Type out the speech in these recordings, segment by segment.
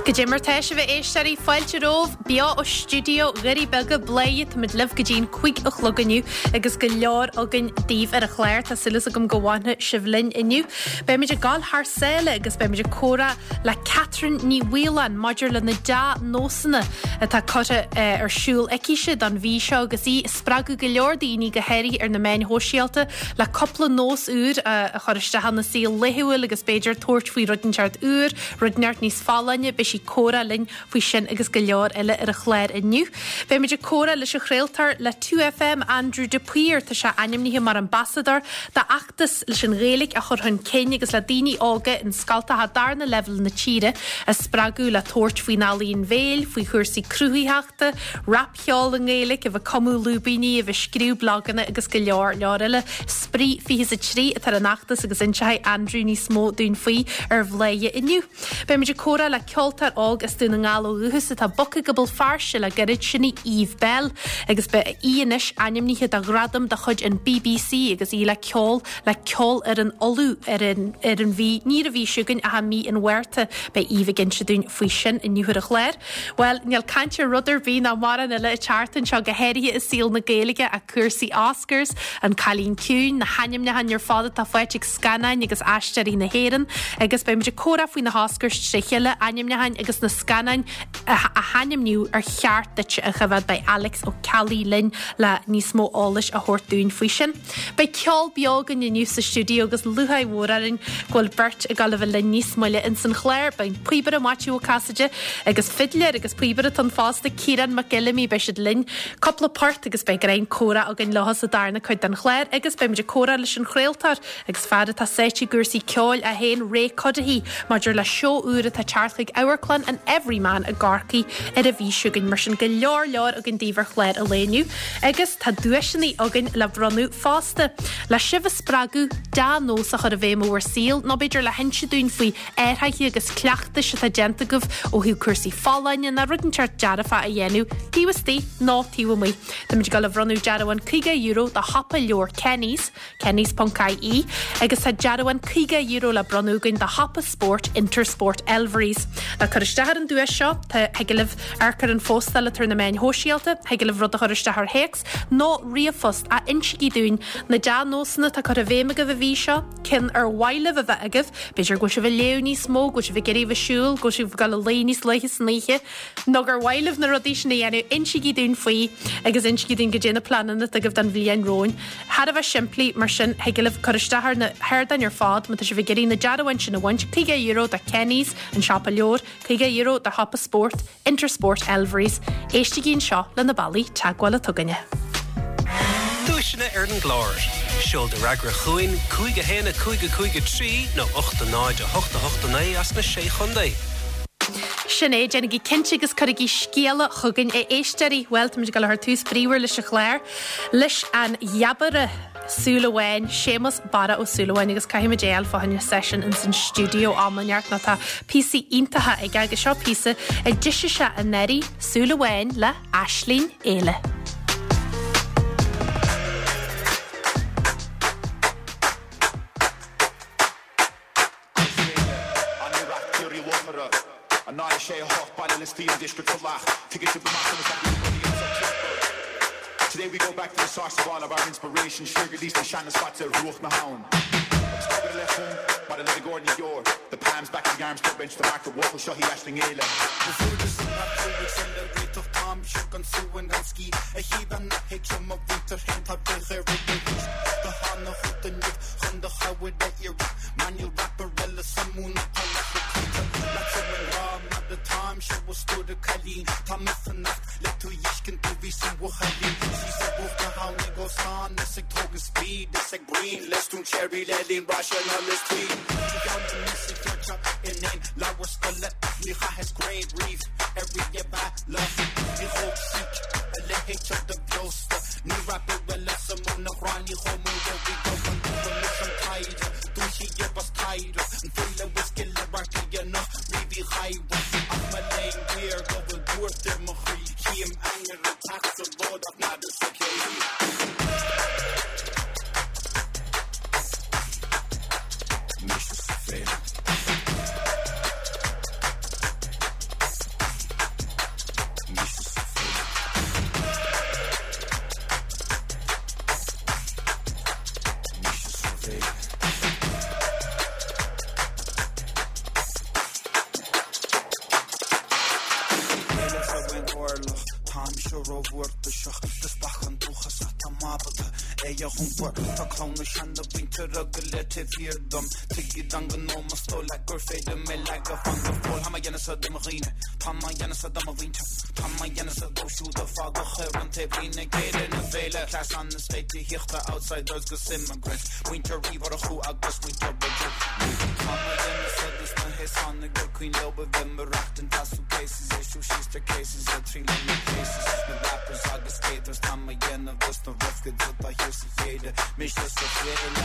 Goidé mar tá sibh a éisteoirí, fáilte romhaibh beo ó stiúideo Dhoirí Beaga, Bladhaire, táimid libh go dtí an 5 a chlog inniu agus go leor againn daoibh ar an chlár. Tá súil agam go bhfanfaidh sibh linn inniu. Beimid ag gabháil thar sáile agus beimid ag comhrá le Catherine Ní Mhaoláin maidir le na dea-nósanna atá curtha ar siúl aicise don mhí seo agus í ag spreagadh go leor daoine, go háirithe ar na meáin shóisialta, le cúpla nós úr a chur isteach ina saol laethúil agus b'fhéidir tabhairt faoi rud inteacht úr, rud inteacht níos folláine. Beidh sí ag comhrá linn faoi sin agus go leor eile ar an chlár inniu. Beimid ag comhrá leis an chraoltóir le 2FM, Andrew de Paor. Tá sé ainmnithe mar ambasadóir d'fheachtas leis an Ghaeilge a chur chun cinn agus le daoine óga in scoltacha darna leibhéal na tíre a spreagadh le tabhairt faoin ealaíon bhéil, faoi chúrsaí cruthaitheachta, rapcheol i nGaeilge, a bheith ag cumadh lúibíní, a bheith ag scríobh blaganna agus go leor leor eile. Spraoi 23 atá ar an fheachtas agus inseoidh Andrew níos mó dúinn faoi ar Bhladhaire inniu. Beimid ag comhrá le ceoltóir óg as Dún na nGall ó dhúchas atá bogtha go Béal Feirste le gairid, sin í Eve Belle agus beidh í anois ainmnithe do ghradam de chuid an bbc agus í le ceol le Ceolfhoireann Uladh ar an ar an mhí, ní ar an mhí seo chugainn ach i mí an Mhárta. Beidh Eve ag inse dúinn faoi sin inniu ar an chlár. Bhuel, níl caint ar rud ar bith ná mórán eile an tseachtain seo, go háirithe i saol na Gaeilge, ach cúrsaí Oscars, An Cailín Ciúin, na hainmneacháin ar fad atá faighte ag scannáin agus aisteoirí na hÉireann, agus beidh muid ag comhrá faoi na hOscars tré chéile, ainmneacháin agus na scannáin a hainmníodh ar cheart duit a choimhéad. Beidh Alex Ó Ceallaigh linn le níos mó eolais a thabhairt dúinn faoi sin. Beidh ceol beo againn inniu sa stiúideo agus lúcháir mhór orainn go bhfuil beirt ag dul a bheith linn níos moille ins an chlár. Beidh an píobaire Maitiú Ó Casaide agus fidléir agus píobaire atá ann fosta, Ciarán Mac Fheilimí, beidh siad linn cúpla port agus beidh greim comhrá againn leo sa darna cuid den chlár agus beidh muid ag comhrá leis an chraoltóir agus fear atá sáite i gcúrsaí ceoil é féin, Ray Cuddihy, maidir le seó úr atá ag teacht chuig Amharclann an Everyman i gCorcaigh ar an mhí seo chugainn. Mar sin go leor leor againn daoibh ar chlár an lae inniu. Agus tá duaiseanna againn le bronnadh fosta. Le sibh a spreagadh dea-nós a chur i bhfeidhm i bhur saol, nó b'fhéidir le hinse dúinn faoi athruithe agus cleachtais atá déanta agaibh ó thaobh cúrsaí folláine nó rud inteacht dearfach a dhéanamh taobh istigh nó taobh amuigh. Táimid ag dul a bhronnadh dearbhán €50 do shiopa leabhar Kenny's, Kennys.ie, agus tá dearbhán €50 le bronnadh againn do shiopa spóirt Intersport Elverys. Le cur isteach ar an duais seo, tá, thig libh amharc ar an phóstáil atá ar na meáin shóisialta, thig libh rud a chur isteach ar théacs nó ríomhphost ach insígí dúinn na dea-nósanna atá curtha i bhfeidhm agaibh an mhí seo, cinn ar mhaith libh a bheith agaibh, b'fhéidir go bhfuil sibh ag léamh níos mó, go bhfuil sibh ag iarraidh a bheith ag siúl, go bhfuil sibh ag dul a luí níos luaithe san oíche, nó gur mhaith libh na rudaí sin a dhéanamh, insígí dúinn faoi agus insígí dúinn goidé na pleananna atá agaibh don bhliain romhainn. Thar a bheith simplí, mar sin, thig libh cur isteach ar na hardáin ar fad má tá sibh ag iarraidh na dearbháin sin a bhaint, €50 do Kenny's, an siopa leabhar, €50 do shiopa spóirt, Intersport Elverys. Éistigí anseo le na bealaí teagmhála atá againne. Duaiseanna ar an gclár. Seol do fhreagra chugainn, 5 1 5 5 3 nó 8 0 8 8 9 as na Sé Chontae. Sin é, déanaigí cinnte agus cuirigí scéala chugainn, a éisteoirí. Bhuel, táimid ag dul a chur tús bríomhar leis an chlár, leis an jabaire Súil Amháin, Séamus Barra Ó Súilleabháin, agus caithfimid é a fháil fá choinne session ins an stiúideo am inteacht nó tá píosaí iontacha aige agus seo píosa a d'eisigh sé anuraidh, Súil Amháin le Aisling Éile. Today we go back to the source of all of our inspiration, siar go dtí na seana-spots ar bhruach na habhann. Agus tógadh a leith chun, mar a le Gordon Dior, the palms back of the arms club bench to mark the bhuachaill seo í Aisling Éile. Chun do chabhair a iarraidh Mar níl rapper eile sa mhúnla atá leat le cloíte Leatsa i ngrá mar atáimse a stór a cailín Tá mé fanacht le tú dh'fheiscint do bhí sa bhuachaillín Síos ar bhruach na habhann ag óstán Is ag tógaint speed is ag bruíon Le stún cherry le linn raise na Liz Tweed Trí cheann de mí sa cheird in aon leabhar scoile Ní chaitheas greim riamh ar ríomh-bhealach Ní thóg sic a leithéid seo de bheosta Níl rapper eile sa mhúnla ghráinní chomh mór ó bhí go an dúban leis an taighde Dúiche bas taighde an file is gile radharc riamh Uí Chadhra Ach mo léan géar go bhfuil buairt ar mo chroí Chím ainnir ag teacht sa ród ach nada sa cé hí. Mise sa féile. mise rómhórtasach do bheachan dúchasach tá m'ábalta é a iompar Tá clann na seana-mhuintire go léir taobh thiar dom Tuigid an gnó más dóigh leat gur féidir mé leagadh fan go fóill Tá mé dhéanamh sa do mo dhaoine Tá mé dhéanamh sa do mo mhuintir Tá mé dhéanamh sa dóibh siúd a fágadh ar an taobhlíne ag deireadh na féile Cleas an state tithíochta outsiders 'gus immigrants Muintir Uí Mhurchú agus muintir Mhic Tá mé dhéanamh sa dos na haosánaigh gur cuimhin leo a bheith ag maireachtaint as suitcases issue staircases a triail na cases na rappers agus skaters Tá mé dhéanamh dos na rough kids atá thiar sa chéide mise sa chéile.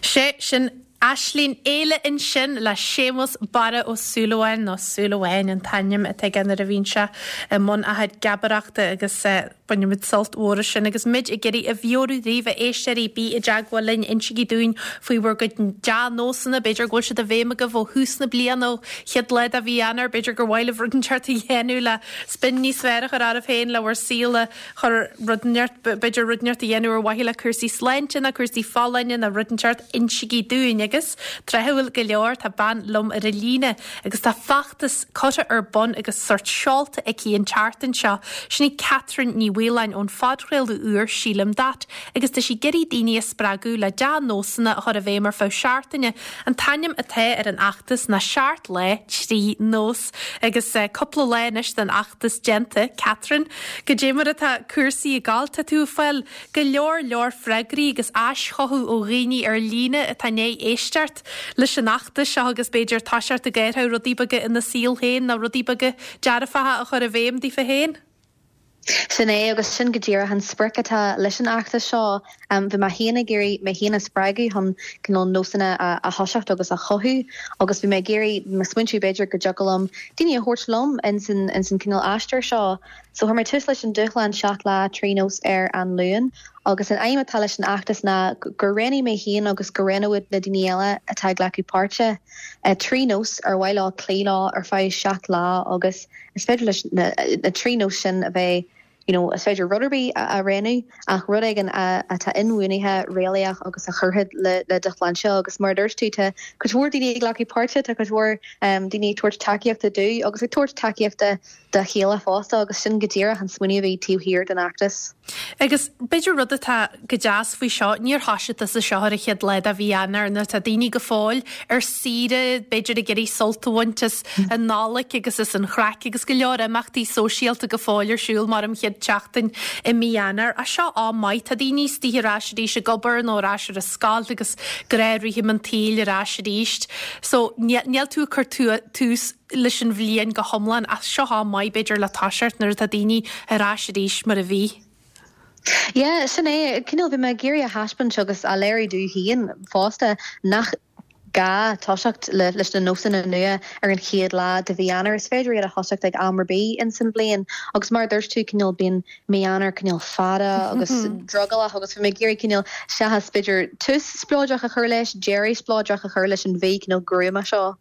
Sé sin Aislinn Fhéile ansin le Séamus Barra Ó Súilleabháin, nó Súilleabháin an t-ainm atá aige nuair a bhíonn sé i mbun a chuid geabaireachta agus bainimid sult mhór as sin. Agus muid ag iarraidh a mheabhrú daoibh, a éisteoirí, bí i dteagmháil linn, insígí dúinn faoi bhur gcuid dea-nósanna, b'fhéidir go bhfuil siad i bhfeidhm agaibh ó thús na bliana, ó chéad lá de mhí Eanáir, b'fhéidir gur mhaith libh rud inteacht a dhéanamh le spin níos fearr a chur oraibh féin, le bhur saol a chur rud inteacht, b'fhéidir rud inteacht a dhéanamh ar mhaithe le cúrsaí sláinte nó cúrsaí folláine nó rud inteacht, insígí dúinn. Agus, tráthúil go leor, tá bean liom ar an líne agus tá feachtas curtha ar bun agus sórt seolta aici an tseachtain seo. Sin í Catherine Ní Mhaoláin ón phodchraoladh úr Sílim That agus tá sí ag iarraidh daoine a spreagadh le dea-nósanna a chur i bhfeidhm ar feadh seachtaine. An t-ainm atá ar an fheachtas ná Seacht Lá, Trí Nós. Agus cúpla lá anois den fheachtas déanta, Catherine, goidé mar atá cúrsaí ag gabháil? Tá tú ag fáil go leor leor freagraí agus aischothú ó dhaoine ar líne atá i ndiaidh éisteacht leis an fheachtas seo agus b'fhéidir toiseacht ag athrú rudaí beaga ina saol féin nó rudaí beaga dearfacha a chur i bhfeidhm daofa féin. Sin é, agus sin go díreach an sprioc atá leis an fheachtas seo. Bhí mé féin ag iarraidh mé féin a spreagadh chun cineál nósanna a thoiseacht agus a chothú agus bhí mé ag iarraidh, mé ag smaointiú b'fhéidir go dtiocfadh liom daoine a thabhairt liom ins an ins an cineál aistear seo. So chuir mé tús leis an dúshlán 7 lá 3 nós ar an Luan agus an aidhm atá leis an fheachtas ná gur roghnaigh mé féin agus go roghnóidh na daoine eile atá ag glacadh páirte 3 nós ar mhaith leo cloí leo ar feadh 7 lá agus Is féidir leis na 3 nós sin a bheith, you know, is féidir rud ar bith a roghnú ach rud éigin atá inbhuanaithe, réalaíoch agus a chuirfidh le do shláinte agus mar a dúirt tú, tá cuid mhór daoine ag glacadh páirte, tá cuid mhór daoine ag tabhairt tacaíochta domh agus ag tabhairt tacaíochta dá chéile fosta agus sin go díreach an smaoineamh a bhí taobh thiar den fheachtas. Agus b'fhéidir rud atá go deas faoi seo, níor thoisigh tusa seo ar an chéad lá de mhí Eanáir nuair atá daoine go fóill ar saoire, b'fhéidir ag iarraidh sult a bhaint as an Nollaig agus as an chraic agus go leor imeachtaí sóisialta go fóill ar siúl mar an chéad tseachtain i mí Eanáir. Ach seo am maith, tá daoine istigh ar ais arís ag obair nó ar ais ar an scoil agus gnáthrithim an tsaoil ar ais arís. So níl tú ag cur tús leis an bhliain go hiomlán ach seo am maith b'fhéidir le toiseacht nuair atá daoine ar ais arís mar a bhí. Yeah, sin é. Cineál, bhí mé ag iarraidh a thaispeáint agus a léiriú domh féin fosta nach gá toiseacht leis na nósanna nua ar an chéad lá de mhí Eanáir. Is féidir iad a thoiseacht ag am ar bith ins an bhliain agus mar a dúirt tú, cineál, bíonn mí Eanáir cineál fada agus drogallach agus bhí mé ag iarraidh cineál, seachas b'fhéidir tús spleodrach a chur leis, deireadh spleodrach a chur leis an mhí cineál gruama seo.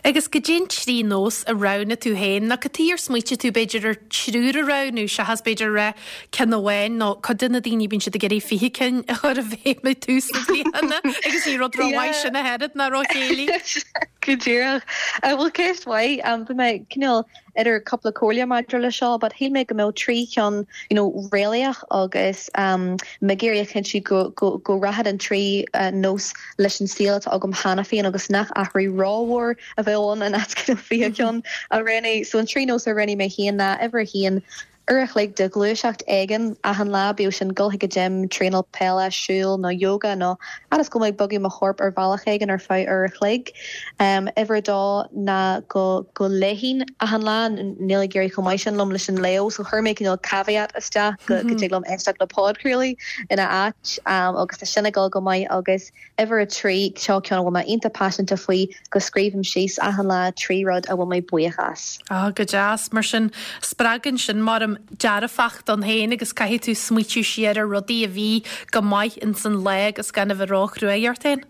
Agus goidé an trí nós a roghnaigh tú féin, nó cad chuige ar smaoitigh tú b'fhéidir ar triúr a roghnú seachas b'fhéidir a rá ceann amháin nó cuid de na daoine bíonn siad ag iarraidh 20 cinn a chur i bhfeidhm ag tús na bliana agus ní rud rómhaith sin ach oiread ná róchéillí. Go díreach. Bhuel ceist mhaith. Bhí mé cineál idir cúpla comhairle maidir le seo but shíl mé go mbeadh 3 cheann you know réalaíoch agus mé ag iarraidh a chinntiú go go go rachadh an 3 nós leis an saol atá agam cheana féin agus nach athrú rómhór a bheadh ann in áit you know 20 ceann a roghnú. So an 3 nós a roghnaigh mé féin ná uimhir a haon. uair a chloig de ghluaiseacht éigin achan lá, bíodh sin dul chuig an gym, traenáil peile, siúl nó yoga nó fhad is go bhfuil mé ag bogadh mo chorp ar bhealach éigin ar feadh uair a chloig. Uimhir a dó ná go go léifinn achan lá, níl ag éirí chomh maith sin liom leis an léamh so chuir mé cineál caveat isteach go go dtig liom éisteacht le podchraoladh ina áit agus tá sin ag dul go maith agus Uimhir a 3, seo ceann a bhfuil mé iontach paiseanta faoi, go scríobhaim síos achan lá 3 rud a bhfuil mé buíoch as. Ah, go deas. Mar sin, spreagann sin, maram, dearfacht ann féin agus caithfidh tú smaoitiú siar ar rudaí a bhí go maith ins an lá agus gan a bheith ró-chruaidh ort féin.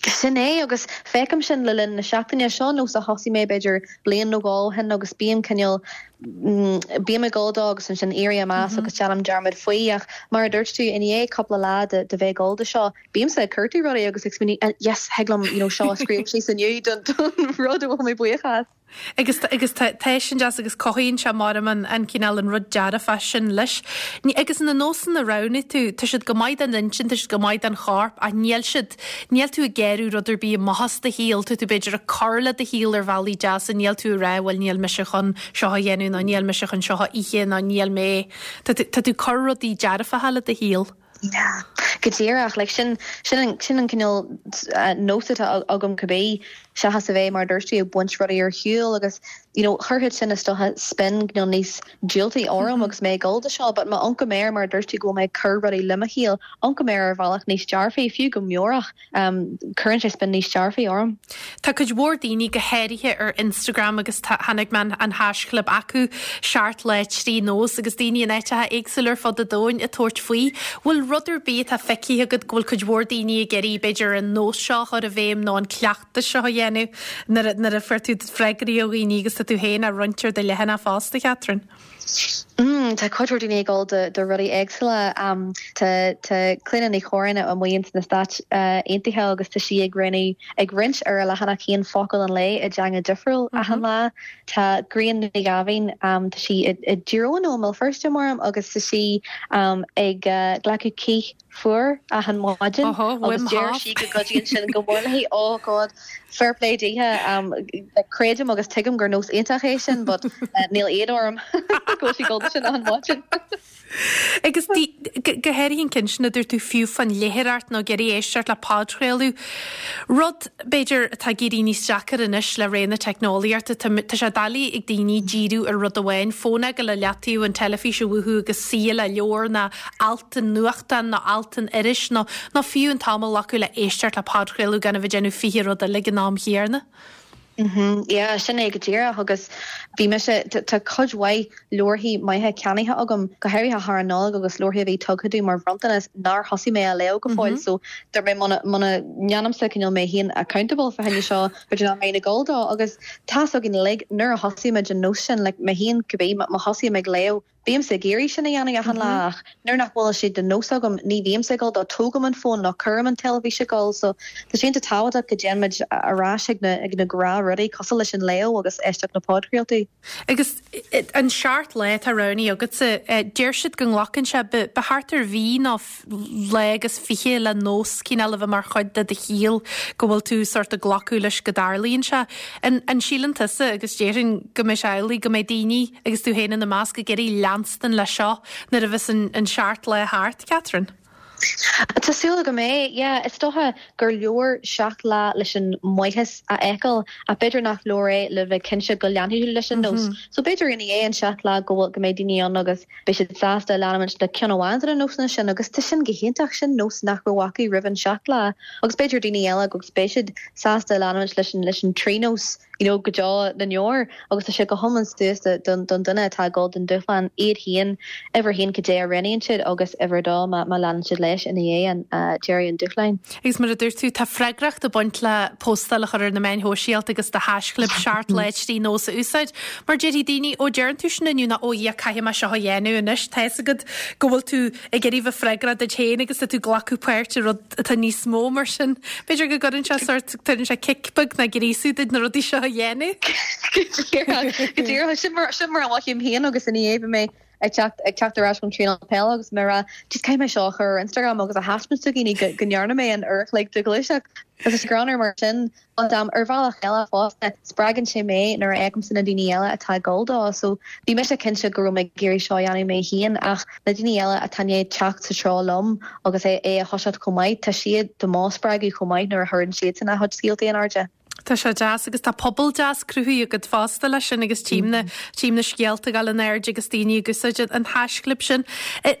Sin é, agus feicim sin le linn na seachtaine. Seo nós a thosaigh mé b'fhéidir bliain nó dhó ó shin agus bím cineál, bím ag dul dó agus ansin éirím as agus déanaim dearmad faoi ach mar a dúirt tú, i ndiaidh cúpla lá de de bheith ag dul do seo, bímse ag cuartú rudaí agus ag smaoineamh yes, thig liom you know seo a scríobh síos inniu don don rud a bhfuil mé buíoch as. Agus agus tá tá sin deas agus cothaíonn sé maram an an cineál an rud dearfach sin leis. Ní agus na nósanna a roghnaigh tú, tá siad go maith don intinn, tá siad go maith don chorp ach níl siad Níl tú ag gearradh rud ar bith amach as do shaol, tá tú b'fhéidir ag cur le do shaol ar bhealaí deasa, níl tú ag rá bhuel níl mise chun seo a dhéanamh nó níl mise chun seo a ithe nó níl mé, tá tú, tá tú ag cur rudaí dearfacha le do shaol. Yeah, go díreach, like sin, sin an, sin an cineál nós atá agam cibé, seachas a bheith mar a dúirt tú ag baint rudaí ar shiúl agus you know chuirfeadh sin is dócha spin cineál níos diúltaí orm agus mé ag dul do seo but má amharcaim air mar a dúirt tú go bhfuil mé ag cur rudaí le mo shaol, amharcaim air ar bhealach níos dearfaí, fiú go meabhrach, cuireann sé spin níos dearfaí orm. Tá cuid mhór daoine, go háirithe ar Instagram agus tá, chonaic mé an haischlib acu, seacht lá 3 nós agus daoine in áiteacha éagsúla ar fud an domhain ag tabhairt faoi. Bhfuil rud ar bith atá feicthe agat go bhfuil cuid mhór daoine ag iarraidh b'fhéidir an nós seo a chur i bhfeidhm nó an cleachtas seo a dhéanamh nuair a, nuair a fuair tú freagraí ó dhaoine agus tá tú féin á roinnt ar do leathanach fosta, Catherine? Mm, tá cuid mhór daoine ag dul do, do rudaí éagsúla. Um, tá, tá Clíona Ní Chorráin amuigh ins na Stáit Aontaithe agus tá sí ag roinnt, ag roinnt ar a leathanach féin focal an lae i dteanga difriúil achan lá. Tá Grian Ní Ghaibhín, um, tá sí i, i dTír Eoghain nó i mBéal Feirste, maram, agus tá sí um, ag uh, glacadh cith fuar achan maidin agus deir sí go gcuidíonn sin go mór léi. Oh God, fair play dithe. Creidim agus tuigim gur nós iontach é sin but níl éad orm go bhfuil sí ag dul do sin achan maidin. Agus go háirithe an ceann sin a dúirt tú fiú fán léitheoireacht nó ag iarraidh éisteacht le podchraoladh, rud, b'fhéidir, atá ag éirí níos deacair anois le ré na teicneolaíochta. Tá, tá sé doiligh ag daoine díriú ar rud amháin, fón a fhágáil i leataobh, an teilifís a mhúchadh agus suí le leabhar nó alt i nuachtán nó alt in iris nó, nó fiú an t-am a ghlacadh le éisteacht le podchraoladh gan a bheith ag déanamh 20 rud eile ag an am chéanna. Mhm, yeah, sin é go díreach agus bhí mise, tá cuid mhaith leabharthaí maithe ceannaithe agam, go háirithe thar an Nollaig agus leabharthaí a bhí tugtha domh mar bhronntanas nár thosaigh mé á léamh go fóill so dúirt mé muna, muna ndéanaimse cineál mé féin accountable fá choinne seo, b'fhéidir nach mbeinn ag dul dó agus tá's againn uilig nuair a thosaímid an nós sin, like mé féin cibé, má thosaím ag léamh, Bímse ag iarraidh sin a dhéanamh achan lá ach nuair nach bhfuil sé de nós agam ní bhímse ag dul dó, tógaim an fón nó cuirim an teilifís ag gol so tá sé iontach tábhachtach go dtéann muid ar ais ag na ag na gnáthrudaí cosúil leis an léamh agus éisteacht le podchraoltaí. Agus an seacht lá atá roghnaithe agatsa, deir siad go nglacann sé ba thart ar mhí nó lá agus 20 le nós cineál a bheith mar chuid de do shaol, go bhfuil tú sórt ag glacadh leis go dtarlaíonn sé. An, an síleann tusa, agus déarfainn go mbeidh sé amhlaidh, go mbeidh daoine, agus tú féin ina measc, ag iarraidh leanstan leis seo nuair a bheas an, an seacht lá thart, Catherine? Tá súil agam é, yeah. Is dócha gur leor seacht lá leis an maitheas a fheiceáil ach b'fhéidir nach leor é le bheith cinnte go leanfaidh tú leis an nós. So b'fhéidir ina dhiaidh an seacht lá go bhfuil, go mbeidh daoine ann agus Beidh siad sásta leanúint le ceann amháin de na nósanna sin agus tá sin go hiontach, sin nós nach raibh acu roimh an seacht lá agus b'fhéidir daoine eile agus beidh siad sásta leanúint leis an leis an trí nós you know go deo na ndeor agus tá sé go hiomlán suas don don duine atá ag dul don dúshlán iad féin uimhir a haon cad é a roghnaíonn siad agus uimhir a dó má má leanann siad leis ina dhiaidh an deireadh an dúshláin. Agus mar a dúirt tú, tá freagracht ag baint le postáil a chur ar na meáin shóisialta agus do haischlib 7 lá 3 nós a úsáid. Mar déarfaidh daoine, ó deireann tú sin inniu nó ó yeah caithfidh mé seo a dhéanamh anois. Tá fhios agat go bhfuil tú ag iarraidh bheith freagrach duit féin agus tá tú ag glacadh páirt i rud atá níos mó mar sin. B'fhéidir go gcuireann sé sórt, tugann sé cic beag nó gríosú duit na rudaí seo a dhéanamh. Go díreach, go díreach. Sin mar, sin mar a mhothaím féin agus ina dhiaidh bhí mé. Ag teacht ag teacht ar ais ón traenáil peile agus mé ag rá jeez caithfidh mé seo a chur ar Instagram agus a thaispeáint do dhaoine go go ndearna mé an uair a chloig de ghluaiseacht. Agus tá sé greannmhar mar sin. But um ar bhealach eile fosta spreagann sé mé nuair a fheicimse na daoine eile atá ag dul dó. So bhí mise cinnte go raibh mé ag iarraidh seo a dhéanamh mé féin ach na daoine eile atá i ndiaidh teacht sa treo liom agus é é a thoiseacht chomh maith, tá siad do mo spreagadh chomh maith nuair a chuireann siadsan a chuid scéaltaí in airde. Tá sé deas agus tá pobal deas cruthaithe agat fosta leis sin agus tchím na, tchím na scéalta ag dul in airde agus daoine ag úsáid an haischlib sin.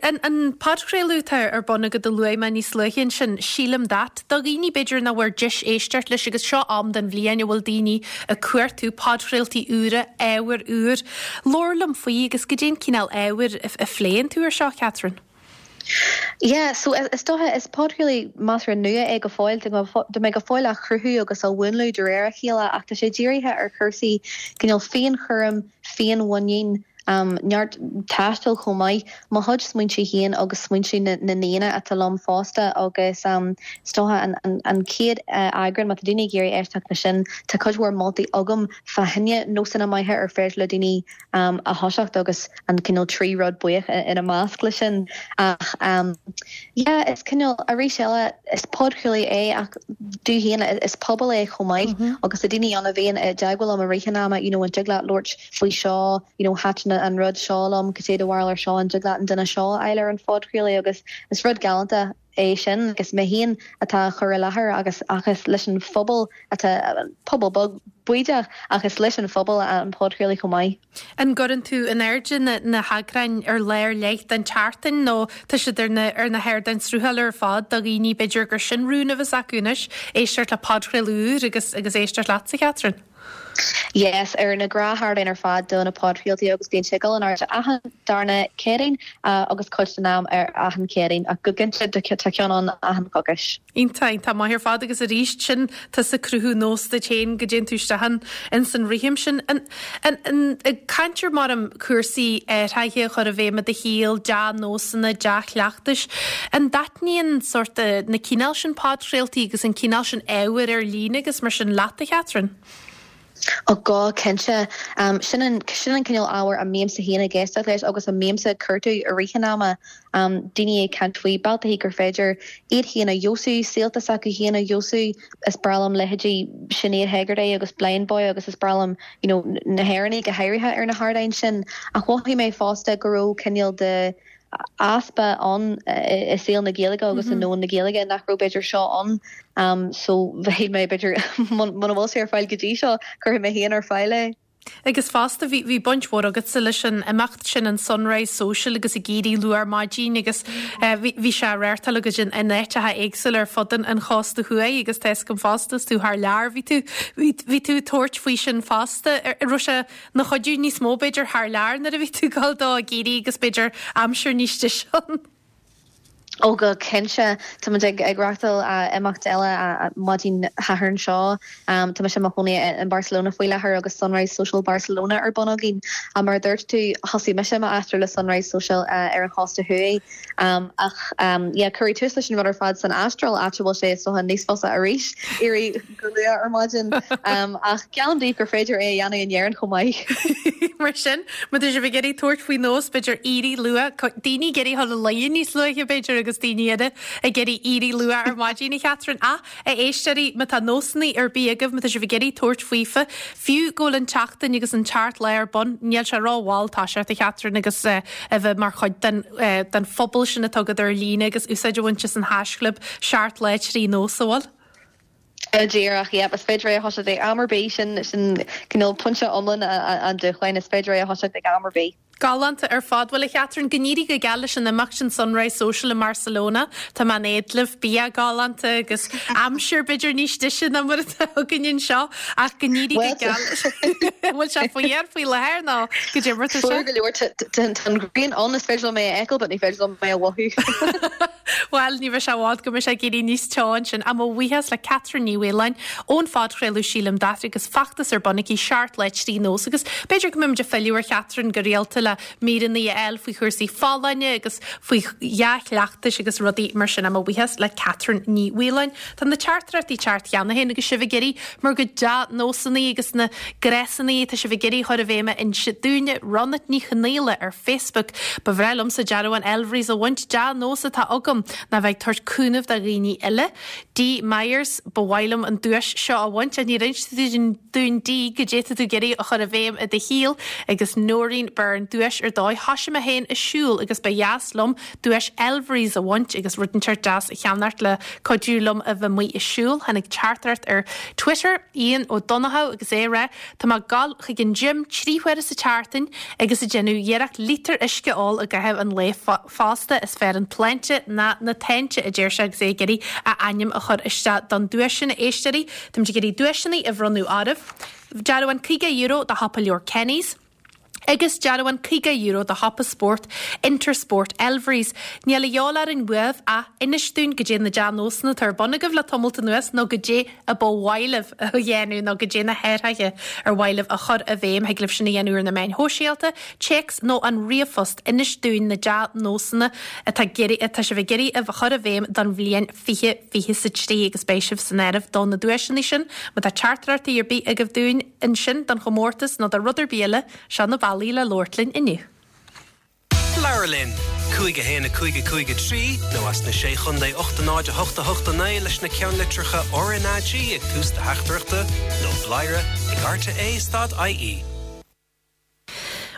An, an podchraoladh atá ar bun agat a luaigh mé níos luaithe ansin, Sílim That, do dhaoine b'fhéidir nach bhfuair deis éisteacht leis agus seo am den bhliain a bhfuil daoine ag cuartú podchraoltaí úra, ábhar úr. Labhair liom faoi agus goidé an cineál ábhair a, a phléann tú ar seo, Catherine. Yeah, so is dócha, is podchraoladh measartha nua é go fóill, tá mé go fóill á chruthú agus á mhúnlú de réir a chéile ach tá sé dírithe ar chúrsaí cineál féinchúraim, féinmhuinín, neart taistil chomh maith, mo chuid smaointe féin agus smaointe na n-aíonna atá liom fosta agus is dócha an chéad eagrán, má tá daoine ag iarraidh éisteacht leis sin, tá cuid mhór moltaí agam fá choinne nósanna maithe ar féidir le daoine a thoiseacht agus an cineál 3 rud buíoch ina measc leis sin. Ach yeah, is cineál, arís eile, is podchraoladh é ach domh féin is pobal é chomh maith agus tá daoine ann a bhíonn i dteagmháil liom i rith an ama, you know, an dtig leat labhairt faoi seo, you know, thaitin an rud seo liom, cad é do bharúil ar seo, an dtig leat an duine seo a fháil ar an phodchraoladh agus is rud galánta é sin agus mé féin atá á chur i láthair agus ach is leis an phobal atá, pobal beag bídeach ach is leis an phobal an podchraoladh chomh maith. An gcuireann tú in airde na na heagráin ar lá ar leith den tseachtain nó tá siad ar na ar na hardáin sruthála ar fad do dhaoine b'fhéidir gur sin rún a bheas acu anois, éisteacht le podchraoladh úr agus agus éisteacht leatsa, Catherine? Yes, ar na gnáthardáin ar fad do na podchraoltaí agus bíonn sé ag dul in airde achan darna Céadaoin agus cuid den am ar achan Chéadaoin ach go cinnte tá ceann ann achan choicís. Iontach, iontach maith ar fad agus arís sin tusa ag cruthú nós duit féin go dtéann tú isteach in ins an rithim sin. An, an, an, ag caint ar mar cúrsaí athraithe a chur i bhfeidhm i do shaol, dea-nósanna, dea-chleachtais, an dtaitníonn sórt na cineál sin podchraoltaí agus an cineál sin ábhair ar líne agus mar sin leat, a Chatherine? Ó go cinnte. Sin an sin an cineál ábhair a mbímse féin ag éisteacht leis agus a mbímse ag cuartú i rith an ama. Daoine ag caint faoi bealtaí gur féidir iad féin a fheabhsú, saolta s'acu féin a fheabhsú. Is breá liom leithéidí Sinéad Hegarty agus Blindboy agus is breá liom you know na hÉireannaigh go háirithe ar na hardáin sin. Ach mhothaigh mé fosta go raibh cineál de easpa ann i saol na Gaeilge agus i ndomhan na Gaeilge nach raibh b'fhéidir seo ann so shíl mé b'fhéidir muna bhfuil sé ar fáil go dtí seo cuirfidh mé féin ar fáil é. Agus fosta bhí bhí baint mhór agatsa leis an imeacht sin an Sunrise Social agus ag éirí luath ar maidin agus bhí bhí sé á reáchtáil agaibh in in áiteacha éagsúla ar fud an an chósta thuaidh agus tá a fhios agam fosta is tú thar lear bhí tú bhí bhí tú ag tabhairt faoi sin fosta. An raibh sé ina chuidiú níos mó b'fhéidir thar lear nuair a bhí tú ag dul dó ag éirí agus b'fhéidir aimsir níos deise ann. Ó go cinnte. Tá muid ag reáchtáil imeacht eile maidin Shathairn seo. Tá mise i mo chónaí in Barcelona faoi láthair agus Sunrise Social Barcelona ar bun againn. Mar a dúirt tú, thosaigh mise m'aistear le Sunrise Social ar an chósta thuaidh. Ach yeah, cuireadh tús leis an rud ar fad san Astráil, áit a bhfuil sé is dócha níos fusa arís éirí go luath ar maidin. Ach geallaim daoibh gur féidir é a dhéanamh in Éirinn chomh maith. Mar sin, má tá sibh ag iarraidh tabhairt faoi nós, b'fhéidir éirí luath, daoine ag iarraidh dul a luí níos luaithe b'fhéidir agus daoine eile ag iarraidh éirí luath ar maidin, a Chatherine. Ach, a éisteoirí, má tá nósanna ar bith agaibh, má tá sibh ag iarraidh tabhairt faofa, fiú go bhfuil an tseachtain agus an tseacht lá ar bun, níl sé rómhall toiseacht, a Chatherine, agus a bheith mar chuid den den phobal sin atá agat ar líne agus úsáid a bhaint as an haischlib 7 lá 3 nós, an bhfuil? Díreach, yep, is féidir é a thoiseacht ag am ar bith, sin sin cineál pointe iomlán an dúshláin, is féidir é a thoiseacht ag am ar bith. Galánta ar fad. Bhuel, a Chatherine, go n-éirí go geal leis an imeacht sin Sunrise Social i mBarcelona. Tá mé in éad libh, bia galánta agus aimsir b'fhéidir níos deise ná mar atá againn anseo ach go n-éirí go geal. An bhfuil sé fuar faoi láthair nó goidé mar atá sé? Fuar go leor, tá an ghrian ann, is féidir liom é a fheiceáil but ní féidir liom é a mhothú. Bhuel, ní bheidh sé i bhfad go mbeidh sé ag éirí níos teo ansin. Ach mo bhuíochas le Catherine Ní Mhaoláin ón phodchraoladh Sílim That agus feachtas ar bun aici, 7 Lá 3 Nós agus b'fhéidir go mbeimid ag filleadh ar Chatherine go rialta le. le míreanna a fháil faoi chúrsaí folláine agus faoi dhea-chleachtais agus rudaí mar sin. Mo bhuíochas le Catherine Ní Mhaoláin. Tá na teachtaireachtaí ag teacht cheana féin agus sibh ag iarraidh bhur gcuid dea-nósanna agus na gnásanna atá sibh ag iarraidh a chur i bhfeidhm a inse dúinne. Ronat Ní Chonaola ar Facebook, Ba bhreá liomsa dearbhán Elvery's a bhaint, dea-nós atá agam ná bheith ag tabhairt cúnamh do dhaoine eile. Dee Myers, Ba mhaith liom an duais seo a bhaint. Níor inis tú dúinn Dee goidé tá tú ag iarraidh a chur i bhfeidhm i do shaol agus Noreen Byrne, Duais ar dóigh. Thoisigh mé féin ag siúl agus ba dheas liom duais Elvery's a bhaint agus rud inteacht deas a cheannacht le cuidiú liom a bheith amuigh ag siúl. Tháinig teachtaireacht ar Twitter, Ian Ó Donnchadha agus é ag rá, Tá mé ag gabháil chuig an gym 3 huaire sa tseachtain agus ag déanamh iarracht lítear uisce a ól i gcaitheamh an lae fosta. Is fearr an tsláinte ná na táinte, a deir sé agus é ag iarraidh a ainm a chur isteach don duais sin. A éisteoirí, táimid ag iarraidh duaiseanna a bhronnadh oraibh. Dearbhán €50 do shiopa leabhar Kenny's. Agus dearbhán €50 do shiopa spóirt Intersport Elvery's. Níl a dhíobháil orainn uaibh ach inis dúinn goidé na dea-nósanna atá ar bun agaibh le tamalt anuas nó goidé a ba mhaith libh a dhéanamh nó goidé na hathruithe ar mhaith libh a chur i bhfeidhm. Thig libh sin a dhéanamh ar na meáin shóisialta, téacs nó an ríomhphost. Inis dúinn na dea-nósanna atá atá sibh ag iarraidh a chur i bhfeidhm don bhliain 2023 agus beidh sibh san áireamh do na duaiseanna sin. Má tá teachtaireachtaí ar bith agaibh dúinn ansin don chomórtas nó do rud ar bith eile, seo na bealaí le labhairt linn inniu. Labhair linn! 5 1 5 5 3 nó as na Sé Chontae 8 0 8 8 9 leis na ceannlitreacha RnaG ag tús do theachtaireachta nó bladhaire ag rte stad ie.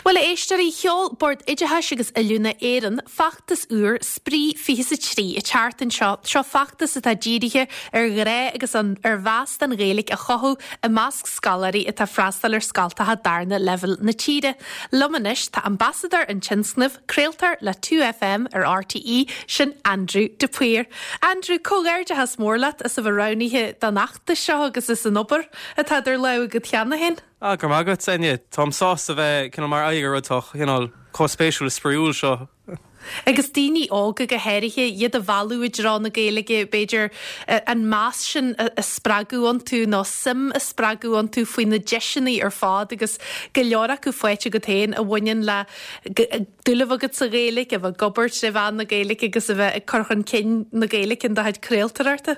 Bhuel, a éisteoirí, sheol Bord Oideachais agus Oiliúna Éireann feachtas úr, Spraoi 23, an tseachtain seo. Seo feachtas atá dírithe ar ghrá agus ar mheas don Ghaeilge a chothú i measc scoláirí atá ag freastal ar scoltacha darna leibhéal na tíre. Liom anois tá ambasadóir an tionscnaimh, craoltóir le 2FM ar RTÉ, sin Andrew de Paor. Andrew, comhghairdeachas mór leat as a bheith roghnaithe don fheachtas seo agus as an obair atá idir lámha agat cheana féin. Ah, go raibh maith agat, Áine. Táim sásta bheith cineál mar aghaidh ar rud atá cineál chomh spéisiúil is spraíúil seo. Agus daoine óga go háirithe, iad a mhealladh i dtreo na Gaeilge, b'fhéidir an meas sin a spreagadh iontu nó suim a spreagadh iontu faoi na deiseanna ar fad agus go leor acu faighte agat féin a bhaineann le dúil a bheith agat sa Ghaeilge, a bheith ag obair tré mheán na Gaeilge agus a bheith ag cur chun cinn na Gaeilge in do chuid craoltóireachta.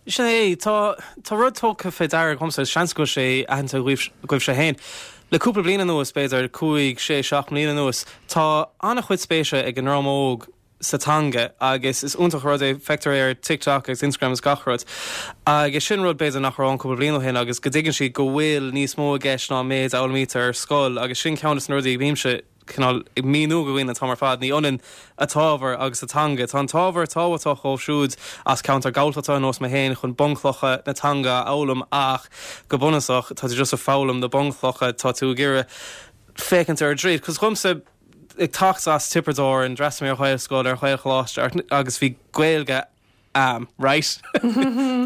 Sin é, tá, tá rud tugtha fé deara agamsa, agus seans go bhfuil sé aitheanta agaibhse féin. Le cúpla bliain anuas, b'fhéidir cúig, sé, seacht mbliana anuas, tá an-chuid spéise ag an ndream óg sa teanga agus is iontach an rud é, feictear é ar TikTok agus Instagram agus gach rud. Agus sin rud b'fhéidir nach raibh ann cúpla bliain ó shin agus go dtuigeann siad go bhfuil níos mó i gceist ná an méid a fhoghlaimítear ar scoil agus sin ceann de na rudaí a bhímse cineál ag míniú do dhaoine an t-am ar fad, ní ionann an t-ábhar agus an teanga. Tá an t-ábhar tábhachtach dóibh siúd as ceantar Gaeltachta ar nós mé féin chun bunchlocha na teanga a fhoghlaim ach go bunúsach tá tú just ag foghlaim na bunchlocha, tá tú ag iarraidh féachaint ar an dtríd. Cos dhomsa, ag teacht as Tiobraid Árann, d'fhreastail mé ar Ghaelscoil, ar Ghaelcholáiste agus bhí Gaeilge a'm, right?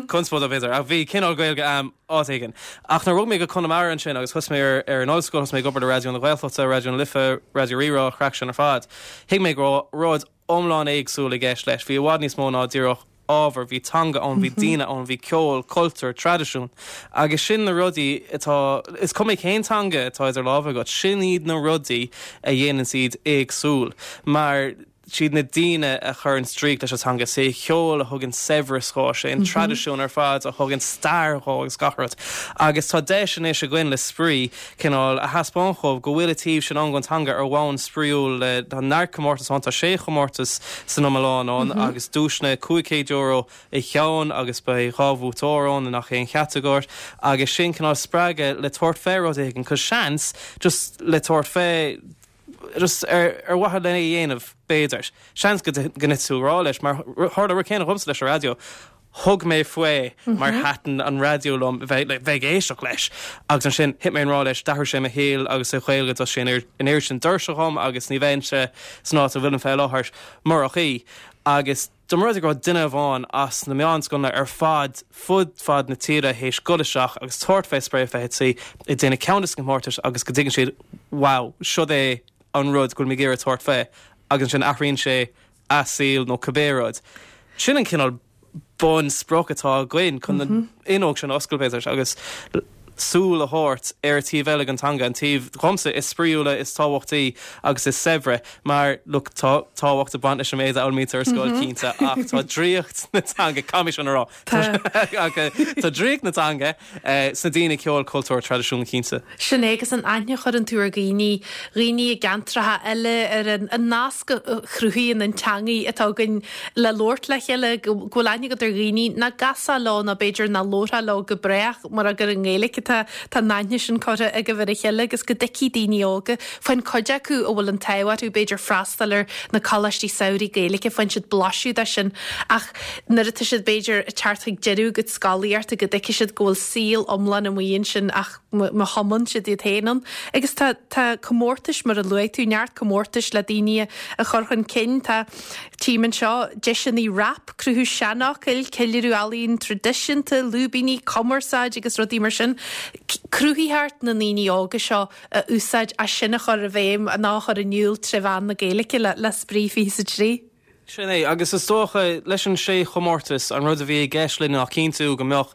Conspóideach b'fhéidir, ach bhí cineál Gaeilge a'm áit éigin. Ach nuair a bhog mé go Conamara ansin agus thosaigh mé ar ar an ollscoil, thosaigh mé ag obair le Raidió na Gaeltachta, Raidió na Life, Raidió Rí-Rá, craic sin ar fad, thuig mé go raibh rud iomlán éagsúil i gceist leis. Bhí i bhfad níos mó ná díreach ábhar, bhí teanga ann, bhí daoine ann, bhí ceol, cultúr, traidisiún. Agus sin na rudaí atá, is cuma cén teanga atá idir lámha agat, sin iad na rudaí a dhéananns iad éagsúil. Mar siad na daoine a chuireann draíocht leis an teanga, is é an ceol a thugann saibhreas dhó, is é an traidisiún ar fad a thugann stair dhó agus gach rud. Agus tá deis anois againn le Spraoi cineál a thaispeáint dhóibh go bhfuil an taobh sin ann den teanga ar bhonn spraíúil le tá neart comórtas ann, tá sé chomórtas san iomlán ann agus duaiseanna €500 an ceann agus beidh dhá bhuaiteoir ann i ngach aon chatagóir agus sin cineál spreagadh le tabhairt fé rud éigin 'cause seans just le tabhairt fé just ar mhaithe lena dhéanamh, b'fhéidir. Seans go dtitfidh tú i ngrá leis, mar tharla an rud céanna dhomsa leis an raidió. Thug mé faoi mar thaitin an raidió liom bheith bheith ag éisteacht leis. Agus ansin thit mé i ngrá leis, d'athraigh sé mo shaol agus an Ghaeilge d'oscail sé an oiread sin doirse dhom agus ní bheinnse san áit a bhfuilim fé láthair murach í. Agus. Dá mba rud é go raibh duine amháin as na meánscoileanna ar fad fud fad na tíre théis dul isteach agus tabhairt fé Spraoi 23 ag déanamh ceann de na comórtais agus go dtuigeann siad wow, siod é an rud go bhfuil mé ag iarraidh tabhairt fé agus ansin athraíonn sé a saol nó cibé rud. Sin an cineál bun sprioc atá againn chun an fhuinneog sin a oscailt b'fhéidir agus. súil a thabhairt ar an taobh eile den teanga, an taobh, dhomsa, is spraíúla, is tábhachtaí agus is saibhre, mar, look, tá tábhacht ag baint leis an méid a fhoghlaimítear ar scoil, cinnte, ach tá draíocht na teanga, caithfidh mé sin a rá, tá draíocht na teanga sna daoine, ceol, cultúr, traidisiún, cinnte. Sin é, agus an aithne a chuireann tú ar dhaoine, dhaoine i gceantracha eile, ar an nasc a chruthaíonn an teangaidh atá againn le labhairt le chéile, go bhfuil aithne agat ar dhaoine nach gcasfá leo nó b'fhéidir nach labharfá leo go brách mura gur i nGaeilge atá tá an aithne sin curtha agaibh ar a chéile agus go dtuigfidh daoine óga, faigheann cuid acu a bhfuil an t-ádh orthu b'fhéidir freastal ar na coláistí samhraidh Gaeilge, faigheann siad blaiseadh de sin ach nuair atá siad b'fhéidir ag teacht chuig deireadh a gcuid scolaíochta go dtuigfidh siad go bhfuil saol iomlán amuigh ansin ach má thumann siad iad féin ann. Agus tá tá comórtais mar a luaigh tú, neart comórtais le daoine a chur chun cinn. Tá tchím anseo deiseanna rap, cruthú seanfhocail, ceiliúradh ealaíon traidisiúnta, lúibíní, cumarsáid agus rudaí mar sin. Cruthaitheacht na ndaoine óga seo a úsáid as sin a chur i bhfeidhm nó a chur in iúl tré mheán na Gaeilge le le Spraoi 23. Sin é, agus is dócha, leis an sé chomórtas, an rud a bhí i gceist linn ná cinntiú go mbeadh,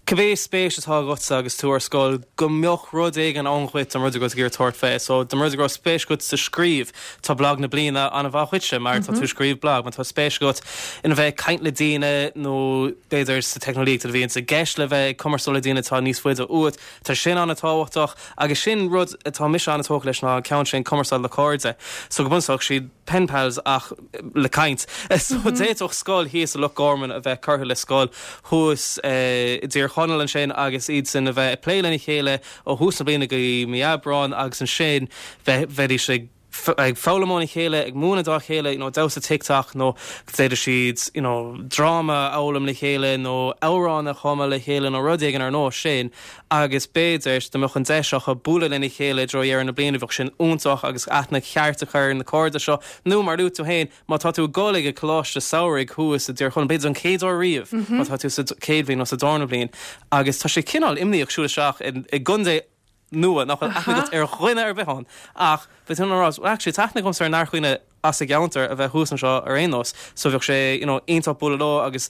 cibé spéis atá agatsa agus tú ar scoil, go mbeadh rud éigin ann dhuit don rud a bhfuil tú ag iarraidh tabhairt fé. So, dá mba rud é go raibh spéis agat sa scríobh, tá blag na bliana an-mhaith dhuitse mar tá tú ag scríobh blag. Má tá spéis agat ina bheith ag caint le daoine nó b'fhéidir sa teicneolaíocht a bhíonns i gceist le bheith ag cumarsáil le daoine atá níos faide uait, tá sin an-tábhachtach agus sin rud atá mise an-tógtha leis ná an ceann sin, cumarsáid le cairde. So, go bunúsach, siad. pen pals ach le caint. So d'fhéadfadh scoil thíos i Loch Garman a bheith curtha le scoil thuas i dTír Chonaill ansin agus iadsan a bheith ag plé lena chéile ó thús na bliana go dtí mí Aibreáin agus ansin bheidís ag ag foghlaim óna chéile, ag múineadh dá chéile, you know, damhsa TikTok nó d'fhéadfadh siad, you know, dráma a fhoghlaim le chéile nó amhrán a chumadh le chéile nó rud éigin ar nós sin. agus b'fhéidir dá mbeadh an deis acu bualadh lena chéile i dtreo dheireadh na bliana, bheadh sin iontach agus aithne cheart a chur ar na cairde seo. Nó, mar a luaigh tú féin, má tá tú ag dul ag an coláiste samhraidh thuas i dTír Chonaill, b'fhéidir don chéad uair riamh, má tá tú sa chéad bhliain nó sa darna bliain, agus tá sé cineál imníoch siúl isteach i gcontae nua nach bhfuil aithne agat ar dhuine ar bith ann, ach bheadh tú in ann a rá, well actually tá aithne agamsa ar neart dhaoine as an gceantar a bheith thuas anseo ar aon nós, so bheadh sé, you know, iontach bualadh leo agus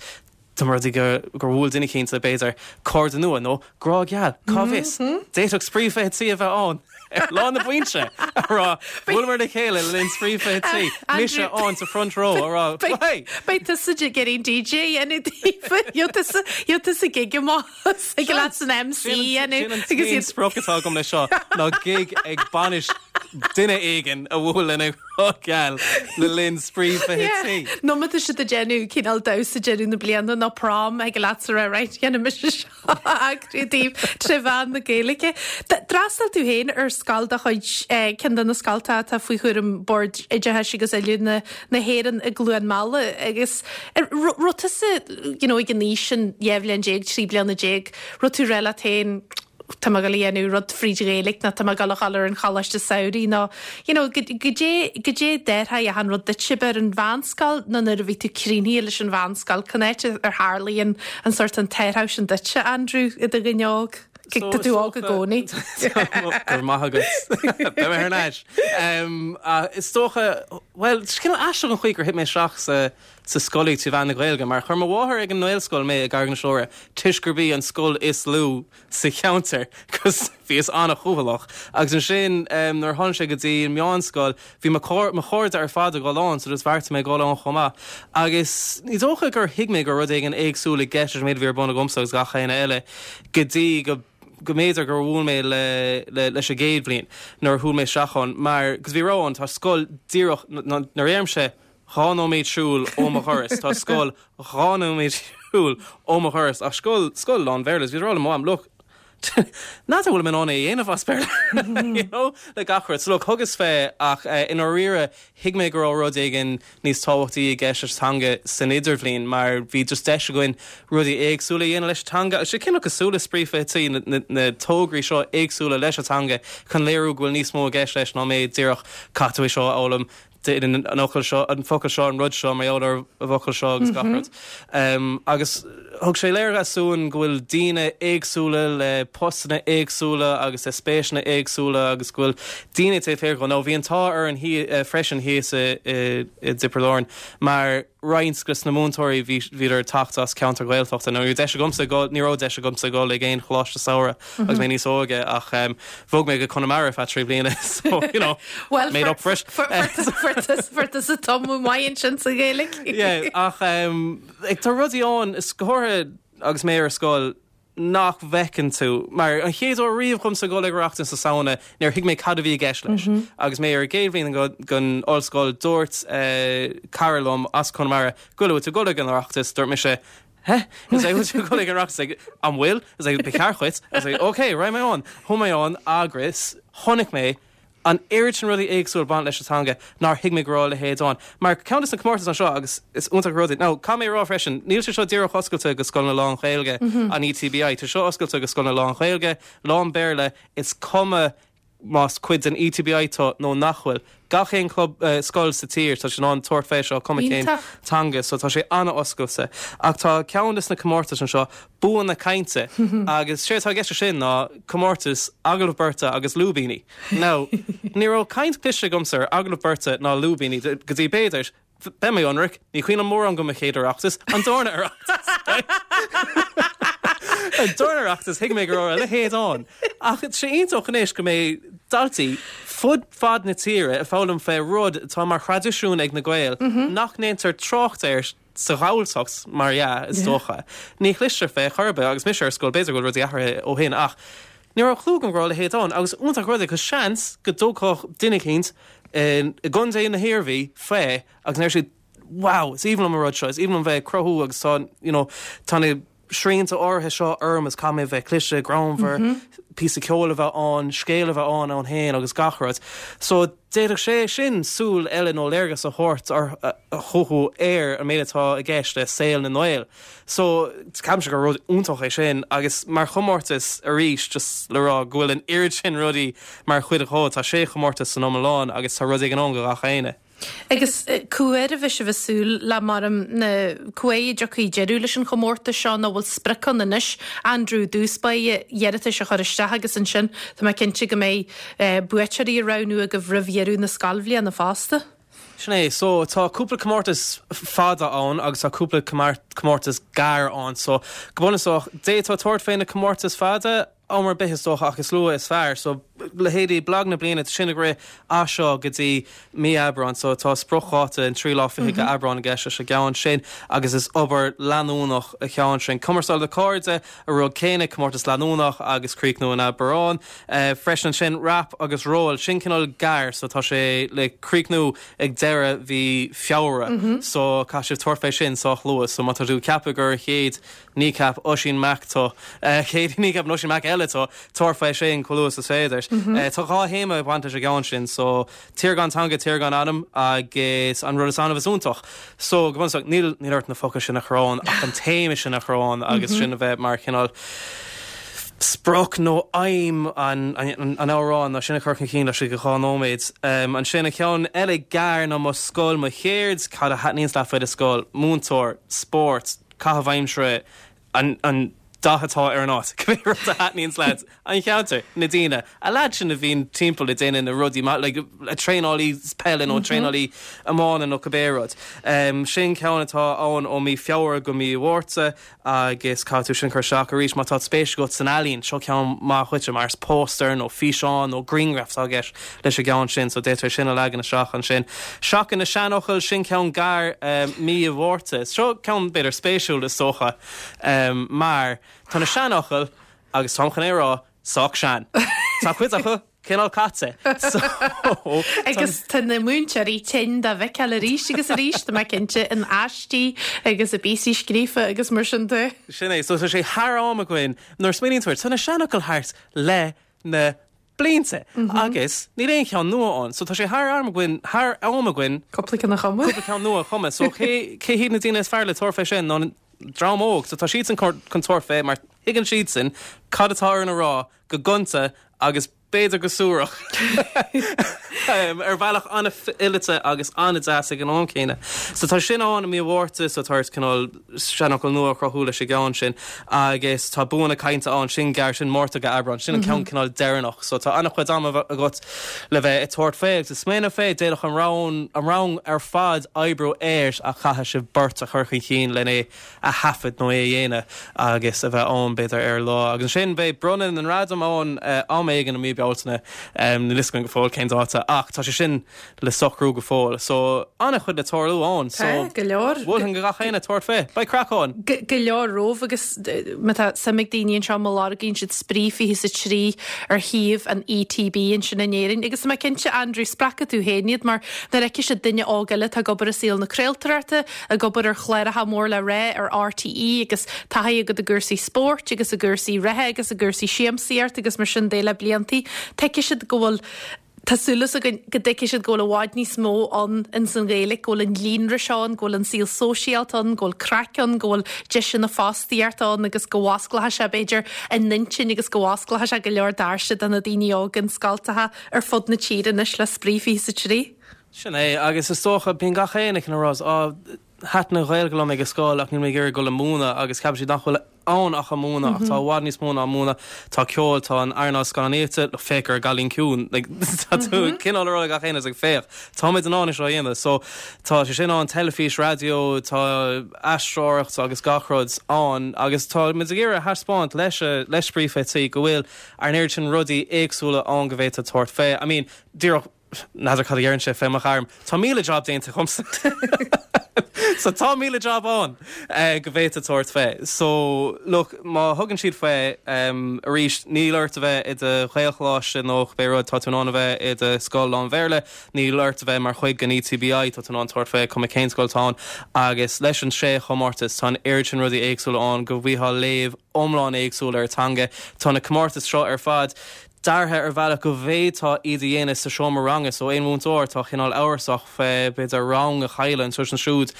Dá mba rud é gur bhuail duine eicínt le, b'fhéidir, cairde nua nó grá geal, cá bhfios? D'fhéadfadh Spraoi 23 a bheith ann ar lá na bainse, a rá, bhuaileamar le chéile le linn Spraoi 23, mise ann sa front row, a rá, hey! Beidh tusa ag iarraidh an DJ a dhéanamh daofa, gheobhaidh tusa gig amach ag leat san MC a dhéanamh. Sin an t-aon sprioc atá agam leis seo ná gig ag bainis duine éigin a bhuail lena ghrá geal le linn Spraoi 23. Nó má tá siad ag déanamh cineál damhsa deireadh na bliana nó prom thig leatsa a rá right dhéanfaidh mise seo a eagrú daoibh tré mheán na Gaeilge. D'fhreastail tú féin ar scoil de chuid ceann de na scoltacha atá faoi chúram Bord Oideachais agus Oiliúna na hÉireann i gCluain Meala agus raibh tusa you know ag an aois sin 12 bhliain, 13 bliana, raibh tú ag rá leat féin tá mé ag dul a dhéanamh rud fríd Ghaeilge nó tá mé ag dul a dhul ar an choláiste samhraidh nó you know goidé goidé d'athraigh achan rud duitse ab ar an mheánscoil nó nuair a bhí tú críochnaithe leis an mheánscoil cá háit ar tharlaigh an an sórt an t-athrú sin duitse Andrew i do dhuine óg? Tá tú óg i gcónaí. Go raibh maith agat. Beidh mé thar n-ais. Is dócha, bhuel, is cineál aisteach an chaoi gur thit mé isteach sa sa scolaíocht trí mheán na Gaeilge mar chuir mo mháthair ag an nGaelscoil mé i gCarraig na Siúire toisc gurb í an scoil is lú sa cheantar 'cause bhíos an-chúthaileach agus ansin nuair a tháinig sé go dtí an meánscoil bhí mo mo chairde ar fad ag dul ann so just bheartaigh mé dul ann chomh maith agus ní dócha gur thuig mé go raibh rud éigin éagsúil i gceist leis an méid a bhí ar bun agamsa agus gach éinne eile go dtí go go mb'fhéidir gur bhuail mé le le leis an gcéad bhliain nuair a shiúil mé isteach ann mar 'cause bhí rogha ann tá scoil díreach nuair a deirimse 2 nóiméad siúil ó mo dhoras. Tá scoil 2 nóiméad siúil ó mo dhoras ach scoil, scoil lán-Bhéarla. Bhíos ag rá le mo mham, look, n'fheadar an bhfuil mé in ann é a dhéanamh as Béarla, you know, le gach rud. So look, thugas fé ach i ndáiríre thuig mé go raibh rud éigin níos tábhachtaí i gceist leis an teanga san idirbhliain mar bhí just deis againn rudaí éagsúla a dhéanamh leis an teanga. Agus sé cineál cosúil le Spraoi 23, na, na, na tograí seo éagsúla leis an teanga chun léiriú go bhfuil níos mó i gceist leis ná méid díreach caithfidh tú é seo a fhoghlaim an fhocal seo, an focal seo, an rud seo, mar gheall ar an bhfocal seo agus gach rud. Agus Thug sé léargas dúinn go bhfuil daoine éagsúla le postanna éagsúla agus le spéiseanna éagsúla agus go bhfuil daoine taobh thiar dhó. Now bhí an t-ádh orainn freisin thíos i dTiobraid Árann mar roinnt de na múinteoirí bhí bhíodar ag teacht as ceantar Ghaeltachta. Now ní raibh deis agamsa dul ní raibh deis agamsa dul ag aon choláiste samhraidh agus mé níos óige ach bhog mé go Conamara ar feadh 3 bliana so you know Well made up for it. fuair tusa tumadh maith ansin sa Ghaeilge. Yeah ach Like, tá rudaí ann, is go háirithe agus mé ar scoil, nach bhfeiceann tú. Mar an chéad uair riamh dhomsa dul ag Oireachtas na Samhna, níor thuig mé cad a bhí i gceist leis. Agus mé ar an gcéad bhliain den ollscoil, dúirt cara liom as Conamara, go bhfuil tú ag dul ag an Oireachtas, dúirt mise, Heh? Is like, bhfuil tú ag dul ag an Oireachtas? Like, an bhfuil? Is like, ba cheart dhuit. I was like, ok, raghaidh mé ann. Chuaigh mé ann agus chonaic mé an oiread sin rudaí éagsúla ag baint leis an teanga nár thuig mé go raibh a leithéid ann. Mar ceann de na comórtais anseo, agus is iontach an rud é, now caithfidh mé a rá freisin, níl sé seo díreach oscailte go scoileanna lán-Ghaeilge an ETBI, tá seo oscailte go scoileanna lán-Ghaeilge, lán-Bhéarla, is cuma más cuid den ETBI tú nó nach bhfuil. Gach aon club, scoil sa tír, tá siad in ann tabhairt fé seo, cuma cén teanga, so tá sé an-oscailte. Ach tá ceann de na comórtais anseo, Bua na Cainte, agus séard atá i gceist leis sin ná comórtas agallamh beirte agus lúibíní. Now, ní raibh caint cloiste agamsa ar agallamh beirte ná lúibíní go dtí b'fhéidir, beidh mé ionraic, ní cuimhin liom mórán go mo chéad Oireachtas, an darna Oireachtas, right? An darna Oireachtas, thuig mé go raibh a leithéid ann. Ach tá sé iontach anois go mbeidh daltaí fud fad na tíre ag foghlaim fé rud atá mar thraidisiún ag na Gaeil nach ndéantar trácht air sa Ghalltacht, mar dhea, is dócha. Ní chloistear fé chor ar bith agus mise ar scoil, b'fhéidir go bhfuil rudaí athraithe ó shin ach ní raibh clue agam go raibh a leithéid ann agus iontach rud é cos seans go dtabharfadh duine eicínt i gContae na hIarmhí fé agus ndéarfadh siad wow, is aoibhinn liom an rud seo, is aoibhinn liom bheith ag cruthú agus tá, you know, tá na srianta áirithe seo orm is caithfidh mé bheith cliste, greannmhar, píosa ceoil a bheith ann, scéal a bheith ann ann féin agus gach rud. So d'fhéadfadh sé sin súil eile nó léargas a thabhairt chucu ar an méid atá i gceist le saol na nGael. So ceapaimse gur rud iontach é sin agus mar chomórtas arís just le rá go bhfuil an oiread sin rudaí mar chuid dhó, tá sé chomórtas san iomlán agus tá rud éigin ann do gach éinne. Agus cá huair a bheidh sibh ag súil le mar na cá huair a dtiocfaidh deireadh leis an chomórtas seo nó bhfuil sprioc ann anois Andrew i dtús báire iarratais a chur isteach agus ansin tá mé cinnte go mbeidh buaiteoirí a roghnú agaibh roimh dheireadh na scoilbhliana fosta. Sin é. So tá cúpla comórtas fada ann agus tá cúpla comórtas gearr ann. So go bunúsach, d'fhéadfá tabhairt fé na comórtais fada, am ar bith is dócha ach is luaithe is fearr. So leithéidí Blag na Bliana, tá sin ag rith as seo go dtí mí Aibreáin so tá spriocdháta an tríú lá fichead de Aibreán i gceist leis an gceann sin agus is obair leanúnach an ceann sin. Cumarsáid le Cairde, an rud céanna, comórtas leanúnach agus críochnú in Aibreán. Freisin ansin Rap agus Ról, sin cineál gearr so tá sé le críochnú ag deireadh mhí Feabhra so caithfidh sibh tabhairt fé sin sách luath so má tá tú ag ceapadh gur an chéad Kneecap Oisín Mac tú. Chéad Kneecap Oisín Mac eile tú, tabhair fé sin chomh luath is is féidir. Tá 2 théama ag baint leis an gceann sin, so Tír gan teanga, tír gan anam agus an rud is annamh is iontach. So, go bunúsach, níl níl ort na focail sin a chur ann ach an téama sin a chur ann agus sin a bheith mar chineál sprioc nó aidhm an an amhráin nó sin a chur chun cinn laistigh de 2 nóiméad. Ansin an ceann eile gearr ná Mo Scoil, Mo Cheird, cad a thaitníonns leat faoi do scoil, múinteoir, spórt, caitheamh aimsire, an dath atá ar an áit, cibé rud a thaitníonns leat, an cheantar, na daoine, a leaid sin a bhíonn timpeall ag déanamh na rudaí maith, like traenálaí peile nó traenálaí iomána nó cibé rud. Sin ceann atá ann ó mí Feabhra go mí Mhárta agus caithfidh tú sin a chur isteach arís má tá spéis agat san ealaín, seo ceann maith dhuitse mar is póstaer nó físeán nó grianghraf atá i gceist leis an gceann sin so d'fhéadfá sin a leagan isteach ansin. Seachain na Seanfhocail, sin ceann gearr mí Mhárta. Seo ceann b'fhéidir spéisiúil is dócha mar tá na seanfhocail, agus táim chun é a rá, sách sean. Tá cuid acu cineál caite. So Agus tá na múinteoirí tinn dá bhfeiceáil arís agus arís, tá mé cinnte, in aistí agus i bpíosaí scríofa agus mar sin de. Sin é. So tá sé thar am againn, nuair a smaoiníonn tú air, tá na seanfhocail thart le na blianta agus níl aon cheann nua ann. So tá sé thar am againn, thar am againn Cúpla ceann a chumadh. cúpla ceann nua a chumadh. So cé, cé hiad na daoine is fearr le tabhairt fé sin ná an dream óg. So tá siadsan chun tabhairt fé mar tuigeann siadsan cad atá orainn a rá go gonta agus. b'fhéidir go suarach, ar bhealach an-fhileata agus an-deas ag an am céanna. So tá sin ann i mí an Mhárta, so tá ort cineál seanfhocal nua a chruthú leis an gceann sin agus tá bua na cainte ann, sin gearr, sin Márta go Aibreán, sin an ceann cineál deireanach. So tá an-chuid ama agat le bheith ag tabhairt fé agus ag smaoineamh fé, d'fhéadfadh an rang, an rang ar fad oibriú air ach caithfidh sibh beirt a chur chun cinn len é a thaifead nó é a dhéanamh agus a bheith ann, b'fhéidir, ar an lá. Agus ansin beidh bronnadh na ngradam ann am éigin i mí Bealtaine, níl fhios againn go fóill cén dáta, ach tá sé sin le socrú go fóill. So, an-chuid le tarlú ann. So, Tá, go leor. mholfainn do gach éinne tabhairt fé. Beidh craic ann! Go leor romhaibh agus má tá suim ag daoine anseo, má lorgaíonn siad Spraoi 23 ar shuíomh an ETB ansin in Éirinn. Agus tá mé cinnte, Andrew, spreagfaidh tú féin iad mar nuair a fheicfidh siad duine óg eile atá ag obair i saol na craoltóireachta, ag obair ar chláracha mór le rá ar RTÉ agus taithí agat i gcúrsaí spóirt agus i gcúrsaí reatha agus i gcúrsaí siamsaíocht agus mar sin de le bliantaí. Tuigfidh siad go bhfuil, tá súil againn go dtuigfidh siad go bhfuil i bhfad níos mó ann ins an Ghaeilge, go bhfuil an líonra seo ann, go bhfuil an saol sóisialta ann, go bhfuil craic ann, go bhfuil deiseanna fostaíochta ann agus go bhfosclóidh sé b'fhéidir a n-intinn agus go bhfosclóidh sé go leor doirse do na daoine óga in scoltacha ar fud na tíre anois le Spraoi 23. Sin é, agus is dócha, bíonn gach éinne ag rá, á, thaitin an Ghaeilge liom ag an scoil ach níl mé ag iarraidh dul ag múineadh agus ceapann siad nach bhfuil ann ach an múineadh ach tá i bhfad níos mó ná múineadh, tá ceol, tá an earnáil scannánaíochta, look, féach ar an gCailín Ciúin, like, tá tú cineál ag rá le gach éinne, like, féach, táimid in ann é seo a dhéanamh. So, tá sé sin ann, teilifís, raidió, tá aisteoireacht agus gach rud ann agus táimid ag iarraidh a thaispeáint leis, le Spraoi 23 go bhfuil an oiread sin rudaí éagsúla ann go bhféadfá tabhairt fé. I mean, díreach, N'fheadar cad a deireann sé fé mo ghairm. Tá 1,000 job déanta agamsa. So tá 1,000 job ann go bhféadfá tabhairt fé. So look, má thugann siad fé, arís, níl ort a bheith i do Ghaelcholáiste nó cibé rud, tá tú in ann a bheith i do scoil lán-Bhéarla, níl ort a bheith mar chuid den ETBI, tá tú in ann tabhairt fé cuma cén scoil atá ann. Agus leis an sé chomórtas, tá an oiread sin rudaí éagsúla ann go bhfaighfeá léamh iomlán éagsúil ar an teanga. Tá na comórtais seo ar fad deartha ar bhealach go bhféadfá iad a dhéanamh sa seomra ranga so aon mhúinteoir atá cineál amhrasach fé b'fhéidir rang a chailleadh anseo is ansiúd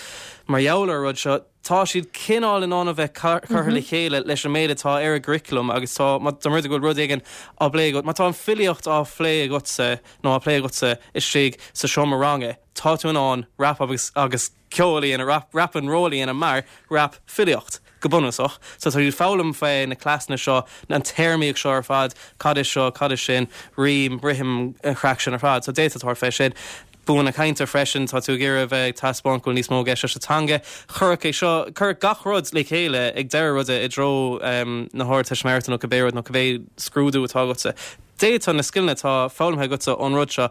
mar gheall ar an rud seo, tá siad cineál in ann a bheith curtha le chéile leis an méid atá ar an gcurriculum agus tá, má tá rud go bhfuil rud éigin á bplé agat, má tá an filíocht á phlé agatsa nó á plé agatsa istigh sa seomra ranga, tá tú in ann rap agus agus ceol a dhéanamh, rap, rap and roll a dhéanamh mar rap filíocht. Go bunúsach, so tá siad ag foghlaim fé na cleasanna seo, an téarmaíocht seo ar fad, cad é seo, cad é sin, rím, rithim, an chraic sin ar fad. So d'fhéadfá tabhairt fé sin. Bua na cainte freisin, tá tú ag iarraidh a bheith ag taispeáint go bhfuil níos mó i gceist leis an teanga. Cuireadh é seo, cuireadh gach rud le chéile ag deireadh ruda i dtreo na hArdteistiméireachta nó cibé rud nó cibé scrúdú atá agatsa. D'fhéadfá na scileanna atá foghlamtha agatsa ón rud seo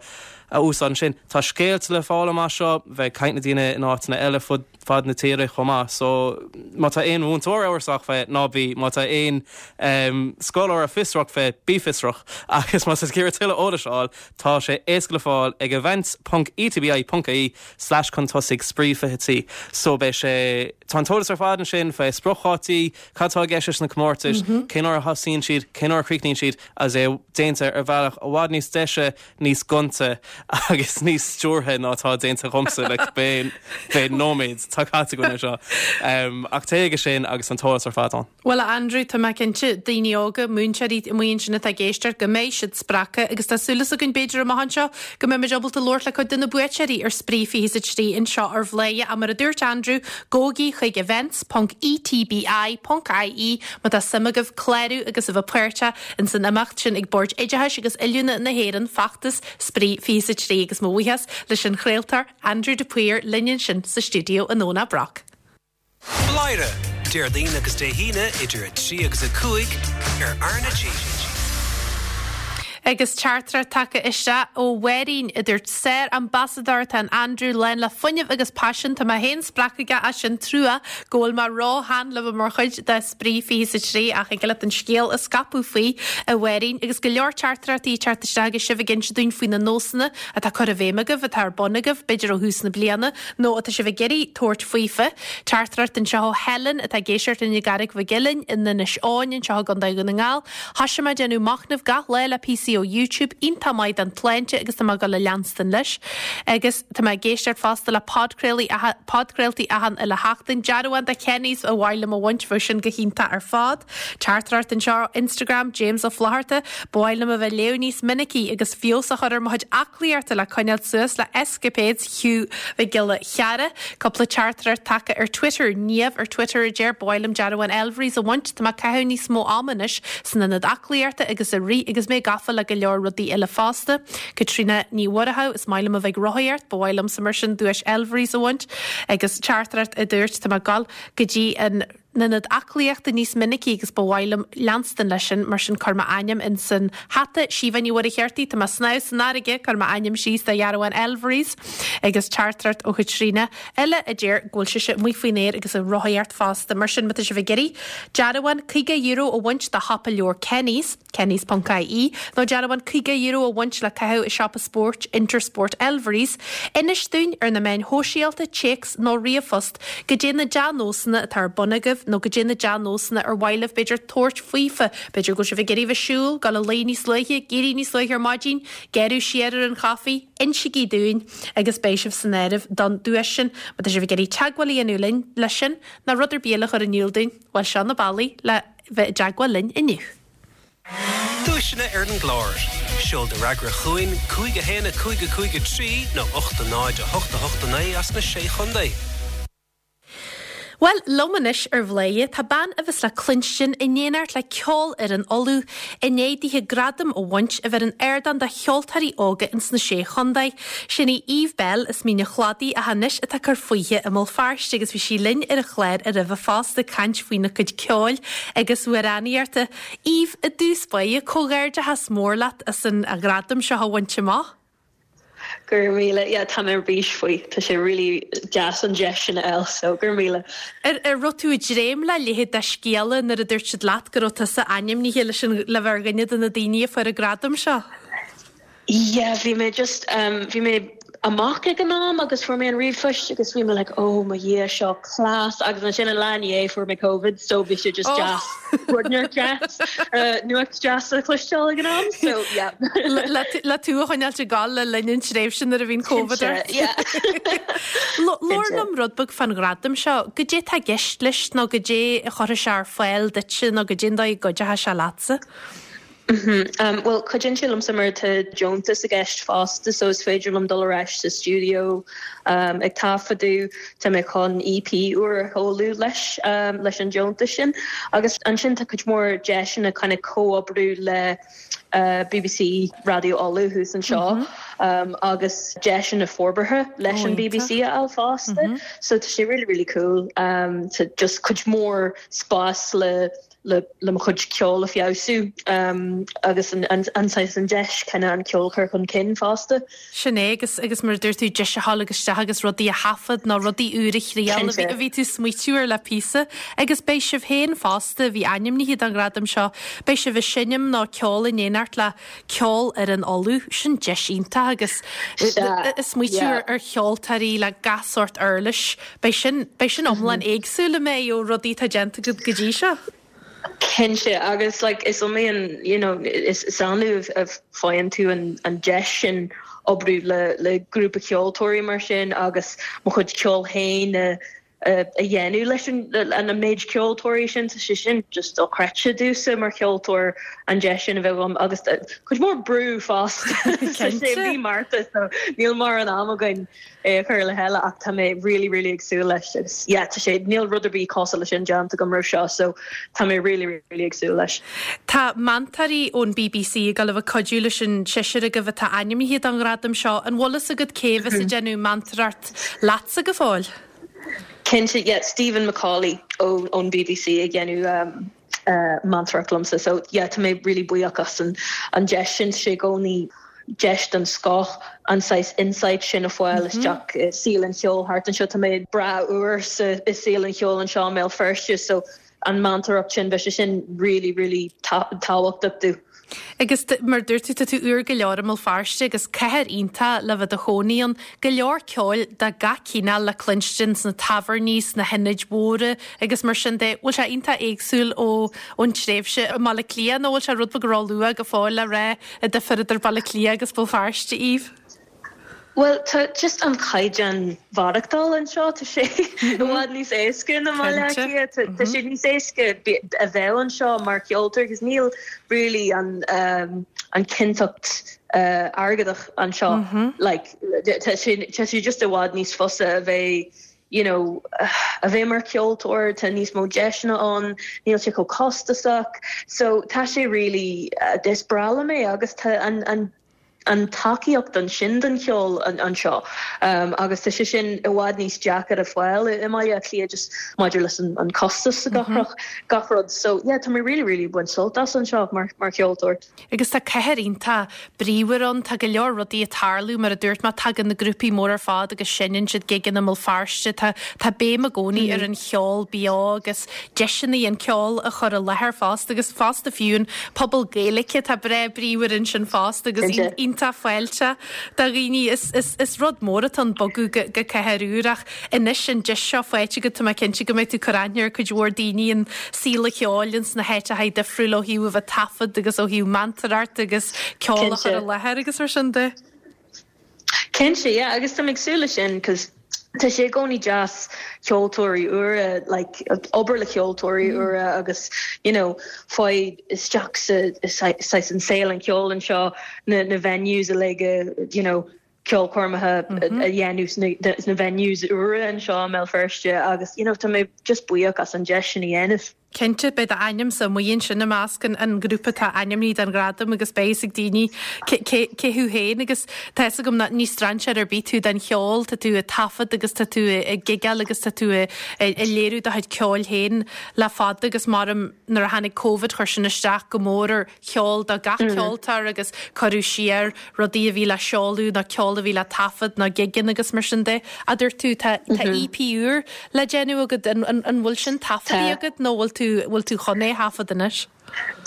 a úsáid ansin. Tá scéalta le fáil amach seo, bheith ag caint le daoine in áiteanna eile fud. fad na tíre chomh maith. So, má tá aon mhúinteoir amhrasach fé, ná bí. Má tá aon scoláire fiosrach fé, bí fiosrach. Agus má tá tú ag iarraidh tuilleadh eolais a fháil, tá sé éasca le fáil ag events ponc etbi ponc ie slash chun tosaigh spraoi 23. So, beidh sé, tá an t-eolas ar fad ansin fé spriocdhátaí, cad tá i gceist leis na comórtais, cén uair a thosaíonn siad, cén uair a chríochnaíonn siad, agus é déanta ar bhealach i bhfad níos deise níos gonta agus níos stiúrtha ná atá déanta agamsa le cibé nóiméad atá caite againn anseo. Ach téigh chuige sin agus an t-eolas ar fad ann. Bhuel, a Andrew, tá mé cinnte, daoine óga, múinteoirí amuigh ansin atá ag éisteacht, go mbeidh siad spreagtha agus tá súil againn, b'fhéidir, amach anseo, go mbeimid ábalta labhairt le cuid de na buaiteoirí ar Spraoi 23 anseo ar Bhladhaire. Ach mar a dúirt Andrew, gabhaigí chuig events ponc etbi ponc ie má tá suim agaibh clárú agus a bheith páirteach Ins an imeacht sin ag Bord Oideachais agus Oiliúna na hÉireann, feachtas Spraoi 23 agus mo bhuíochas leis an chraoltóir Andrew de Paor linn ansin sa stiúideo i nDomhnach Broc. Bladhaire, Déardaoin agus Dé hAoine idir 3 agus 5 ar R na G. Agus teachtaireacht tagtha isteach ó Mháirín a dúirt Sár-ambasadóir atá in Andrew lán le fuinneamh agus paisean. Tá mé féin spreagtha aige as sin trua go bhfuil mé ró-shean le bheith mar chuid de Spraoi 23 ach thig leat an scéal a scaipeadh faoi, a Mháirín, agus go leor teachtaireachtaí ag teacht isteach agus sibh ag inse dúinn faoi na nósanna atá curtha i bhfeidhm agaibh, atá ar bun agaibh, b'fhéidir ó thús na bliana, nó atá sibh ag iarraidh tabhairt faofa. Teachtaireacht anseo ó Helen atá ag éisteacht linn i gCarraig Mhic Uilinn in Inis Eoghain anseo i gContae Dhún na nGall. Thoisigh mé ag déanamh machnaimh gach lá le píosaí. píosaí ó YouTube iontach maith don tsláinte agus tá mé ag dul a leanstan leis. Agus tá mé ag éisteacht fosta le podchraolaí podchraoltaí achan uile sheachtain. Dearbhán de Kenny's ba mhaith liom a bhaint, bheadh sin go hiontach ar fad. Teachtaireacht anseo, Instagram, James Ó Flatharta, Ba mhaith liom a bheith ag léamh níos minicí agus feabhas a chur ar mo chuid aclaíochta le coinneáil suas le escapades Hugh Mhic Giolla Chearra. Cúpla teachtaireacht tagtha ar Twitter, Niamh ar Twitter a deir, Ba mhaith liom dearbhán Elvery's a bhaint, tá mé ag caitheamh níos mó ama anois san ionad aclaíochta agus ag rith agus mé gafa le go leor rudaí eile fosta. Caitríona Ní Mhuireadhaigh, Is maith liom a bheith ag rothaíocht, ba mhaith liomsa mar sin duais Elvery's a bhaint. Agus teachtaireacht a dúirt, Tá mé ag dul go dtí an n-ionad aclaíochta níos minicí agus ba mhaith liom leanstan leis sin, mar sin cuir m'ainm in san hata. Síomha Ní Mhuircheartaigh, Tá mé ag snámh san fharraige, cuir m'ainm síos do dhearbhán Elvery's. Agus teachtaireacht ó Chaitríona eile a deir go bhfuil sise amuigh faoin aer agus ag rothaíocht fosta. Mar sin, má tá sibh ag iarraidh dearbhán €50 a bhaint do shiopa leabhar Kenny's, Kennys ponc ie, nó dearbhán €50 a bhaint le caitheamh i siopa spóirt Intersport Elvery's, inis dúinn ar na meáin shóisialta, téacs nó ríomhphost goidé na dea-nósanna atá ar bun agaibh nó goidé na dea-nósanna ar mhaith libh b'fhéidir tabhairt faofa, b'fhéidir go bhfuil sibh ag iarraidh bheith siúl, dul a luí níos luaithe, éirí níos luaithe ar maidin, gearradh siar ar an chaife, insígí dúinn agus beidh sibh san áireamh don duais sin. Má tá sibh ag iarraidh teagmháil a dhéanamh linn leis sin nó rud ar bith eile a chur in iúl dúinn, bhuel seo na bealaí le bheith i dteagmháil linn inniu. Duaiseanna ar an gclár. Seol do fhreagra chugainn, 5 1 5 5 3 nó 8 0 8 8 9 as na Sé Chontae. Bhuel, liom anois ar Bhladhaire tá bean a bheas le cluinstin in éineacht le Ceolfhoireann Uladh i ndiaidh dithe gradam a bhaint a bheith ar an ardán do cheoltóirí óga ins na Sé Chontae. Sin í Eve Belle as Mín an Chladaigh ach anois atá ag cur fúithi i mBéal Feirste agus bhí sí linn ar an chlár roimhe fosta ag caint faoina cuid ceoil agus amhránaíochta. Eve, i dtús báire, comhghairdeachas mór leat as an ghradam seo a bhaint amach. Go raibh míle, yeah tá mé ar bís faoi, tá sé really deas an deis sin a fháil so go raibh míle. Ar raibh tú ag dréim le leithéid de scéala nuair a dúirt siad leat go raibh tusa ainmnithe leis an le bheith ar dhuine de na daoine a fuair an gradam seo? Yeah bhí mé just bhí mé amach ag an am agus fuair mé an ríomhphost agus bhí mé like oh mo Dhia seo class agus ansin an lá i ndiaidh fuair mé Covid so bhí sé just deas rud deas nuacht deas a chloisteáil ag an am so yeah. Le tú a choinneáilt ag gabháil le linn an tréimhse nuair a bhí an Covid ort. Labhair liom rud beag fán ghradam seo, goidé tá i gceist leis nó goidé a chuirfidh sé ar fáil duitse nó goidé an dóigh a gcuideochaidh sé leatsa? Bhuel, cuidíonn sé liomsa mar tá deontas i gceist fosta so is féidir liom dul ar ais sa stiúideo ag taifeadadh. Tá mé chun EP úr a sheoladh leis leis an deontas sin. Agus ansin tá cuid mhór deiseanna kind of comhoibriú le BBC Raidió Uladh thuas anseo agus deiseanna forbartha leis an BBC a fháil fosta. So tá sé really really cool. Tá just cuid mhór spás le le mo chuid ceoil a feabhsú agus an saghas an deis kind of an ceol a chur chun cinn fosta. Sin é agus agus mar a dúirt tú deis a ghabháil agus isteach agus rudaí a thaifead nó rudaí úr a thriail a bhí a bhí tú smaoitiú ar le píosa agus beidh sibh féin fosta a bhí ainmnithe don ghradam seo beidh sibh ag seinm nó ceol in éineacht le Ceolfhoireann Uladh, sin deis iontach agus ag smaoitiú ar cheoltóirí le gach sórt uirlis, beidh sin, beidh sin iomlán éagsúil an mbeidh ó rudaí atá déanta agat go dtí seo. Cinnte, agus like is iomaí an, you know, is annamh a faigheann tú an an deis sin oibriú le le grúpa ceoltóirí mar sin agus mo chuid ceoil féin a a dhéanamh leis an méid ceoltóirí sin, tá sé sin just dochreidte domhsa mar cheoltóir an deis sin a bheith agam agus cuid mhór brú fosta. Tá sé mí Márta so níl mórán am againn é a chur le chéile ach tá mé really really ag súil leis agus yeah tá sé níl rud ar bith cosúil leis sin déanta agam roimh seo so tá mé really really ag súil leis. Tá meantóirí ón bbc ag dul a bheith ag cuidiú leis an seisear agaibh atá ainmnithe don ghradam seo. An bhfuil fhios agat cé a bheas ag déanamh meantóireacht leatsa go fóill? Cinnte, yeah, Stephen McCauley ón bbc ag déanamh meantóireacht liomsa so yeah tá mé really buíoch as an deis sin, tá sé i gcónaí deis den scoth an saghas insight sin a fháil isteach i saol an cheoil thart anseo, tá mé breá úr sa i saol an cheoil anseo i mBéal Feirste so an meantóireacht sin bheadh sé sin really really tábhachtach domh. Agus mar a dúirt tú, tá tú úr go leor i mBéal Feirste agus cathair iontach le bheith i do chónaí ann. Go leor ceoil de gach cineál le cluinstin sna tábhairní, sna hionaid mhóra agus mar sin de. Bhfuil sé iontach éagsúil ó ón tréimhse i mBaile Átha Cliath nó bhfuil sé rud beag ró-luath go fóill le rá an difear idir Baile Átha Cliath agus Béal Feirste, Eve? Bhuel, tá just an caighdeán mhaireachtáil anseo, tá sé i bhfad níos éasca ná i mBaile Átha Cliath. Tá sé níos éasca a bheith anseo mar cheoltóir agus níl really an an cinnteacht airgeadach anseo. Like, tá sé tá sé just i bhfad níos fusa a bheith you know a bheith mar cheoltóir, tá níos mó deiseanna ann, níl sé chomh costasach. So tá sé really, is breá liom é agus tá an an an tacaíocht ansin don cheol anseo agus tá sé sin i bhfad níos deacair a fáil i mBaile Átha Cliath just maidir leis an costas gach rud gach rud so yeah tá mé really really ag baint sult as anseo mar mar cheoltóir. Agus tá cathair iontach bríomhar ann, tá go leor rudaí ag tarlú mar a dúirt mé tagann na grúpaí móra ar fad agus seinneann siad gigeanna i mBéal Feirste, tá tá béim i gcónaí ar an cheol beo agus deiseanna an ceol a chur i láthair fosta agus fosta fiú an pobal Gaeilge tá breá bríomhar ansin fosta agus iontach fáilteach do dhaoine. Is rud mór atá ann bogadh go cathair úr ach anois an deis seo faighte agat tá mé cinnte go mbeidh tú ag cur aithne ar cuid mhór daoine in saol an cheoil ins na háiteacha difriúla ó thaobh a bheith ag taifead agus ó thaobh meantóireacht agus ceol a chur i láthair agus mar sin de. Cinnte, yeah, agus tá mé ag súil leis sin 'cause tá sé i gcónaí deas ceoltóirí úra, like, obair le ceoltóirí úra agus, you know, fáil isteach sa, saghas an saol an cheoil anseo, na, na venues uilig, you know, ceolchoirmeacha a dhéanamh sna, sna venues úra anseo i mBéal Feirste agus, you know, tá mé just buíoch as an deis sin a dhéanamh. Cinnte, beidh d'ainmse amuigh ansin i measc an ghrúpa atá ainmnithe don ghradam agus beidh fhios ag daoine cé thú féin agus tá fhios agam nach ní strainséir ar bith tú don cheol, tá tú ag taifead agus tá tú ag gigeáil agus tá tú ag léiriú do chuid ceoil féin le fada agus maram nuair a tháinig Covid chuir sin isteach go mór ar cheol do gach ceoltóir agus cuireadh siar rudaí a bhí le seoladh nó ceol a bhí le taifead nó gigeanna agus mar sin de. A dúirt tú, tá tá EP úr le déanamh agat, an an an bhfuil sin taifeadta agat nó bhfuil tú bhfuil tú chun é a thaifead anois?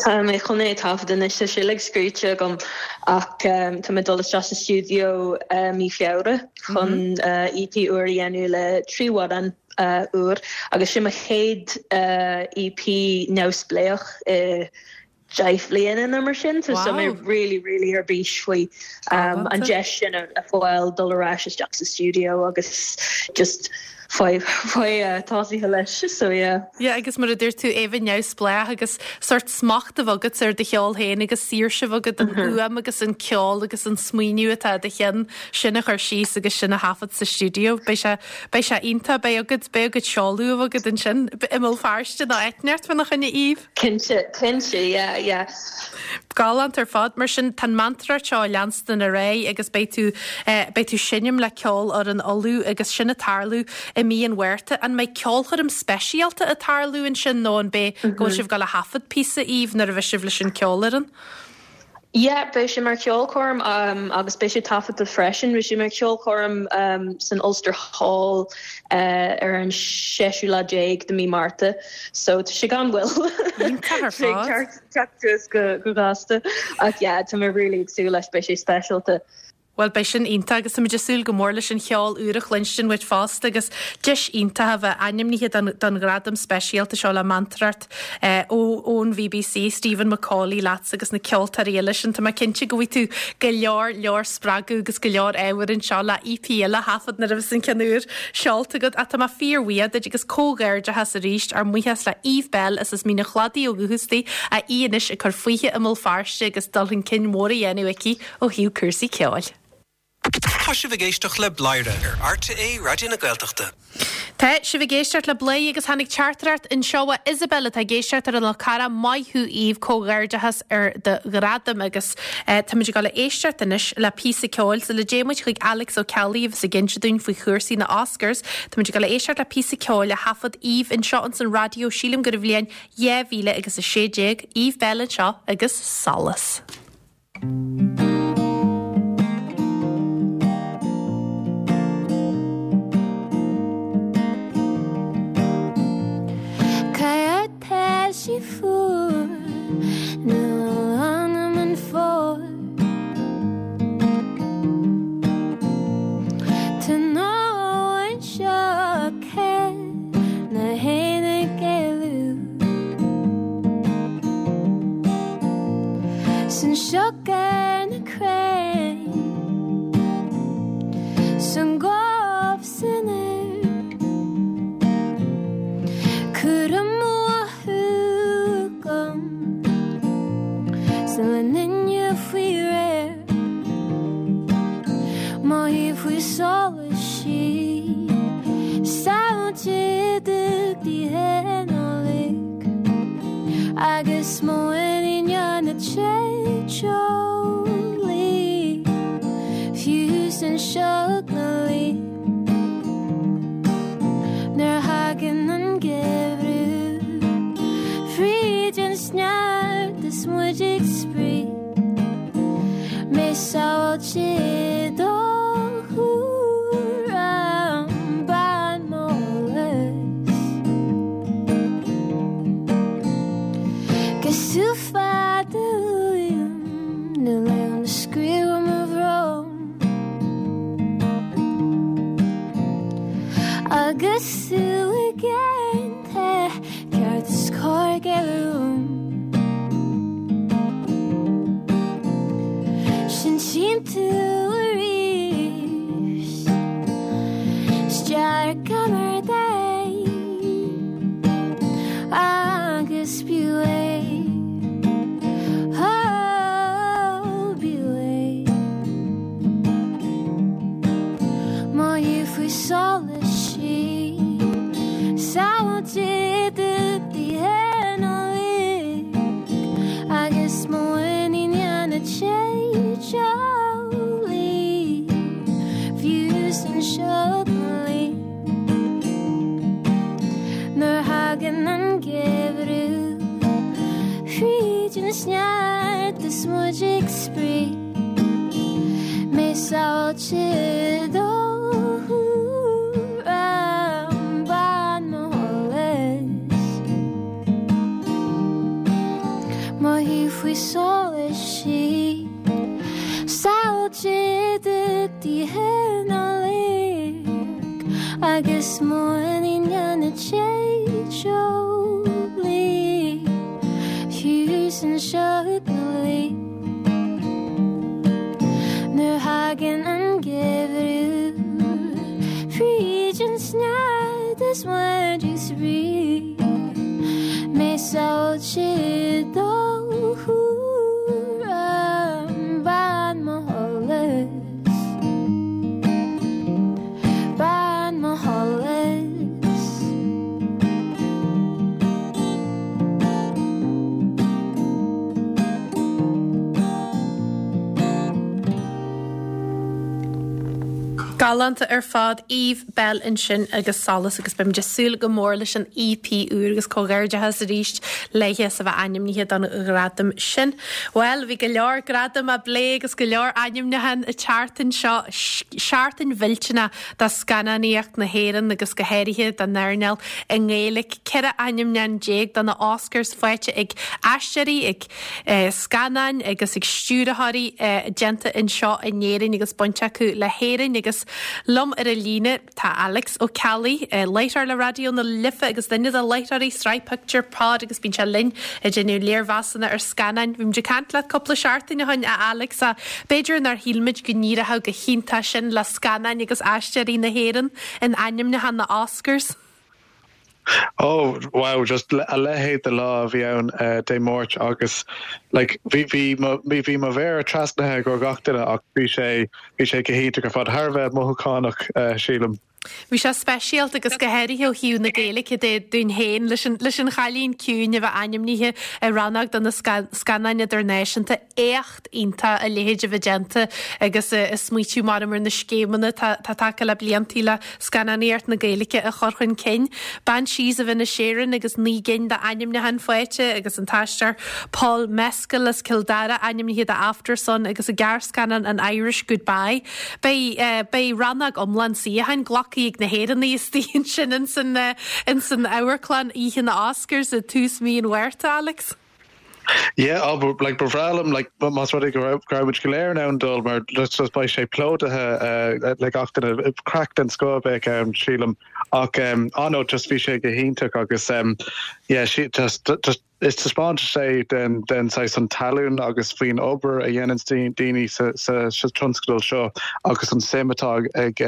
Tá mé chun é a thaifead anois, tá sé uilig scríte agam ach tá mé ag dul isteach sa stiúideo mí Feabhra chun EP úr a dhéanamh le 3 amhrán úr agus sin mo chéad EP neamhspléach i 10 bhliana nó mar sin so tá mé really really ar bís faoi an deis sin a fháil dul ar ais isteach sa stiúideo agus just fáil fáil tosaithe leis so yeah. Yeah agus mar a dúirt tú é bheith neamhspleách agus sórt smacht a bheith agat ar do cheol féin agus saoirse a bheith agat an fhuaim agus an ceol agus an smaoineamh atá i do cheann sin a chur síos agus sin a thaifead sa stiúideo. Beidh sé beidh sé iontach beidh agat beidh agat seoladh a bheith agat ansin i mBéal Feirste nó áit inteacht fána choinne Eve. Cinnte, cinnte, yeah, yeah. Galánta ar fad. Mar sin, tá an meantóireacht seo ag leanstan ar aghaidh agus beidh tú, eh, beidh tú seinm le Ceolfhoireann Uladh agus sin ag tarlú i mí an Mhárta. An mbeidh ceolchoirm speisialta ag tarlú ansin nó an beidh, go bhfuil sibh ag dul a thaifead píosa, Eve, nuair a bheidh sibh leis an ceolfhoireann? Yeah, beidh sé mar cheolchoirm agus beidh sé taifeadta freisin. Beidh sé mar cheolchoirm san Ulster Hall ar an séú lá déag de mí Márta. So tá sé gan mhoill. Iontach ar fad. Teacht suas go gasta. Ach yeah, tá mé really ag súil leis, beidh sé speisialta. Bhuel, beidh sin iontach agus táimid ag súil go mór leis an cheol úr a chluinstin uait fosta agus deis iontach a bheith ainmnithe don don ghradam speisialta seo le meantóireacht ó ón bhBC, Stephen McCauley leatsa agus na ceoltóirí eile sin. Tá mé cinnte go bhfaighidh tú go leor leor spreagadh agus go leor ábhair anseo le EP eile a thaifead nuair a bheas an ceann úr seolta agat. Ach tá mé fíorbhuíoch duit agus comhghairdeachas arís, ár mbuíochas le Eve Belle as as Mín an Chladaigh ó dhúchas di, ach í anois ag cur fúithi i mBéal Feirste agus dul chun cinn mór á dhéanamh aici ó thaobh cúrsaí ceoil. Tá sibh ag éisteacht le Bladhaire ar RTÉ Raidió na Gaeltachta. Tá sibh ag éisteacht le Bladhaire agus tháinig teachtaireacht anseo ó Isabel atá ag éisteacht ar an Fhál Carrach. Maith thú Eve, comhghairdeachas ar do ghradam agus táimid ag dul a éisteacht anois le píosa ceoil sula dtéann muid chuig Alex Ó Ceallaigh a bheas ag inse dúinn faoi chúrsaí na Oscars. Táimid ag dul a éisteacht le píosa ceoil a thaifead Eve anseo ins an raidió, sílim gur i bhliain 2016. Eve Belle anseo agus Solas. Tá sí fuar, níl anam. faoi solas sí Samhaltaigh d'oíche Nollag Agus mo mhuinín déanta teolaí Fiú san sioc na luí Nuair a thagann an geimhreadh Fríd an sneachta is muid ag spraoi Mé sábháilte i do chúram Bean mo sholas Casúr fada uaim Níl aon screamh ar mo bhrón Agus tú i gceann Ceart is cóir géilleadh uaim. Sin tchím tú arís. 'S dearcamar dé agus b'fhiú é. Oh, b'fhiú é. Mo thaobh faoi solas sí Samhaltaigh d'oíche Nollag Agus mo mhuinín déanta teolaí Fiú san sioc na luí Nuair a thagann an geimhreadh Fríd an sneachta is muid ag spraoi Mé sábháilte i do chúram Bean mo sholas Mo thaobh faoi solas sí Samhaltaigh d'oíche Nollag Agus mo mhuinín déanta teolaí Fiú san sioc na luí Nuair a thagann an geimhreadh Fríd an sneachta is muid ag spraoi Mé sábháilte i do chúram Bean mo sholas Bean mo sholas. Galánta ar fad, Eve Belle ansin agus Solas agus beimid ag súil go mór leis an EP úr agus comhghairdeachas arís léithe as a bheith ainmnithe don ghradam sin. Bhuel, bhí go leor gradam á bplé agus go leor ainmniúchán an tseachtain seo, seachtain mhillteanach do scannánaíocht na hÉireann agus go háirithe don earnáil i nGaeilge. 14 ainmniúchán do na Oscars faighte ag aisteoirí, ag scannáin agus ag stiúrthóirí déanta anseo in Éirinn agus baint acu le hÉirinn agus liom ar an líne tá Alex Ó Ceallaigh, láithreoir le Raidió na Life agus duine de láithreoirí Sraith Pictiúr Pod agus bíonn sé linn ag déanamh léirmheasanna ar scannáin. Bhí muid ag caint leat cúpla seachtain ó shin a Alex ach b'fhéidir nár shíl muid go n-éireodh go hiontach sin le scannáin agus aisteoirí na hÉireann in ainmniúchán na Oscars. Oh wow, just a leithéid de lá a bhí ann Dé Máirt agus like bhí bhí mo bhí mo mhéara trasnaithe ag gach duine ach bhí sé bhí sé go hiontach ar fad, thar a bheith mothúchánach sílim. Bhí sé speisialta agus go háirithe ó thaobh na Gaeilge de dúinn féin leis an leis an Chailín Ciúin a bheith ainmnithe i rannóg do na scannáin idirnáisiúnta. Éacht iontach a leithéid a bheith déanta agus ag smaoitiú maram ar na scéimeanna atá tagtha le bliantaí le scannánaíocht na Gaeilge a chur chun cinn. Banshees of Inisherin agus 9 gcinn d'ainmniúcháin faighte agus an t-aisteoir Paul Mescal as Cill Dara ainmnithe do Aftersun agus an gearrscannán An Irish Goodbye. Beidh beidh rannóg iomlán suíocháin glactha ag na hÉireannaigh istigh ansin ins an ins an amharclann oíche na Oscars i tús mhí an Mhárta, Alex. Yeah, oh, but, like, ba bhreá liom, like, más rud é go raibh, go raibh muid go léir in ann dul, mar just, just beidh sé plódaithe uh, le gach duine, craic den scoth a bheadh ann, sílim. Ach, um, ah no, just bhí sé go hiontach agus, um, yeah, sí, just, just, Is taispeántas é den den saghas an talún agus faoin obair a dhéananns daoine sa sa sa tionscadal seo agus an suim atá ag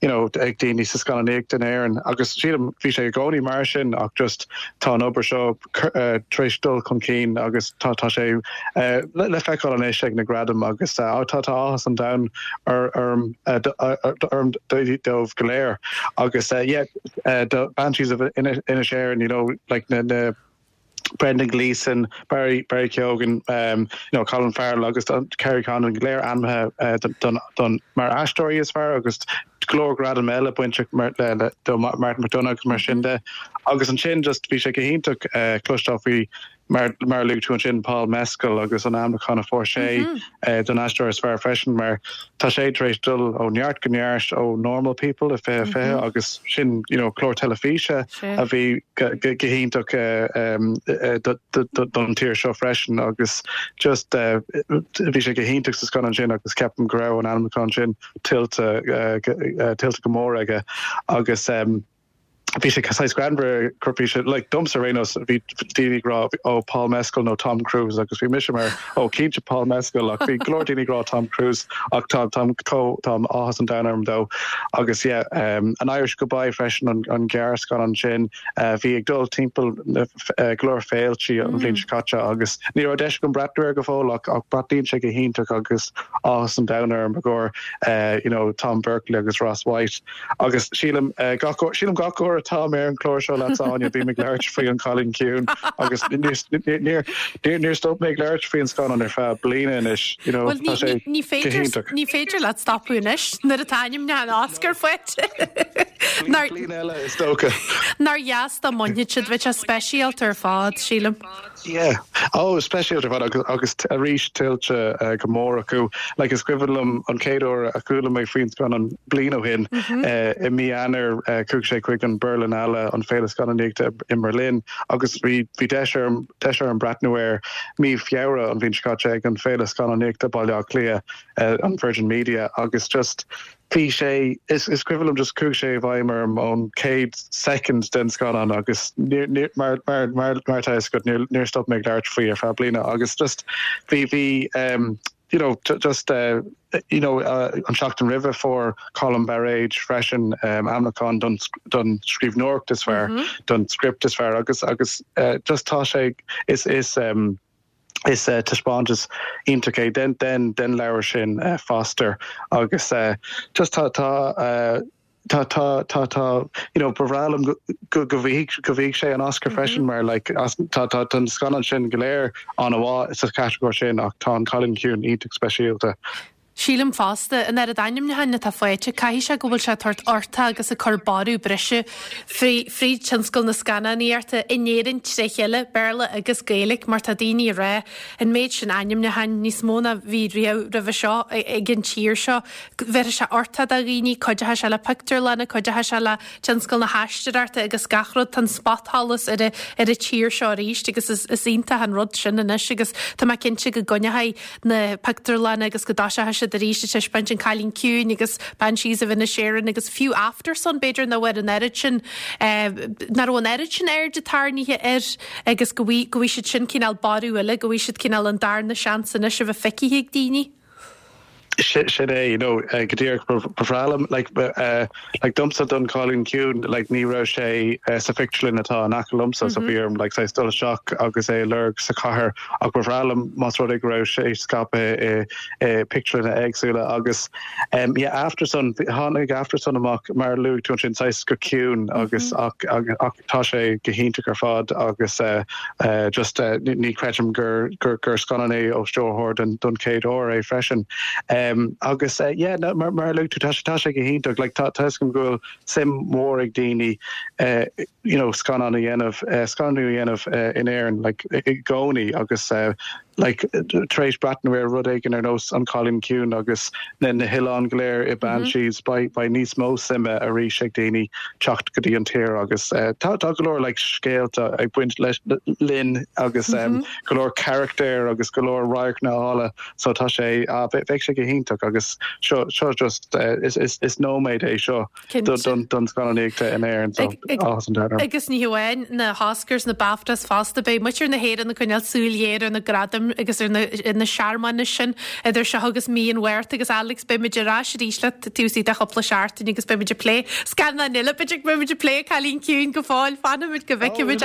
you know ag daoine sa scannánaíocht in Éirinn agus sílim bhí sé i gcónaí mar sin ach just tá an obair seo tar éis dul chun cinn agus tá tá sé le feiceáil anois ag na gradaim agus tá tá áthas an domhain orm orm dóibh go léir agus yeah do Banshees of Inisherin you know like na na Brendan Gleeson, Barry Barry Keoghan, um, you know, Colin Farrell agus Kerry Condon go léir ainmnithe uh, don, don, mar aisteoirí is fearr agus go leor gradam eile bainte mar, le, le, do Martin McDonagh agus mar sin de. Agus ansin just bhí sé go hiontach uh, cloisteáil faoi mar mar a luaigh tú ansin Paul Mescal agus an ainmniúchán a fuair sé don aisteoir is fearr freisin mar tá sé tar éis dul ó neart go neart ó Normal People i 2020 agus sin you know clár teilifíse a bhí go hiontach don tír seo freisin agus just bhí sé go hiontach sa scannán sin agus ceapaim go raibh an ainmniúchán sin tuillte tuillte go mór aige agus bhí sé saghas greannmhar gur bhí sé like domsa ar aon nós bhí daoine ag rá ó Paul Mescal nó Tom Cruise agus bhí mise mar ó cinnte Paul Mescal ach bhí go leor daoine ag rá Tom Cruise ach tá tá tá áthas an domhain orm dó agus yeah um, An Irish Goodbye freisin an, an gearrscannán sin uh, bhí ag dul timpeall na uh, go leor féiltí an bhliain seo caite agus ní raibh deis agam breathnú air go fóill ach ach breathnaíonn sé go hiontach agus áthas an domhain orm i gcomhair uh, you know, Tom Berkeley agus Ross White. Agus sílim gach uair, sílim gach uair atá mé ar an chlár seo leat Áine, bím ag labhairt faoi An Cailín Ciúin agus níor, níor stop mé ag labhairt faoin scannán ar feadh bliana anois, you know, tá sé ní féidir, ní féidir leat stopadh anois nuair atá ainmniúchán Oscar faighte. Bliain eile is dócha. Nár dheas dá mbainfeadh siad, bheadh sé speisialta ar fad, sílim. Yeah. Oh, speisialta ar fad agus agus arís tuillte go mór acu. Like is cuimhin liom an chéad uair a chuala mé faoin scannán bliain ó shin i mí Eanáir chuaigh sé chuig an Berlinale, an féile scannánaíochta i mBerlin agus bhí bhí deis orm deis orm breathnú air mí Feabhra an bhliain seo caite ag an féile scannánaíochta Baile Átha Cliath, an Virgin Media agus just Bhí sé, is cuimhin liom just chuaigh sé i bhfeidhm orm ón chéad soicind den scannán agus níor, níor, mar, mar, mar, mar atá a fhios agat, níor, níor stop mé ag labhairt faoi ar feadh bliana agus just bhí, bhí um, you know, just uh, you know, uh, an seachtain roimhe fuair Colm Bairéad freisin um, ainmniúchán don, don scríbhneoireacht is fearr, mm -hmm. don script is fearr agus, agus uh, just tá sé, is, is, um, Is taispeántas iontach é den den den leabhar sin Foster agus just tá tá tá tá tá tá you know ba bhreá liom go go go bhfaighidh go bhfaighidh sé an Oscar freisin mar like as tá tá tá na scannáin sin go léir an-mhaith sa chatagóir sin ach tá An Cailín Ciúin iontach speisialta. Sílim fosta, an oiread ainmniúcháin atá faighte, caithfidh sé go bhfuil sé ag tabhairt uchtach agus ag cur borradh breise fríd tionscal na scannánaíochta in Éirinn tré chéile, Béarla agus Gaeilge, mar tá daoine ag rá, an méid sin ainmniúcháin, níos mó ná bhí riamh roimhe seo ag an tír seo, bhéarfaidh sé uchtach do dhaoine, cuideochaidh sé le pictiúrlanna, cuideochaidh sé le tionscal na haisteoireachta agus gach rud, tá an spotsholas ar an tír seo arís agus is iontach an rud sin anois agus tá mé cinnte go gcoinneochaidh na pictiúrlanna agus go dtoiseochaidh siad arís ag taispeáint An Cailín Ciúin agus Banshees of Inisherin agus fiú Aftersun b'fhéidir nach bhfuair an oiread sin nach raibh an oiread sin airde tarraingthe air agus go bhfaighidh go bhfaighidh siad sin cineál borradh eile, go bhfaighidh siad cineál an darna seans anois a bheith feicthe ag daoine. Sin é, you know, go díreach ba bhreá liom, like, Like domsa don Cailín Ciúin like ní raibh sé sa phictiúrlann atá in aice liomsa so bhí orm like saghas dul isteach agus é a lorg sa chathair ach ba bhreá liom más rud é go raibh sé scaipthe i i pictiúrlanna éagsúla agus um yeah Aftersun tháinig Aftersun amach mar a luaigh tú ansin saghas go ciúin agus ach ach tá sé go hiontach ar fad agus eh just eh ní chreidim gur gur gur scannán é ó stiúrthóir don don chéad uair é freisin. Agus eh yeah no mar mar a luaigh tú tá sé tá sé go hiontach like tá tá a fhios agam go bhfuil suim mhór ag daoine eh you know scannán a dhéanamh eh scannánú a dhéanamh eh in Éirinn like i gcónaí agus eh. Like, tar éis breathnú ar rud éigin ar nós An Cailín Ciúin agus na na hoileáin go léir i Banshees, beidh beidh níos mó suime arís ag daoine teacht go dtí an tír agus tá tá go leor like scéalta ag baint leis linn agus go leor carachtair agus go leor radharcanna áille so tá sé ah beidh sé go hiontach agus seo seo just is is is nóiméad é seo. don scannánaíocht in Éirinn so áthas an domhain orm. Agus ní hamháin na hOscars, na BAFTAs fosta, beidh muintir na hÉireann ag coinneáil súil ghéar ar na gradaim agus ar na searmanais sin idir seo agus mí an Mhárta agus Alex beidh muid ar ais arís leat taobh istigh de chúpla seachtain agus beidh muid ag plé scannán eile, b'fhéidir go mbeidh muid ag plé Cailín Ciúin go fóill, fanfaimid go bhfeicfimid é.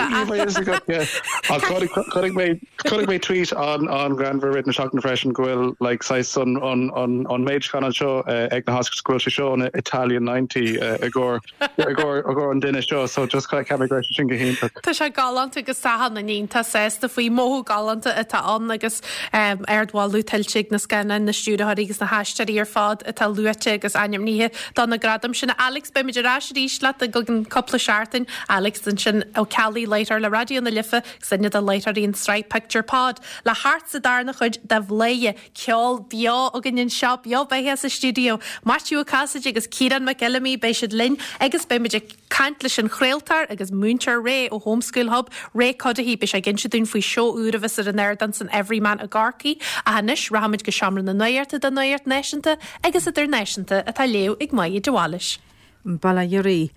Chonaic mé Chonaic mé tweet an-ghreannmhar i rith na seachtaine freisin go bhfuil like saghas an an an méid scannán seo ag na hOscars go bhfuil sé seo an Italian 90 i gcomhair i gcomhair i gcomhair an duine seo so just cheap mé go raibh sé sin go hiontach. Tá sé galánta agus tá achan duine iontach sásta faoi. Mothú galánta atá ann agus ardmholadh tuillte ag na scannáin, na stiúrthóirí agus na haisteoirí ar fad atá luaite agus ainmnithe do na gradaim sin. Alex, beimid ar ais arís leat i gceann cúpla seachtain. Alex ansin Ó Ceallaigh, láithreoir le Raidió na Life. Duine de láithreoirí an tsraith Pictiúr Pod le theacht sa darna chuid de Bhladhaire, ceol beo againn anseo, beo beatha sa stiúideo. Maitiú Ó Casaide agus Ciarán Mac Fheilimí, beidh siad linn agus beidh muid ag caint leis an chraoltóir agus múinteoir Ray ó Homeschool Hub, Ray Cuddihy, beidh sé ag inse dúinn faoi seó úr a bheas ar an ardán san Everyman i gCorcaigh. Ach anois, rachaimid go Seomra na Nuachta don Nuacht Náisiúnta agus Idirnáisiúnta atá á léamh ag Máire de Bhailís. Baile Ioraí.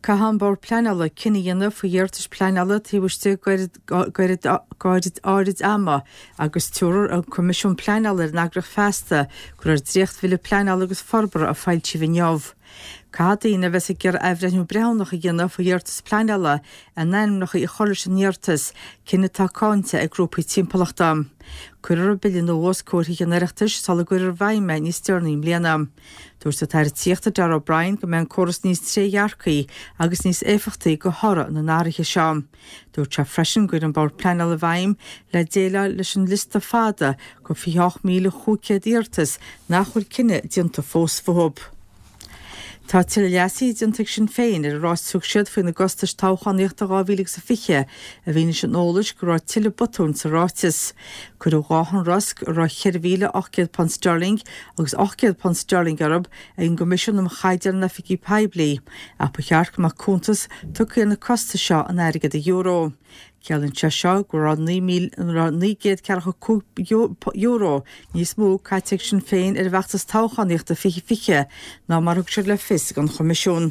Caithfidh an Bord Pleanála cinneadh a dhéanamh faoi iarratais pleanála taobh istigh d'fhad áirid ama agus tabharfaidh an Coimisiún Pleanála ar an eagraíocht feasta go raibh dréacht-bhille pleanála agus forbartha a foilsíodh inniu. Caithfidh daoine a bheas ag iarraidh athbhreithniú breithiúnach a dhéanamh faoi iarratas pleanála a n-ainmneacha a chur leis an iarratas, cinneadh atá cáinte ag grúpaí timpeallachta. Cuirfear an bille nua os comhair Thithe an Oireachtais sula gcuirfear i bhfeidhm é níos deireanaí i mbliana. Dúirt an tAire Tithíochta Darragh O'Brien go mbeidh an córas níos trédhearcaí agus níos éifeachtaí de thoradh na n-athruithe seo. Dúirt sé freisin go gcuirfidh an Bord Pleanála i bhfeidhm le déileáil leis an liosta fada de 28,500 iarratas nach bhfuil cinneadh déanta fós fúthu. Tá tuilleadh leasaithe déanta ag Sinn Féin ar an ráiteas a thug siad faoina gcostais toghchánaíochta 2020 i bhfianaise an eolais go raibh tuilleadh botúin sa ráiteas. Cuireadh 2 shonrasc a raibh £4,800 sterling agus £800 sterling orthu ag an gCoimisiún um Chaighdeáin in Oifigí Poiblí ach ba cheart go mbeadh cuntas tugtha ar na costais seo in airgead euro. Ciallaíonn sé seo go raibh €9,945 níos mó caite ag Sinn Féin ar a bhfeachtas toghchánaíochta 2020 ná mar a thug siad le fios don Choimisiún.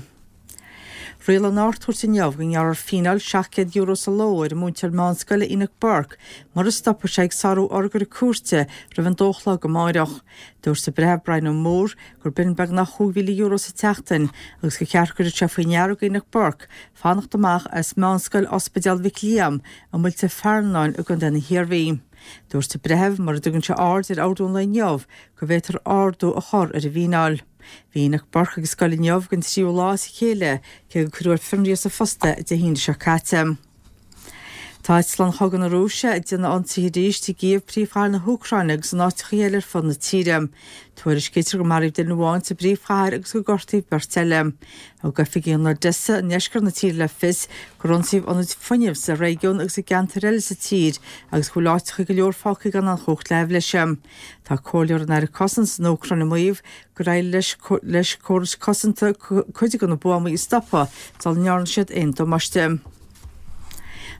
Rialaigh an Ard-Chúirt inniu go ngearrfar fíneáil €700 sa ló ar an múinteoir meánscoile Enoch Burke mura stopfaidh sé ag sárú urghaire cúirte roimh an dó a chlog amáireach. Dúirt an Breitheamh Brian O'Moore gur b'in beagnach €5,000 sa tseachtain agus gur cheart go gcuirfeadh sé faoi ndeara do Enoch Burke fanacht amach as Meánscoil Ospidéal Mhic Liam i Muilte Fearnáin i gContae na hIarmhí. Dúirt an Breitheamh mura dtugann sé aird ar ordú an lae inniu go bhféadfar ardú a chur ar an bhfíneáil. Bhí Enoch Burke ag scoil inniu don tríú lá as a chéile, cé gur cuireadh ar fionraí as a phost é Dé hAoine seo caite. Tá eitleáin chogaidh na Rúise ag déanamh ionsaithe arís i gCív, príomhchathair na hÚcráine, agus in áiteacha eile ar fud na tíre. Tuairiscítear gur maraíodh duine amháin sa bpríomhchathair agus gur gortaíodh beirt eile. Thug oifigigh in Odessa i ndeisceart na tíre le fios gur ionsaíodh ionaid fuinnimh sa réigiún agus i gceantair eile sa tír agus go bhfuil áiteacha go leor fágtha gan aon chumhacht leathbhliseadh. Tá comhairleoir an Aire Cosanta san Úcráin ag maíomh gur éirigh leis córais cosanta cuid de na buamaí a stopadh sula ndearna siad aon damáiste.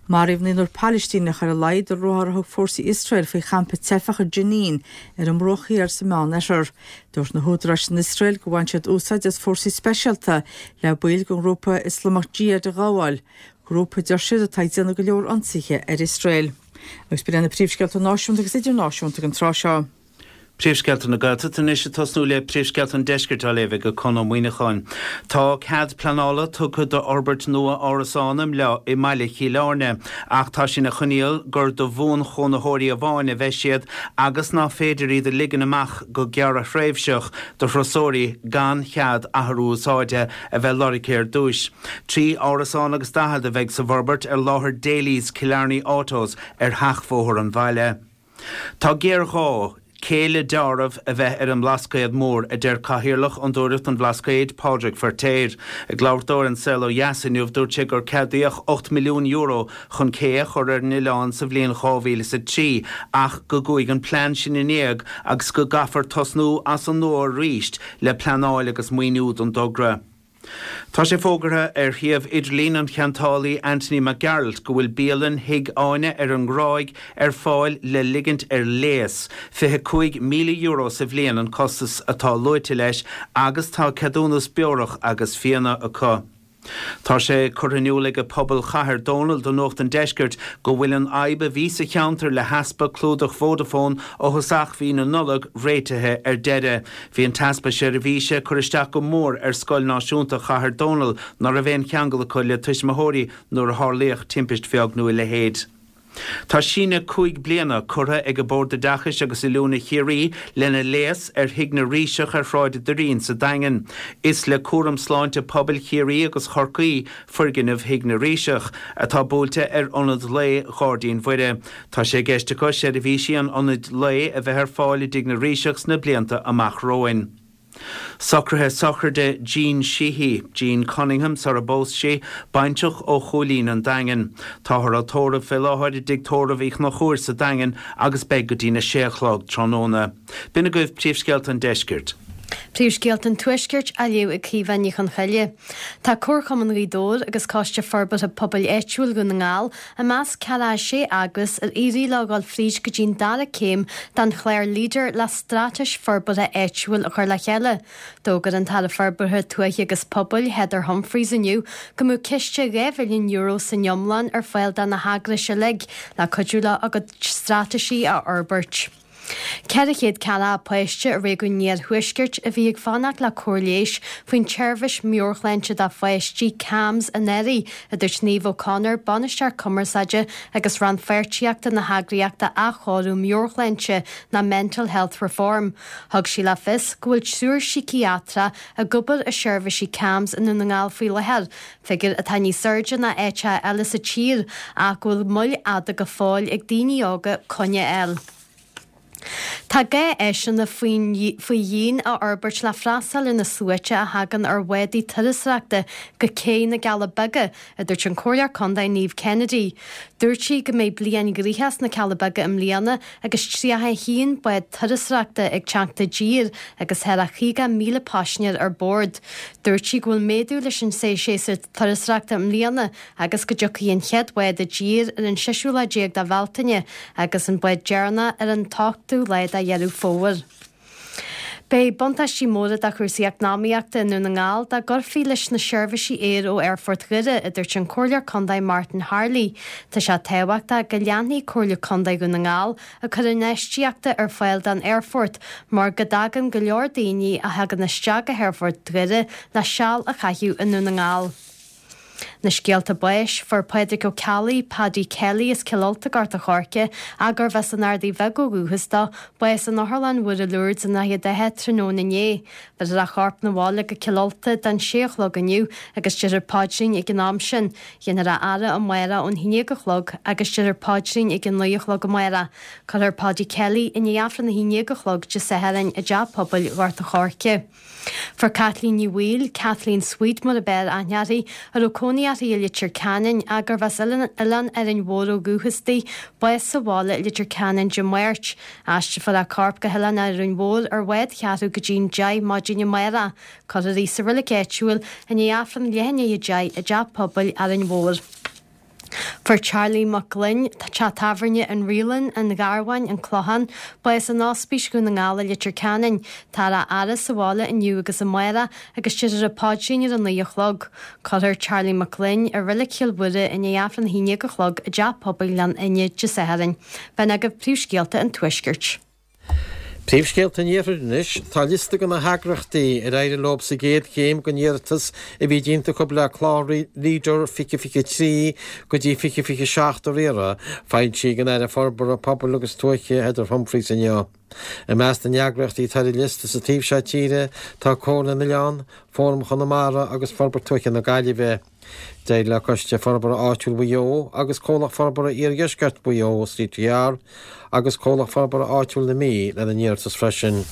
Maraíodh naonúr Palaistíneach ar a laghad i ruathar a thug fórsaí Iosrael faoi champa teifeach i Jenin ar an mBruach Thiar sa Meánoirthear. Dúirt na húdaráis san Iosrael gur bhain siad úsáid as fórsaí speisialta le baill den ghrúpa Ioslamach Jihad a ghabháil, grúpa a deir siad atá ag déanamh go leor ionsaithe ar Iosrael. Agus b'in iad na príomhscéalta náisiúnta agus idirnáisiúnta ag an tráth seo. Príomhscéalta na Gaeltachta anois ag tosnú le príomhscéalta an Deiscirt á léamh ag Conn Ó Muíneacháin. Tá cead pleanála tugtha d'fhorbairt nua árasán i mbaile Chill Airne ach tá sé ina choinníoll gur do bhuanchónaitheoirí amháin a bheidh siad agus ná féidir iad a ligean amach go gearrthréimhseach do thurasóirí gan chead athrú úsáide a bheith lorgtha ar dtúis. 43 árasán agus a bheidh sa bhforbairt ar láthair Daly's Killarney Autos ar sheachbhóthar an bhaile. Tá géarghá. Cé le deáramh a bheith ar an mBlascaod Mór, a deir Cathaoirleach Fhondúireacht an Bhlascaoid, Pádraig Feirtéar. Ag labhairt dó ar An Saol Ó Dheas inniu, dúirt sé gur ceadaíodh €8 milliún chun cé a chur ar an oileán sa bhliain 2003 ach go gcuaigh an plean sin in éag agus go gcaithfear tosnú as an nua arís le pleanáil agus maoiniú don dtogra. Tá sé fógartha ar shuíomh idirlín an cheantálaí Anthony Mac Gearailt go bhfuil bialann Thigh Áine ar an nGráig ar fáil le ligint ar léas. €25,000 sa bhliain an costas atá luaite leis agus tá ceadúnas beorach agus fíona acu. Tá sé curtha in iúl ag pobal Chathair Dónall do Nuacht an Deiscirt go bhfuil an fhadhb a bhí sa cheantar le heaspa clúdach Vodafone ó thosach mhí na Nollag réitithe ar deireadh. Bhí an t-easpa seirbhíse ag cur isteach go mór ar Scoil Náisiúnta Chathair Dónall ná raibh aon cheangal acu le tuismitheoirí nuair a tharlaíodh timpist bheag nó a leithéid. Tá síneadh 5 bliana curtha ag Bord Oideachais agus Oiliúna Chiarraí lena léas ar Thigh na Ríseach ar Shráid an Doirín sa Daingean. Is le Cúram Sláinte Pobail Chiarraí agus Chorcaí foirgneamh Thigh na Ríseach, atá buailte ar Ionad Lae Ghairdín Mhuire. Tá sé i gceist acu seirbhísí an ionaid lae a bheith ar fáil i dTigh na Ríseach sna blianta amach romhainn. Socruithe sochraide Jean Sheehy, Jean Cunningham sar a bpós sí, baintreach ó Chúilín an Daingin. Táthar á tórramh fé láthair i dTigh Tórraimh Uí Chonchúir sa Daingean agus beidh go dtína sé a chlog tráthnóna. B'in agaibh príomhscéalta an deiscirt. Príomhscéalta an Tuaiscirt á léamh ag Caoimhe Ní Chonchoille. Tá Comharchumann Ghaoth Dobhair agus Coiste Forbartha Pobail Áitiúil Dhún na nGall i measc 46 eagras ar éirigh leo dhul fríd go dtí'n dara céim den chlár Leader le straitéis forbartha áitiúil a chur le chéile. D'fhógair an tAire Forbartha Tuaithe agus Pobail, Heather Humphreys inniu go mbeadh ciste €2 mhilliún san iomlán ar fáil do na heagrais uilig le cuidiú leo a gcuid straitéisí a fhorbairt. 400 ceathracha páiste i réigiún an Iarthuaiscirt a bhí ag fanacht le cóir leighis faoin tseirbhís meabhairshláinte do pháistí, CAMHS, anuraidh, a dúirt Niamh O'Connor, Bainisteoir Cumarsáide agus Rannpháirtíochta na heagraíochta Athchóiriú Meabhairshláinte ná Mental Health Reform. Thug sí le fios go bhfuil triúr síciatrach ag obair i seirbhísí CAMHS i nDún na nGall faoi láthair, figiúr atá níos airde ná áiteacha eile sa tír ach go bhfuil moill fhada go fóill ag daoine óga coinne a fháil. Tá gá áiseanna faoi dhíon a fhorbairt le freastal ar na sluaite a thagann ar bhádaí turasóireachta go Cé na gCealla Beaga, a dúirt an Comhairleoir Contae Niamh Kennedy. Dúirt sí go mbeidh bliain ghnoitheach sna Cealla Beaga i mbliana agus 31 bád turasóireachta ag teacht i dtír agus thar a 50,000 paisinéir ar bord. Dúirt sí go bhfuil méadú leis an séasúr turasóireachta i mbliana agus go dtiocfaidh an chéad bhád i dtír ar an seisiú lá déag de Bhealtaine agus an bád deireanach ar an t-ochtú lá de Dheireadh Fómhair. Beidh buntáistí móra do chúrsaí eacnamaíochta i nDún na nGall dá gcuirfí leis na seirbhísí aeir ó Aerfort Dhoire, a dúirt an Comhairleoir Contae Martin Harley. Tá sé tábhachtach go leanfaidh Comhairle Contae Dhún na nGall ag cur infheistíochta ar fáil don aerfort mar go dtagann go leor daoine a thagann isteach go hAerfort Dhoire le seal a chaitheamh i nDún na nGall. Na scéalta báis, Fuair Pádraig Ó Ceallaigh, Paddy Kelly as Cill Ulta, Gort a' Choirce, ach gurbh as an Ardaidh Bheag ó dhúchas dó, bás in Otharlann Mhuire Lourdes i nDroichead Átha tráthnóna inné. Bheirfear a chorp 'na bhaile go Cill Ulta don sé a chlog inniu agus déarfar paidrín ag an am sin. Dhéanfar a fhaire amárach ón haon déag a chlog agus déarfar paidrín ag a naoi a chlog amárach. Cuirfear Paddy Kelly i ndiaidh Aifreann a haon déag a chlog Dé Sathairn i dTeach Pobail Ghort a' Choirce. Fuair Caitlín Ní Bhaoill, Kathleen Sweet mar ab fhearr aithne uirthi, a raibh cónaí uirthi i Leitir Ceanainn ach gurbh as Oileán Árainn Mhór ó dhúchas di, bás sa bhaile i Leitir Ceanainn Dé Máirt. Aistreofar a corp go hOileán Árainn Mhór ar bhád cheathrú go dtí'n deich maidin amárach. Cuirfear í sa reilig áitiúil i ndiaidh Aifreann leath i ndiaidh a deich i dTeach Pobail Árainn Mhór. Fuair Charlie Mac Gloinn, teach tábhairne An Reelan, An Gharbháin, An Clochán, bás in Ospís Dhún na nGall i Leitir Ceanainn. Táthar á fhaire sa bhaile inniu agus amárach agus déarfar an paidrín ar a naoi a chlog. Cuirfear Charlie Mac Gloinn i Reilig Chill Mhuire i ndiaidh Aifreann a haon déag a chlog i dTeach Pobail Ghleann Fhinne Dé Sathairn. B'in agaibh príomhscéalta an Tuaiscirt. Príomhscéalta an Iarthair anois. Tá liosta de na heagraíochtaí ar éirigh leo sa gcéad chéim den iarratas a bhí déanta acu le clár Leader 2023 go dtí 2027 a riaradh, foilsithe ag an Aire Forbartha Pobail agus Tuaithe Heather Humphreys inniu. I measc na n-eagraíochtaí atá ar an liosta sa taobh seo tíre tá Comhairle na nOileán, Fóram Chonamara agus Forbairt Tuaithe na Gaillimhe. D'éirigh le Coiste Forbartha Áitiúil Mhaigh Eo agus Comhlacht Forbartha Iardheisceart Mhaigh Eo, CTR, agus Comhlacht Forbartha Áitiúil na Mí lena n-iarratas freisin.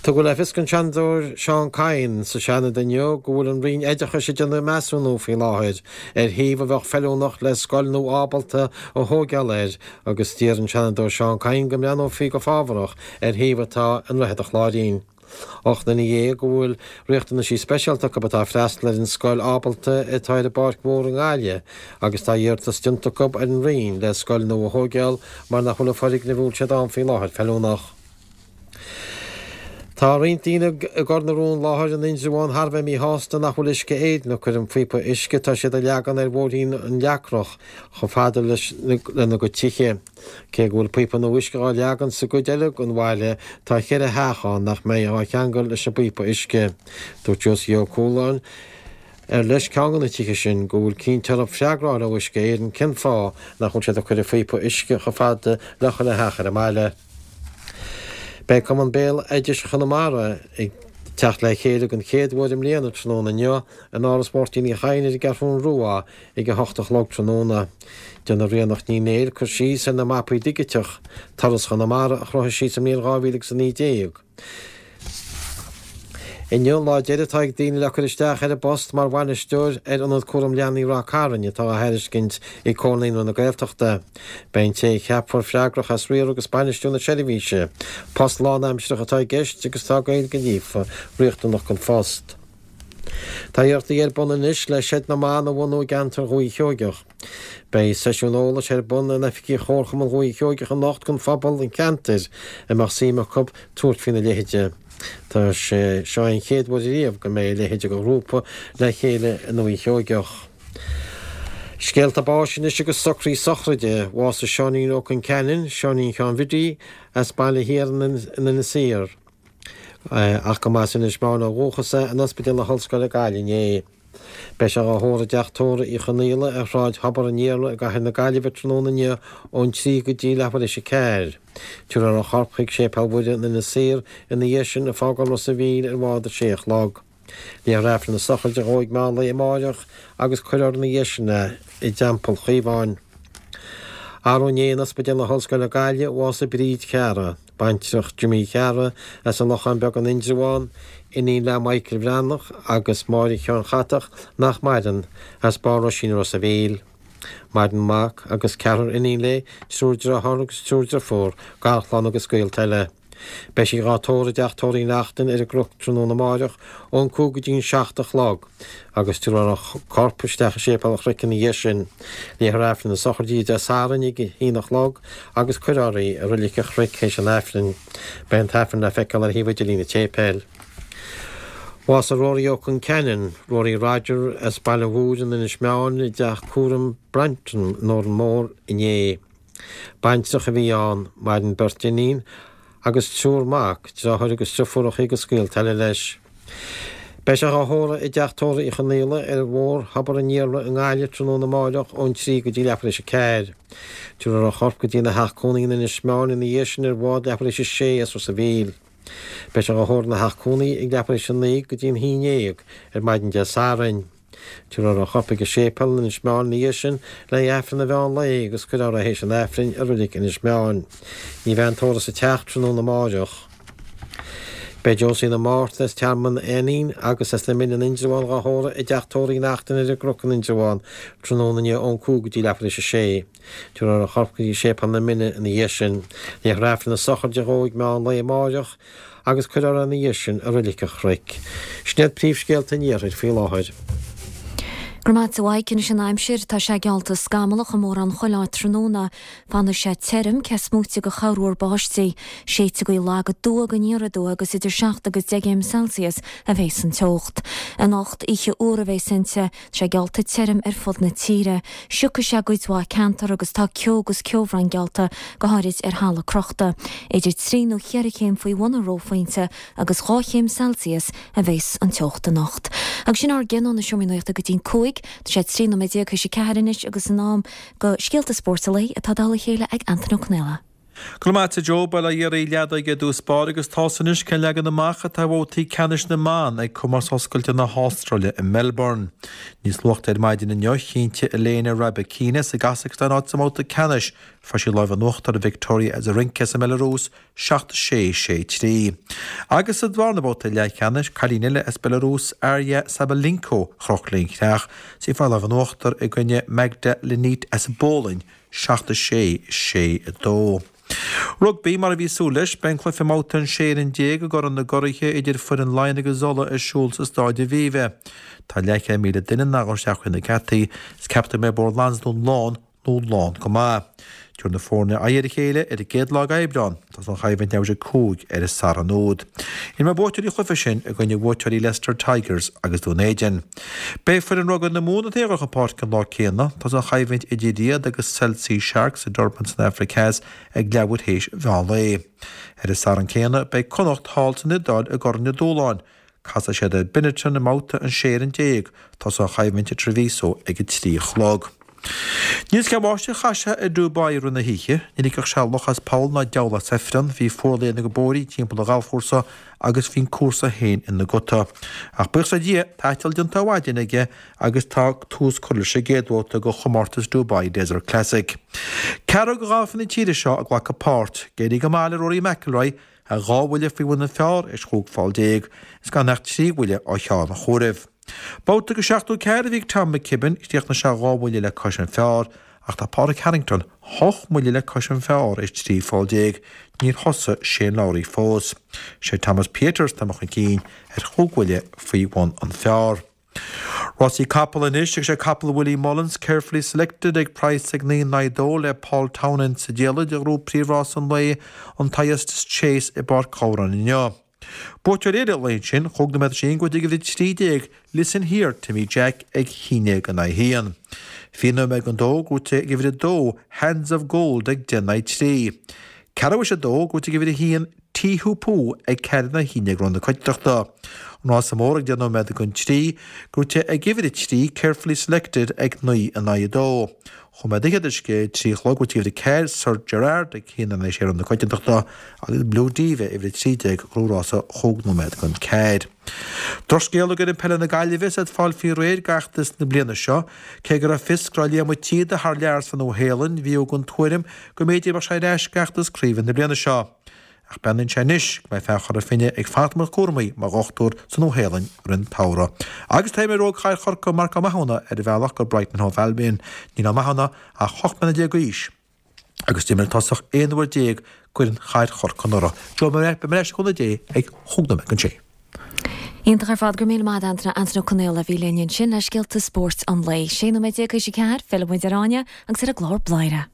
Tugadh le fios don Seanadóir Seán Kyne sa Seanad inniu go bhfuil an Roinn Oideachais ag déanamh measúnú faoi láthair ar shuíomh a bheadh feiliúnach le scoil nua ábalta a thóigeáil air agus d'iarr an Seanadóir Seán Kyne go mbreathnófaí go fábharach ar shuíomh atá i nDroichead an Chláirín. 18 duine go bhfuil riachtanaisí speisialta acu atá ag freastal ar an scoil ábalta atá ar an bPáirc Mhór i nGaillimh agus tá iarratas déanta acu ar an Roinn le scoil nua a thóigeáil mar nach bhfuil an foirgneamh a bhfuil siad ann faoi láthair feiliúnach. Tá roinnt daoine i gCor na Rón Láthair in Indreabhán thar a bheith míshásta nach bhfuil Uisce Éireann ag cur an phíopa uisce atá siad a leagan ar bhóithrín an Leacrach chomh fada leis lena gcuid tithe. Cé go bhfuil píopa nua uisce á leagan sa gcuid eile den bhaile tá cheithre theach ann nach mbeidh á cheangal leis an bpíopa uisce. Dúirt Josie Ó Cualáin, ar leis ceann de na tithe sin, go bhfuil cinnte orthu freagra a fháil ó Uisce Éireann cén fáth nach bhfuil siad ag cur an phíopa uisce chomh fada le chuile theach ar an mbaile. Beidh Cumann Béaloidis Chonamara ag teacht le chéile den chéad uair i mbliana tráthnóna inniu in Áras Mháirtín Uí Chadhain ar an gCeathrún Rua ag 8 a chlog tráthnóna. Déanfaidh Ríonach Ní Néill cur síos ar na mapaí digiteach, Turas Chonamara, a chruthaigh sí sa mbliain 2019. Inniu an lá deiridh atá ag daoine le cur isteach ar an bpost mar bhainisteoir ar Ionad Cúram Leanaí Ráth Cairn atá á thairiscint ag Comhar Naíonraí na Gaeltachta. Beidh an té a cheapfar freagrach as riaradh agus bainistiú na seirbhíse. Post lánaimsearach atá i gceist agus tá Gaeilge líofa riachtanach don phost. Tá iarrachtaí ar bun anois le Seid na mBan a bhunú i gceantar Dhúiche Sheoigeach. Beidh seisiún eolais ar bun in oifigí Chomharchumann Dhúiche Sheoigeach anocht don phobal an cheantair a mbeadh suim acu tabhairt faoina leithéide. Tá sé seo an chéad uair riamh go mbeidh a leithéid de ghrúpa le chéile i nDúiche Sheoigeach. Scéalta báis anois agus socruithe sochraide. Bhásaigh Seáinín Ó Concheanainn, Seáinín Sheáin Bhiddy, as Baile Thiar in Inis Oírr, ach go mba as Inis Meáin ó dhúchas é, in Ospidéal na hOllscoile Gaillimh inné. Beidh sé á thórramh i dteach tórraimh Uí Chonaola ar Shráid Thobar an Iarla i gcathair na Gaillimhe tráthnóna inniu ón 3 go dtí leathuair théis 4. Tabharfar a chorp chuig Séipéal Mhuire in Inis Oírr ina dhiaidh sin ag fágáil Ros a' Mhíl ar bhád a sé a chlog. Léifear Aifreann na sochraide dhó ag meán lae amáireach agus cuirfear ina dhiaidh sin é i dTeampall Chaomháin. Arú inné in Ospidéal na hOllscoile Gaillimh, bhásaigh Bríd Chearra. Baintreach Jimí Chearra as an Lochán Beag in Indreabhán, iníon le Michael Bhreathnach agus Máire Sheáin Chatach, nach maireann, as Barr Roisín i Ros a' Mhíl. Maireann mac agus ceathrar iníon léi, triúr dearthár agus triúr driofúr, garchlann agus gaolta eile. Beidh sí dhá tórramh i dteach tórraimh Uí Neachtain ar an gCnoc tráthnóna amáireach ón 5 go dtí an 7 a chlog. agus tabharfar a corp isteach i Séipéal an Chnoic ina dhiaidh sin. Léifear Aifreann na sochraide Dé Sathairn ag a haon a chlog agus cuirfear í i Reilig an Chnoic théis an Aifrinn. Beidh an tAifreann le feiceáil ar shuíomh idirlín an tséipéil. Bhásaigh Rory Ó Conceanainn, Rory Roger, as Baile Mhúir in Inis Meáin i dteach cúraim Brantry in Órán Mór inné. Baintreach a bhí ann, maireann beirt iníon agus triúr mac, deartháir agus driofúracha agus gaolta eile leis. Beidh sé dhá thórramh i dteach tórraimh Uí Chonaola ar Bhóthar Thobar an Iarla i nGaillimh tráthnóna amáireach ón 3 go dtí leathuair théis a 4. Tabharfar a chorp go dtína theach cónaí in Inis Meáin ina dhiaidh sin ar bhád leathuair théis a 6 as Ros a' Mhíl. Beidh sé dhá thórramh ina theach cónaí ag leathuair théis a 9 go dtí an 11 ar maidin Dé Sathairn. Tabharfar a chorp ag an séipéal in Inis Meáin ina dhiaidh sin le haghaidh Aifreann an mheán lae agus cuirfear é théis an Aifrinn i reilig Inis Meáin. Ní bheidh an tórramh sa teach tráthnóna amáireach. Beidh Josina Márta as Tearmann Ainnín agus as na Mine in Indreabhán dhá thórramh i dteach tórraimh Uí Neachtain ar an gCnoc in Indreabhán tráthnóna inniu ón 5 go dtí leathuair théis a sé. Tabharfar a chorp go dtí Séipéal na Mine ina dhiaidh sin. Léifear Aifreann na sochraide dhó ag meán lae amáireach agus cuirfear é ina dhiaidh sin i Reilig an Chnoic. Sin iad príomhscéalta an iarthair faoi láthair. Go raibh maith agat a Mhaidhc. Anois an aimsir, tá sé geallta scamallach i mórán chuile áit tráthnóna. Fanfaidh sé tirim, cé is móite de chorruair báistí. Séidfidh gaoth lag aduaidh go aniar aduaidh agus idir 7 agus 10 gcéim Celsius a bhéas an teocht. Anocht, oíche fhuar a bhéas inti. Tá sé geallta tirim ar fud na tíre. Siocfaidh sé i gcuid mhaith ceantar agus tá ceo agus ceobhrán geallta, go háirid ar thalamh crochta. Idir trí nó cheithre chéim faoi bhun an reophointe agus 2 chéim Celsius a bheas an teocht anocht. Agus sin ár gcionn ó na Seomraí Nuachta go dtí'n 5. Tá sé 13 nóiméad théis a 4 anois agus in am do scéalta spóirt an lae atá dtoll a chéile ag Antain Ó Conaola. Go raibh maith agat a Joe, Bail ó Dhia oraibh leadóige i dtús báire agus tá's anois cén leagan amach atá ar bhabhtaí ceannais na mban ag Comórtas Oscailte na hAstráile i Melbourne. Níos luaithe ar maidin inniu, chinntigh Elena Rybakina as an gCasacstáin áit sa mbabhta ceannais. Fuair sí lámh in uachtar ar Victoria Azarenka as an mBeilearúis, 7 6, 6 3. Agus sa dárna babhta leathcheannais, cailín eile as Belarus, Aryna Sabalenka, a chroch léi an chreach, is í ag fáil lámh in uachtar i gcoinne Magda Linette as an bPólainn, 7 6, 6 2. Rugbaí, Mar a bhí súil leis, beidh an cluiche i mbabhta an 16 fhoireann i gCorn na gCuraithe idir foireann Laighean agus Uladh ar siúl sa Stáid Aviva. Tá leathchéad 1,000 duine in ann dul isteach chuig na geataí is ceaptar go mbeidh Bóthar Lansdún lán nó lán go maith. Tabharfaidh na foirne aghaidh ar a chéile ar an gcéad lá d'Aibreán. Tosóidh an choimhlint leathuair tar éis 5 ar an Satharn úd. Imreoidh buaiteoirí an chluiche sin i gcoinne bhuaiteoirí Leicester Tigers agus Dún Éideann. Beidh foireann rugbaí na Mumhan ag dul chun páirce an lá céanna. Tosóidh an choimhlint idir iad agus Cell C Sharks i Durban san Afraic Theas ag leathuair théis mheán lae. Ar an Satharn céanna beidh Connacht thall san Iodáil i gCorn an Dúshláin. Casfaidh siad ar Benetton i mbabhta an 16 fhoireann. Tosóidh an choimhlint i Treviso ag a 3 a chlog. Níl 'fhios cén bháisteach a chaith sé i Dubai i rith na hoíche. Ní ligfeadh sé luch as poll ná diabhal as ifreann. Bhí fuarlíon na bpóirí timpeall an ghalfchúrsa agus bhí an cúrsa féin ina guta. Ach buíochas le Dia, tá eiteall déanta ar maidin aige agus tá tús curtha leis an gcéad bhabhta de chomórtas Dubai Desert Classic. Ceathrar de ghalfaithe na tíre seo ag glacadh páirt. Ag éirí go maith le Rory McIlroy, Tá 2 bhuille faoi bhun an phar théis 15 pholl is gan ach 3 bhuille ó cheann an chomhairimh. Babhta de 74 a bhí ag Tom McKibbin, chríochnaigh sé 2 bhuille le cois an phar ach tá Pádraig Harrington 8 mbuille le cois an phar théis 13 pholl. Níor thosaigh Shane Lowry fós. Sé Thomas Pieters atá imithe chun cinn ar chúig bhuille faoi bhun an phar. Rásaí capall anois agus sé capall Willie Mullins, Carefully Selected, ag praghas ag 9 in aghaidh 2 le Paul Townend sa diallait a ghnóthóidh príomhrás an lae, an Thyestes Chase i bPáirc Ghabhráin inniu. Buaiteoir eile an lae ansin, chúig nóiméad tar éis a haon gnóthaithe ag uimhir 13, Listen Here, Timmy Jack ag 11 in aghaidh 1. 20 nóiméad don dó gnóthaithe ag uimhir 2, Hands of Gold ag 10 in aghaidh 3. Ceathrú théis a dó gnóthaithe ag uimhir 1, Tí Hú Pú ag 4 in aghaidh 11 i rith na coitiantachta. An rása mór ag 10 nóiméad don 3, gnóthaithe ag uimhir 3, Carefully Selected ag 9 in aghaidh 2. Chúig nóiméad fhichead théis a 3 a chlog, gnóthaithe ag uimhir 4, Sir Gerard ag 1 in aghaidh 6 i rith na coitiantachta agus Blue Diva, uimhir 13, gnóthaigh rása chúig nóiméad don 4. Drochscéala d'fhoireann peile na Gaillimhe is iad ag fáil faoi réir d'fheachtas na bliana seo. Cé go raibh fios go raibh Liam Ó Síoda thar lear sa Nua-Shéalainn, bhí den tuairim go mb'fhéidir go mbeadh sé ar ais d'fheachtas craoibhe na bliana seo. Ach beannaíonn sé anois go mbeidh fear Chora Finne ag fanacht i mbun cúramaí mar dhochtúir sa Nua-Shéalainn i rith an tsamhraidh. Agus tá imreoir óg Chathair Chorcaí, Marc Ó Mathúna, ar a bhealach go Brighton and Hove Albion. Níl Ó Mathúna ach 18 mbliana d'aois agus d'imir an tosach 11 uair d'fhoireann Chathair Chorcaí anuraidh. Joe, beidh mé ar ais le cúnamh Dé ag chúig nóiméad don sé. Iontach ar fad, go raibh míle maith agat Antaine, Antaine Ó Conaola a bhí linn ansin le scéalta spóirt an lae. 16 nóiméad théis a ceathair, fillfidh muid ar Áine agus ar an gclár Bladhaire.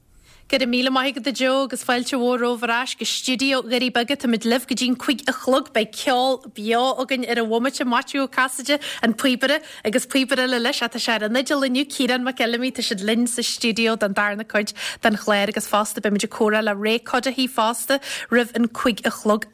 Go raibh míle maith agat a Joe agus fáilte mhór romhaibh ar ais go stiúideo Dhoirí Beaga. Táimid libh go dtí'n 5 a chlog. Beidh ceol beo againn ar an bhomaite, Maitiú Ó Casaide, an píobaire, agus píobaire eile leis, tá sé ar an fhidil inniu, Ciarán Mac Fheilimí. Tá siad linn sa stiúideo don darna cuid den chlár agus fosta beimid ag comhrá le Ray Cuddihy fosta roimh an 5 a chlog.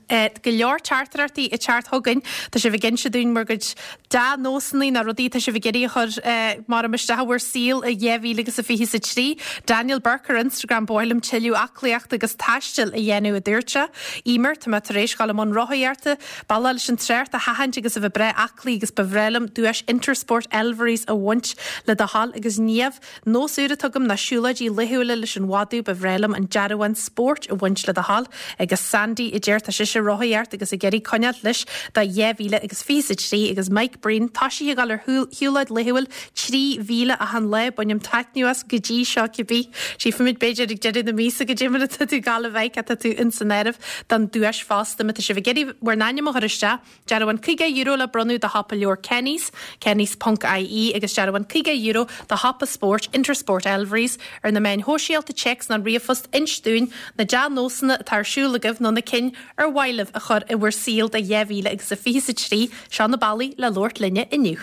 Go leor teachtaireachtaí ag teacht chugainn. Tá sibh ag inse dúinn bhur gcuid dea-nósanna nó rudaí atá sibh ag iarraidh a chur mar isteach i bhur saol i 2023. Daniel Burke ar Instagram, Ba mhaith liom tuilleadh aclaíochta agus taistil a dhéanamh, a dúirt sé. Emer, tá mé tar éis dhul i mbun rothaíochta, bealach leis an trácht a sheachaint agus a bheith breá aclaí agus ba bhreá liom duais Intersport Elverys a bhaint le do thoil agus Niamh, Nós úr atá agam ná siúlóidí laethúla leis an mhadadh, ba bhreá liom an dearbhán spóirt a bhaint le do thoil. Agus Sandy a deir tá sise ag rothaíocht agus ag iarraidh coinneáilt leis do 2023 agus Mike Breen, tá sí ag dul ar shiúlóid laethúil 3 mhíle achan lá, bainim taitneamh as go dtí seo cibé. Tchífimid b'fhéidir ag deireadh na míosa goidé mar atá tú ag gabháil a bheith, tá tú ins an áireamh don duais fosta. Má tá sibh ag iarraidh bhur n-ainm a chur isteach, Dearbhán €50 le bronnadh do shiopa leabhar Kenny's, kennys ponc ie, agus dearbhán €50 do shiopa spóirt Intersport Elverys ar na meáin shóisialta, téacs nó ríomhphost Inis dúinn na dea-nósanna atá ar siúl agaibh nó na cinn ar mhaith libh a chur i bhur saol do 2023. Seo na bealaí le labhairt linne inniu.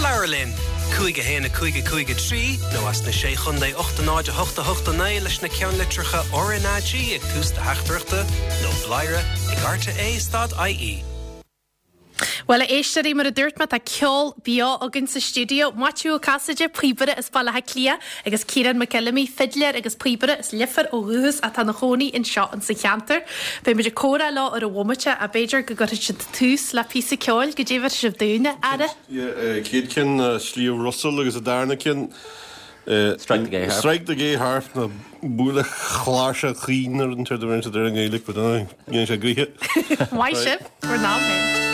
Labhair linn! 5 1 5 5 3 nó as na Sé Chontae 8 0 8 8 9 leis na ceannlitreacha RnaG ag tús do theachtaireachta nó bladhaire ag rte stad ie. Bhuel, a éisteoirí, mar a dúirt mé, tá ceol beo againn sa stiúideo. Maitiú Ó Casaide, píobaire as Baile Átha Cliath, agus Ciarán Mac Fheilimí, fidléir agus píobaire as Leifear ó dhúchas atá ina chónaí anseo insa cheantar. Beidh muid ag comhrá leo ar an bhomaite ach b'fhéidir go gcuirfidh siad tús le píosa ceoil. Goidé a bheirfidh sibh dúinn, a fheara? Yeah, chéad ceann ná Sliabh Russell agus an darna ceann Strike the Gay Harp. Strike the Gay Harp nó Buail an Chláirseach Chaoin nó rud inteacht a bheireann siad ar an nGaeilge, but dhéanann sé gaoithe. Maith sibh, bhur n-am féin.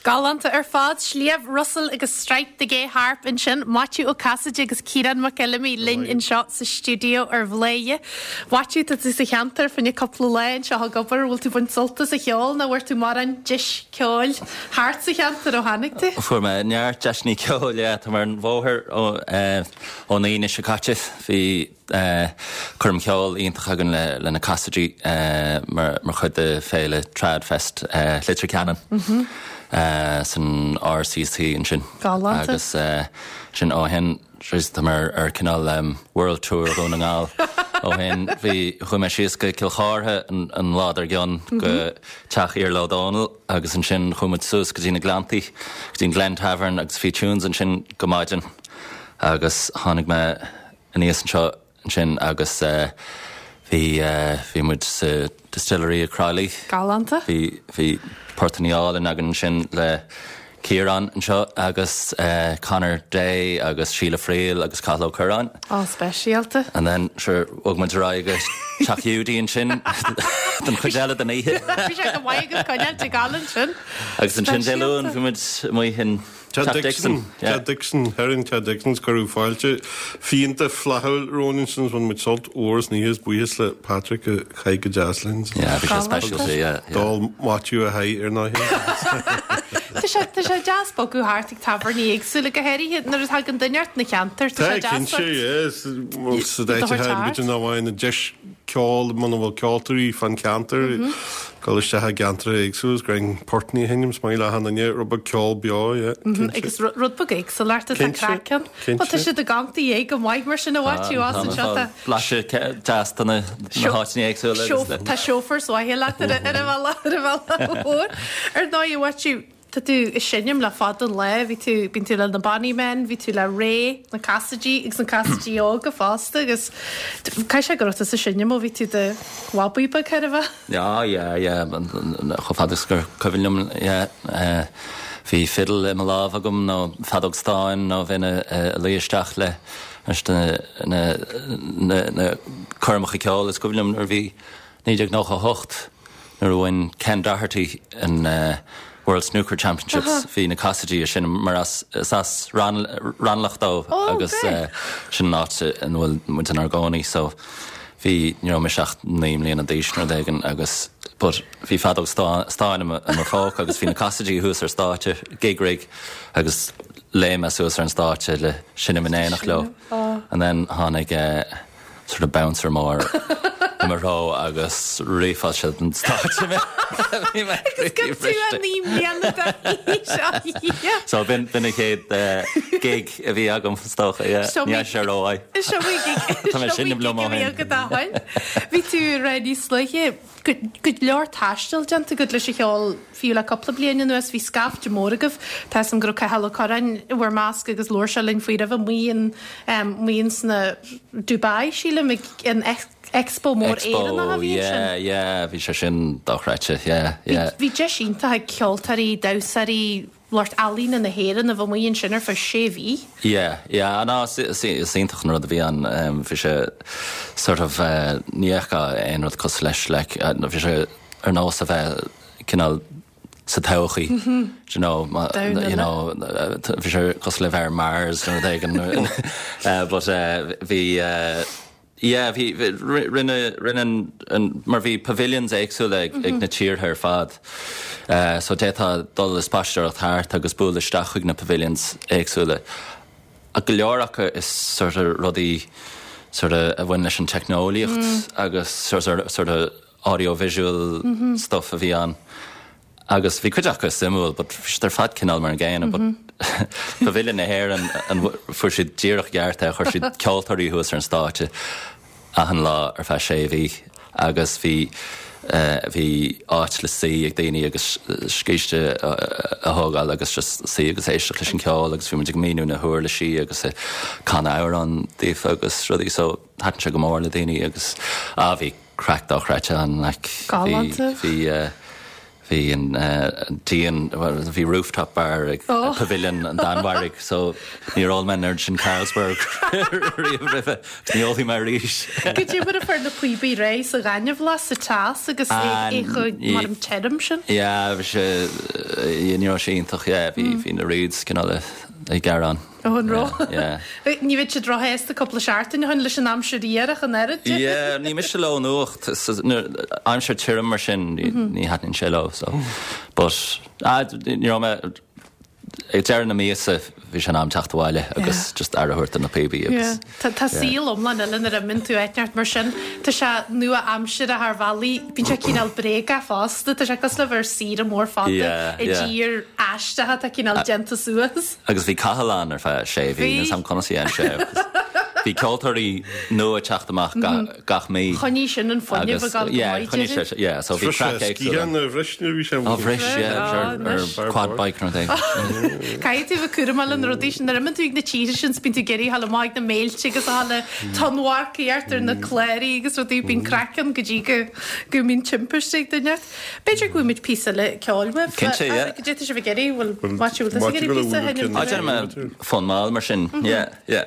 Galánta ar fad. Sliabh Russell agus Strike the Gay Harp ansin. Maitiú Ó Casaide agus Ciarán Mac Fheilimí linn anseo sa stiúideo ar Bhladhaire. Mhaitiú, tá tú sa cheantar fá choinne cúpla lá anseo ag obair. Bhfuil tú ag baint sult as an cheol nó bhfuair tú mórán deis ceoil thart sa cheantar ó tháinig tú? Fuair mé neart deiseanna ceoil, yeah. Tá mé ar an bhóthar ón Aoine seo caite. Bhí coirm cheoil iontach againn le na Cassidy mar chuid de féile Tradfest Leitir Ceanainn san RCC ansin. Galánta. Agus sin ó shin tá mé ar cineál World Tour Dhún na nGall ó shin. Bhí, chuaigh mé síos go Cill Chártha an lá dár gcionn go teach Iarla Ó Dónaill agus ansin chuaigh muid suas go dtí na Gleanntaí, go dtí an Glen Tavern agus bhí tunes ansin go maidin agus tháinig mé aníos anseo ansin agus bhí, bhí muid sa Distillery i Crolly. Galánta. Bhí, bhí portannaí álainn againn ansin le Ciarán anseo agus Conor Day agus Síle Friel agus Cathal Ó Curráin. Á, speisialta. And then, sure, bhog muid ar aghaidh go Teach Hiúdaí ansin. don chuid eile den oíche. Bhí sé go maith agat coinneáilt ag gabháil ansin. Agus ansin Dé Luain bhí muid amuigh in Teach Dixon. Teach Dixon, thoir in Teach Dixon's cuireadh fáilte fíonta flaithiúil romhainn ansin is bhain muid sult mhór as an oíche is buíochas le Patrick a chaith go deas linn. Yeah, bhí sé speisialta, yeah, yeah. D'ól Maitiú a sháith ar ndóigh. Tá sé, tá sé deas bogadh thart ag tábhairní éagsúla, go háirithe nuair a thagann duine ort ina cheantar, tá sé Tá, deas cinnte, sort yeah. Sa rud a áit thabhairt atá thart. b'fhéidir nach bhfaigheann an deis ceol muna bhfuil ceoltóirí fán cheantar, dul isteach i gceantracha éagsúla is greim portnaí a sheinm, is maith le achan duine rud beag ceol beo, yeah, cinnte. Agus rud beag éagsúlacht atá Cinnte, craic ann. Bhuel tá cinnte. siad ag amharc ag go maith mar sin a Mhaitiú as anseo tá. Blaiseadh deas de na háiteanna éagsúla agus le. Tá chauffeurs mhaithe leat ar an bhealach ar an bhealach mhór. Ar ndóigh a Mhaitiú, Tá tú ag seinm le fada an lá, bhí tú, bíonn tú le na Bonny Men, bhí tú le Ray, na Casaidigh agus na Casaidigh Óga fosta agus caithfidh sé go raibh tusa ag seinm ó bhí tú i do bhabaí beag chóir a bheith. Yeah, yeah, yeah, chomh fada is gur cuimhin liom, yeah. Bhí fiddle i mo lámh agam nó feadóg stáin nó bheinn ag luí isteach le leis na na na coirmeacha ceoil is cuimhin liom nuair a bhí 1998, nuair a bhain Ken Doherty an World Snooker Championships, bhí na Casaidigh ag seinm mar as, is as Raghnallach dó agus sin an áit ina bhfuil muid inár gcónaí so bhí, ní raibh mise ach 9 mbliana d'aois nó rud éigin agus but bhí feadóg stáin i mo phóca agus bhí na Casaidigh thuas ar stáitse, gig rig agus léim mé suas ar an stáitse le seinm in éineacht leo and then tháinig sort of bouncer mór i mo threo agus rifeáil sé den stáitse mé. Bhí mé Agus go tú a naoi mbliana d'aois, a Dhia. So b'in b'in an chéad gig a bhí agam is dócha, yeah. Seo Ní fhaca sé rómhaith. Seo í gig Tá mé seo í seinm liom gig ó a bhí shin. agat ó shin. Bhí tú ag rá níos luaithe go go leor taistil déanta agat leis an cheol Fiú le cúpla bliain anuas bhí scaifte mór agaibh. Tá 'fhios a'm go raibh Cathal Ó Curráin i bhur measc agus labhair sé linn faoi roimhe amuigh in amuigh ins na Dubai, sílim, ag an Expo mór Éireannach a Expo, bhí ansin. yeah, yeah, bhí sé sin dochreidte, yeah, yeah. Bhí deis iontach ag ceoltóirí, damhsóirí, lucht ealaíne na hÉireann a bheith amuigh ansin ar feadh sé mhí. Yeah, yeah, ná, is iontach an rud a bhí ann, bhí sé sort of, ní fheicfeá aon rud cosúil leis, like, bhí sé ar nós a bheith cineál sa todhchaí, do you know, you know, bhí sé cosúil le bheith ar Mars nó rud éigin but bhí yeah bhí rinne rinne an mar bhí pavilions éagsúla ag ag na tíortha ar fad so d'fhéadfá dul ag spaisteoireacht thart agus bualadh isteach chuig na pavilions éagsúla. Ach go leor acu is sort of rudaí sort of a bhain leis an teicneolaíocht agus sort of sort of audio-visual stuff a bhí ann agus bhí cuid acu suimiúil but bhí siad ar fad cineál mar an gcéanna but Pavilion na hÉireann an fuair siad díreach i gceart é, chuir siad ceoltóirí thuas ar an stáitse achan lá ar feadh sé mhí agus bhí bhí áit le suí ag daoine agus scíste a thógáil agus just suí agus éisteacht leis an ceol agus bhí muid ag míniú na huirlisí agus ag canadh amhrán daofa agus rudaí so thaitin sé go mór le daoine agus ah bhí craic dochreidte ann like bhí bhí bhí an díon bhí rooftop bar ag Pavilion an Danmhairg so níor ól mé an oiread sin Carlsberg riamh roimhe ní ólfaidh mé arís. Goidé mar a fuair na píobaí réidh sa ghaineamhlach sa teas agus é chomh mar an tirim sin? Yeah bhí sé ní raibh sé iontach yeah bhí bhí na reeds cineál ag gearán. Ó an raibh? Ní bheadh siad róshásta cúpla seachtain ó shin leis an aimsir fhuar ach an oiread. Yeah, ní miste leo an fhuacht. Aimsir tirim mar sin, ní thaitníonn sé leo. So, but, ah, ní raibh mé, ag deireadh na míosa bhí sé in am teacht abhaile agus just aire a thabhairt do na píobaí agus. Tá tá saol iomlán eile nuair a imíonn tú áit inteacht mar sin. Tá sé nua-aimseartha thar bhealaí. Bíonn sé cineál bréagach fosta. Tá sé cosúil le bheith ar saoire mór fada i dtír aisteach atá cineál déanta suas. Agus bhí Cathal ann ar feadh sé mhí, níl 's a'm conas a dhein sé agus bhí ceoltóirí nua ag teacht amach gach mí. Choinnigh sin an fuinneamh ag dul go maith, choinnigh sé, yeah, so bhí craic éagsúil. Sciath a bhris nuair a bhí sé Á bhris, yeah, ar quad bike nó rud éigin. Caithfidh tú a bheith cúramach le na rudaí sin, nuair a imíonn tú ag na tíortha sin 's bíonn tú ag iarraidh a ghabháil amach ag na béiltí agus a ghabháil ag tonnmharcaíocht ar na cláraí agus rudaí, bíonn craic ann go dtí go go mbíonn timpiste ag duine. B'fhéidir go bhfaighidh muid píosa eile ceoil uaibh. Cinnte, yeah. Goidé tá sibh ag iarraidh, bhfuil Maitiú, bhfuil tusa ag iarraidh píosa a sheinm? Á, déanfaidh mé fonn mall mar sin, yeah, yeah.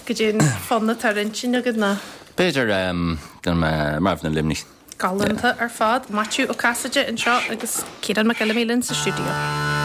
Goidé an fonn atá ar intinn agat ná? B'fhéidir, déanfaidh mé Marbhna Luimnigh. Galánta ar fad. Maitiú Ó Casaide anseo agus Ciarán Mac Fheilimí linn sa stiúideo.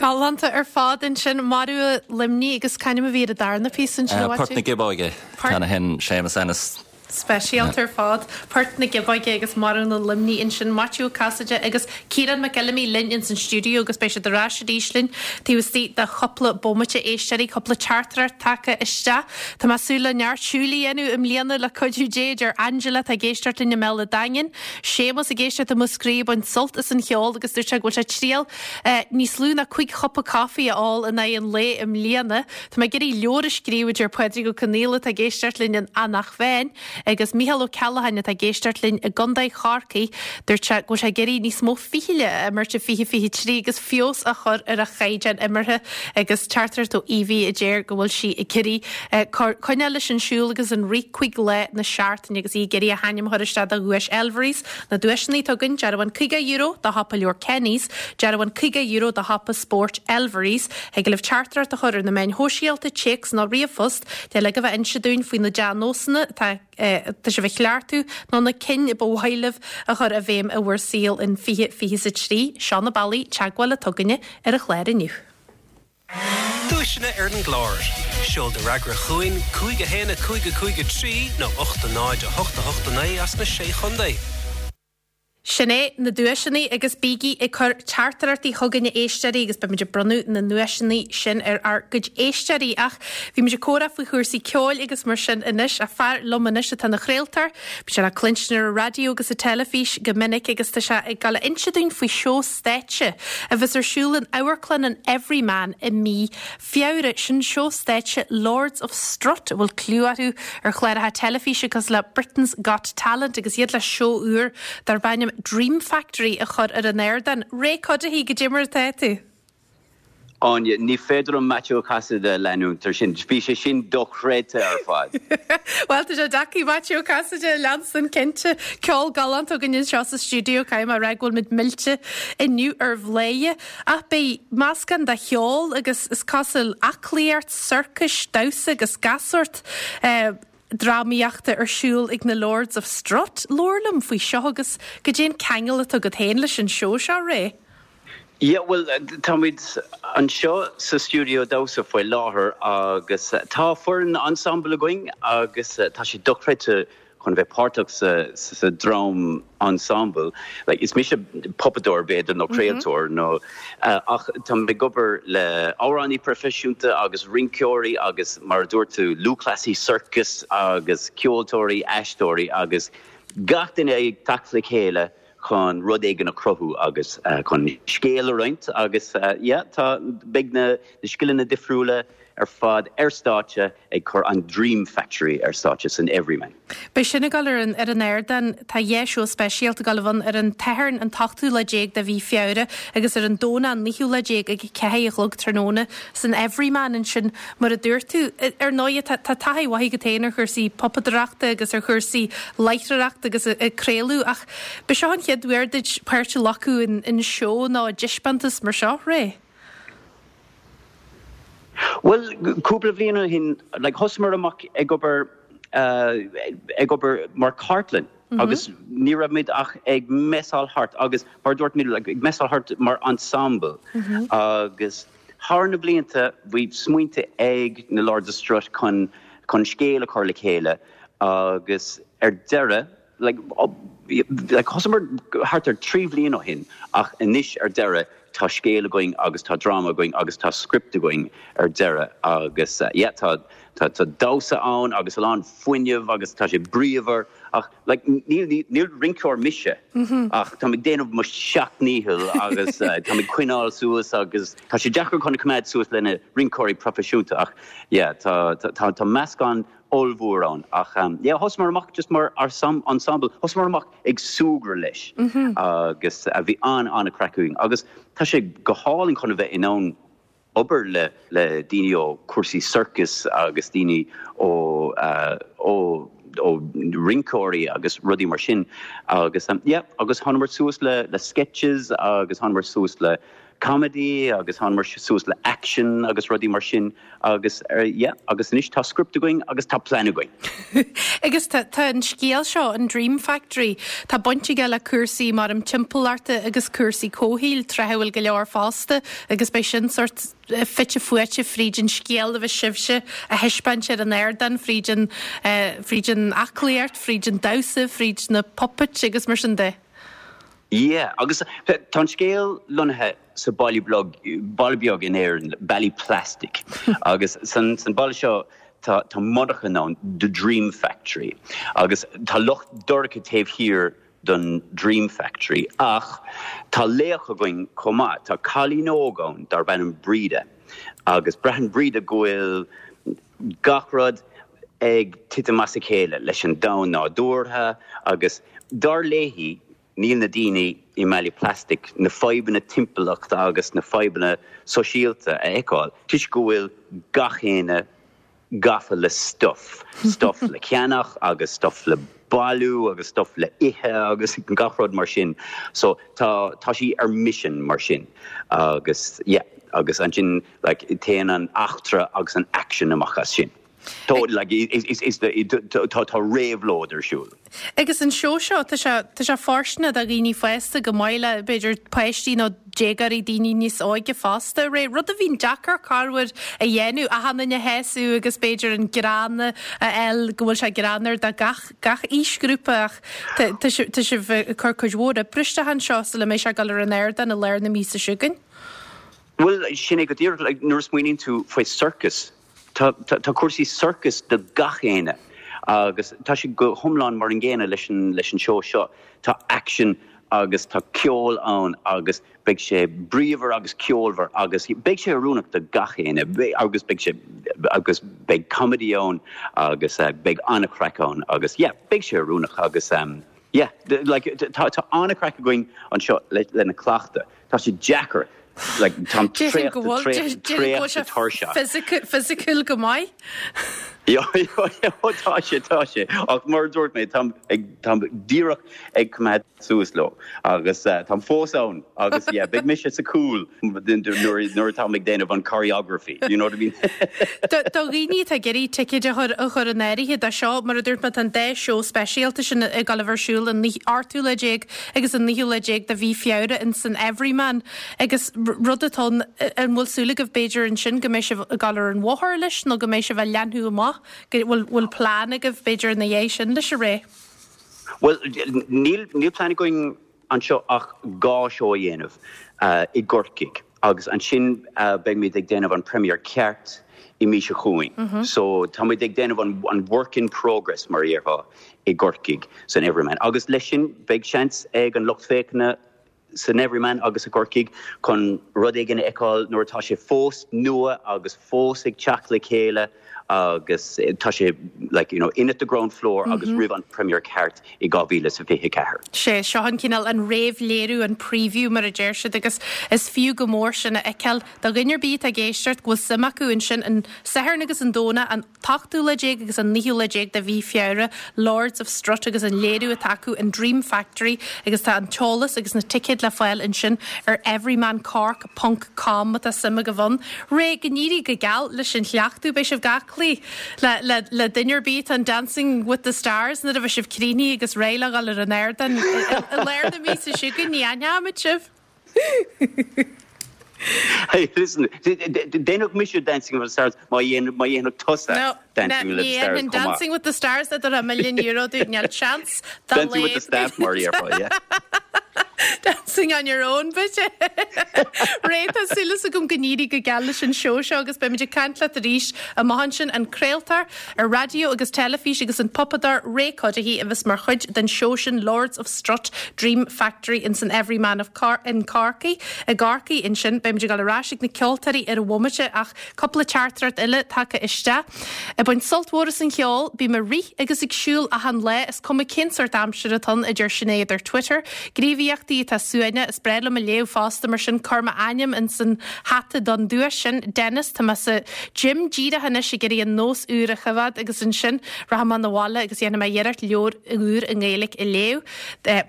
Galánta ar fad ansin, Marú Luimnigh agus c'ainm a bhí ar an darna píosa ansin a Port na Giobóige, ceann a sheinn Séamus Ennis. Speisialta ar fad. Port na Giobóige agus Marú na Luimnigh ansin, Maitiú Ó Casaide agus Ciarán Mac Fheilimí linn ins an stiúideo agus beidh siad ar ais arís linn taobh istigh de chúpla bomaite. Éisteoirí, cúpla teachtaireacht tagtha isteach. Tá mé ag súil le neart siúil a dhéanamh i mbliana le cuidiú Dé, a deir Angela atá ag éisteacht linn i mBéal an Daingin. Séamus ag éisteacht i Múscraí ag baint sult as an cheol agus dúirt sé go bhfuil sé ag triail níos lú ná 5 chupa caife a ól in aghaidh an lae i mbliana. Tá mé ag iarraidh leabhar a scríobh, a deir Pádraig Ó Conaola atá ag éisteacht linn in Eanach Mheáin, agus Mícheál Ó Ceallacháin atá ag éisteacht linn i gContae Chorcaí, dúirt sé go bhfuil sé ag iarraidh níos mó fichille a imirt i 2023 agus feabhas a chur ar a chaighdeán imeartha agus teachtaireacht ó Evie a deir go bhfuil sí ag iarraidh coinneáil leis an siúl agus an rith 5 lá na seachtaine agus í ag iarraidh a hainm a chur isteach do dhuais Elvery's. Na duaiseanna atá againn, dearbhán €50 do shiopa leabhar Kenny's, dearbhán €50 do shiopa spóirt Elvery's. Thig libh teachtaireacht a chur ar na meáin shóisialta, téacs nó ríomhphost, le uilig a bheith inse dúinn faoi na dea-nósanna atá atá sibh a chleachtadh nó na cinn ba mhaith libh a chur i bhfeidhm i bhur saol in 2023. Seo na bealaí teagmháil atá againne ar an chlár inniu. Duaiseanna ar an gclár. Seol do fhreagra chugainn, 5 1 5 5 3 nó 8 0 8 8 9 as na Sé Chontae. Sin é, na duaiseanna agus bígí ag cur teachtaireachtaí chugainn a éisteoirí agus beimid ag bronnadh na nduaiseanna sin ar ár gcuid éisteoirí. Ach bhí muid ag comhrá faoi chúrsaí ceoil agus mar sin anois, ach fear liom anois atá ina chraoltóir, bíonn sé le cluinstin ar an raidió agus sa teilifís go minic agus tá sé ag dul a inse dúinn faoi seó stáitse a bheas ar siúl in Amharclann an Everyman i mí Feabhra, sin seó stáitse Lords of Strut, a bhfuil clú orthu ar chláracha teilifíse cosúil le Britain's Got Talent agus iad le seó úr darb ainm Dream Factory a chur ar an ardán. Ray Cuddihy, goidé mar atá tú? Áine, ní féidir liom Maitiú Ó Casaide a leanúint ar sin. Bhí sé sin dochreidte ar fad. Bhuel, tá sé deacair Maitiú Ó Casaide a leanstan, cinnte. Ceol galánta againn anseo sa stiúideo, caithfidh mé a rá go bhfuil muid millte inniu ar Bhladhaire. Ach beidh meascán de cheol agus is cosúil aclaíocht, sorcais, damhsa agus gach sórt drámaíochta ar siúl ag na Lords of Strut. Labhair liom faoi seo agus goidé an ceangal atá agat féin leis an seó seo, Ray. Yeah, bhuel, táimid anseo sa stiúideo damhsa faoi láthair agus tá foireann ensemble againn agus tá sé dochreidte chun bheith páirteach sa dream ensemble. Like, is mise puipeadóir b'fhéidir nó craoltóir nó ach táim ag obair le amhránaí proifisiúnta agus rinceoirí agus mar a dúirt tú lúthchleasaí sorcais agus ceoltóirí, aisteoirí agus gach duine ag teacht le chéile chun rud éigin a chruthú agus chun scéal a roinnt agus yeah tá beidh na scileanna difriúla ar fad ar stáitse ag cur an Dream Factory ar stáitse san Everyman. Beidh sin ag dul ar an ar an ardán. Tá dhá seó speisialta ag dul a bheith ann ar an tSatharn an t-ochtú lá déag de mhí Feabhra agus ar an Domhnach an naoú lá déag ag a ceathair a chlog tráthnóna san Everyman ansin. Mar a dúirt tú, ar ndóigh tá tá taithí mhaith agat féin ar chúrsaí puipeadóireachta agus ar chúrsaí láithreoireachta agus ag craoladh ach b'é seo an chéad uair duit páirt a ghlacadh in in seó nó i dtaispeántas mar seo, Ray? Bhuel, cúpla bhliain ó shin, like, thosaíomar amach ag obair, ag obair mar chartlann agus ní raibh muid ach ag messáil thart agus mar a dúirt mé, like, ag messáil thart mar ensemble agus thar na blianta bhí smaointe ag na Lords of Strut chun, chun scéal a chur le chéile agus ar deireadh, like, like, thosaíomar thart ar 3 bhliain ó shin ach anois ar deireadh tá scéal againn agus tá dráma againn agus tá script againn ar deireadh agus yeah tá tá tá damhsa ann agus a lán fuinneamh agus tá sé bríomhar ach like níl níl rinceoir mise ach táim ag déanamh mo sheacht ndícheall agus táim ag coinneáil suas agus tá sé deacair chun coimeád suas le na rinceoirí proifisiúnta ach yeah tá tá tá meascán ollmhór ann ach yeah thosaíomar amach just mar ensemble, thosaíomar amach ag súgradh leis agus bhí an-an-chraic againn agus tá sé go hálainn chun a bheith in ann obair le le daoine ó cúrsaí sorcais agus daoine ó ó ó rinceoirí agus rudaí mar sin agus yeah agus thánamar suas le le sketches agus thánamar suas le. comedy agus thánamar suas le action agus rudaí mar sin agus yeah agus anois tá script againn agus tá plean againn. Agus tá tá an scéal seo, an Dream Factory, tá baint aige le cúrsaí mar an timpeallachta agus cúrsaí comhshaoil, tráth a bhfuil go leor fosta agus beidh sin sort fite fuaite fríd an scéal a bheas sibhse a thaispeáint ar an ardán, fríd an fríd an aclaíocht, fríd an damhsa, fríd na puppets agus mar sin de. Yeah, agus tá an scéal lonnaithe sa baile beag, baile beag in Éirinn, Ballyplastic, agus san san baile seo tá tá monarcha ann, The Dream Factory, agus tá lucht dorcha taobh thiar don Dream Factory, ach tá laoch againn chomh maith, tá cailín óg ann darb ainm Breda, agus braitheann Breda go bhfuil gach rud ag titim as a chéile leis an domhan nádúrtha agus dar léi níl na daoine i mBallyplastic na fadhbanna timpeallachta agus na fadhbanna sóisialta a fheiceáil toisc go bhfuil gach éinne gafa le stuff, stuff le ceannach agus stuff le bailiú agus stuff le ithe agus gach rud mar sin. So tá tá sí ar mission mar sin agus yeah agus ansin like téann an eachtra agus an action amach as sin. Tá like is is is tá tá réabhlóid ar siúl. Agus an seó seo, tá sé tá sé fóirsteanach do dhaoine fásta chomh maith le b'fhéidir páistí nó déagóirí, daoine níos óige fosta, Ray, rud a bhíonn deacair corruair a dhéanamh, achan duine a shásamh agus b'fhéidir an greann a fháil go bhfuil sé greannmhar do gach gach aoisghrúpa ach tá tá sibh tá sibh ag cur cuid mhór oibre isteach anseo sula mbeidh sé ag dul ar an ardán i lár na míosa seo chugainn. Bhuel, sin é go díreach, like, nuair a smaoiníonn tú faoi circus, tá, tá, tá cúrsaí circus do gach éinne agus tá sé go hiomlán mar an gcéanna leis an, leis an seó seo. Tá action agus tá ceol ann agus beidh sé bríomhar agus ceolmhar agus beidh sé oiriúnach do gach éinne agus beidh sé, agus beidh comedy ann agus beidh an-chraic ann agus yeah, beidh sé oiriúnach agus yeah, like, tá, tá an-chraic againn anseo le, lena cleachtadh. Tá sé deacair, like, táim Déarfainn go traochta, bhfuil, traochta, déarfainn go bhfuil traochta sé tuirseach. physical, physiciúil go maith. Yeah, yeah, tá sé, tá sé. Ach mar a dúirt mé, táim ag, táim díreach ag coimeád suas leo agus táim fós ann agus yeah, beidh mise sa chúl nuair, nuair atáim ag déanamh an choreography, you know what I mean? Do, do dhaoine atá ag iarraidh ticéid a chur, a chur in áirithe do seo, mar a dúirt mé, tá an dá seó speisialta sin ag dul a bheith ar siúl an 8ú lá déag agus an naoú lá déag de mhí Feabhra in san Everyman agus rud atá ann, an bhfuil súil agaibh b'fhéidir ansin go mbeidh sibh ag dul ar an bhóthar leis nó go mbeidh sibh á leathnú amach, go bhfuil bhfuil plean agaibh b'fhéidir ina dhiaidh sin leis a Ray? Bhuel, níl níl plean againn anseo ach 2 seó a dhéanamh i gCorcaigh agus ansin beimid ag déanamh an premiere ceart i mí seo chugainn. So táimid ag déanamh an an work in progress mar a déarfá. i gCorcaigh san Everyman agus leis sin beidh seans ag an lucht féachana san Everyman agus i gCorcaigh chun rud éigin a fheiceáil nuair atá sé fós nua agus fós ag teacht le chéile agus tá sé like you know in at the ground floor agus roimh an premiere ceart i 2024. Sé seo an cineál an réamhléiriú, an preview mar a deir siad agus is fiú go mór sin a fheiceáil do dhuine ar bith atá ag éisteacht go bhfuil suim acu ansin an Satharn agus an Domhnach an t-ochtú lá déag agus an naoú lá déag de mhí Feabhra, Lords of Strut agus an léiriú atá acu an Dream Factory agus tá an t-eolas agus na ticéid le fáil ansin ar everymancork ponc com má tá suim agaibh ann. Ray, go n-éirí go geal leis an chleachtadh, beidh sibh ag aclaí le, le, le duine ar bith atá in Dancing with the Stars nuair a bheidh sibh críochnaithe agus réidh le dhul ar an ardán i, i lár na míosa seo chugainn, ní aithneoimid sibh. Hey, listen, déanfadh mise Dancing with the Stars má dhéanfadh tusa Dancing with the Stars chomh maith. Dancing with the Stars a dtabharfá milliún euro domh, níl chance dá Dancing with the Staff mar a déarfá, yeah. Dancing on your own, b'fhéidir. Ray, tá súil agam go n-éirí go geal leis an seó seo agus beimid ag caint leat arís amach ansin, an craoltóir ar raidió agus teilifís agus an puipeadóir Ray Cuddihy a bheas mar chuid den seó sin Lords of Strut Dream Factory ins an Everyman of in Corcaigh i gCorcaigh ansin. Beimid ag dul ar ais ag na ceoltóirí ar an bhomaite ach cúpla teachtaireacht eile tagtha isteach. Ag baint sult mhór as an cheol, bím ag rith agus ag siúl achan lá, is cuma cén sórt aimsire atá ann, a deir Sinéad ar Twitter. Gníomhaíochtaí. teachtaireachtaí atá suaimhneach, is breá liom a léamh fosta, mar sin cuir m'ainm ins an hata don duais sin. Dennis, Tá mé sa gym díreach anois ag iarraidh an nós úr a choimhéad agus ansin rachaidh mé 'na bhaile agus dhéanfaidh mé iarracht leabhar úr i nGaeilge a léamh.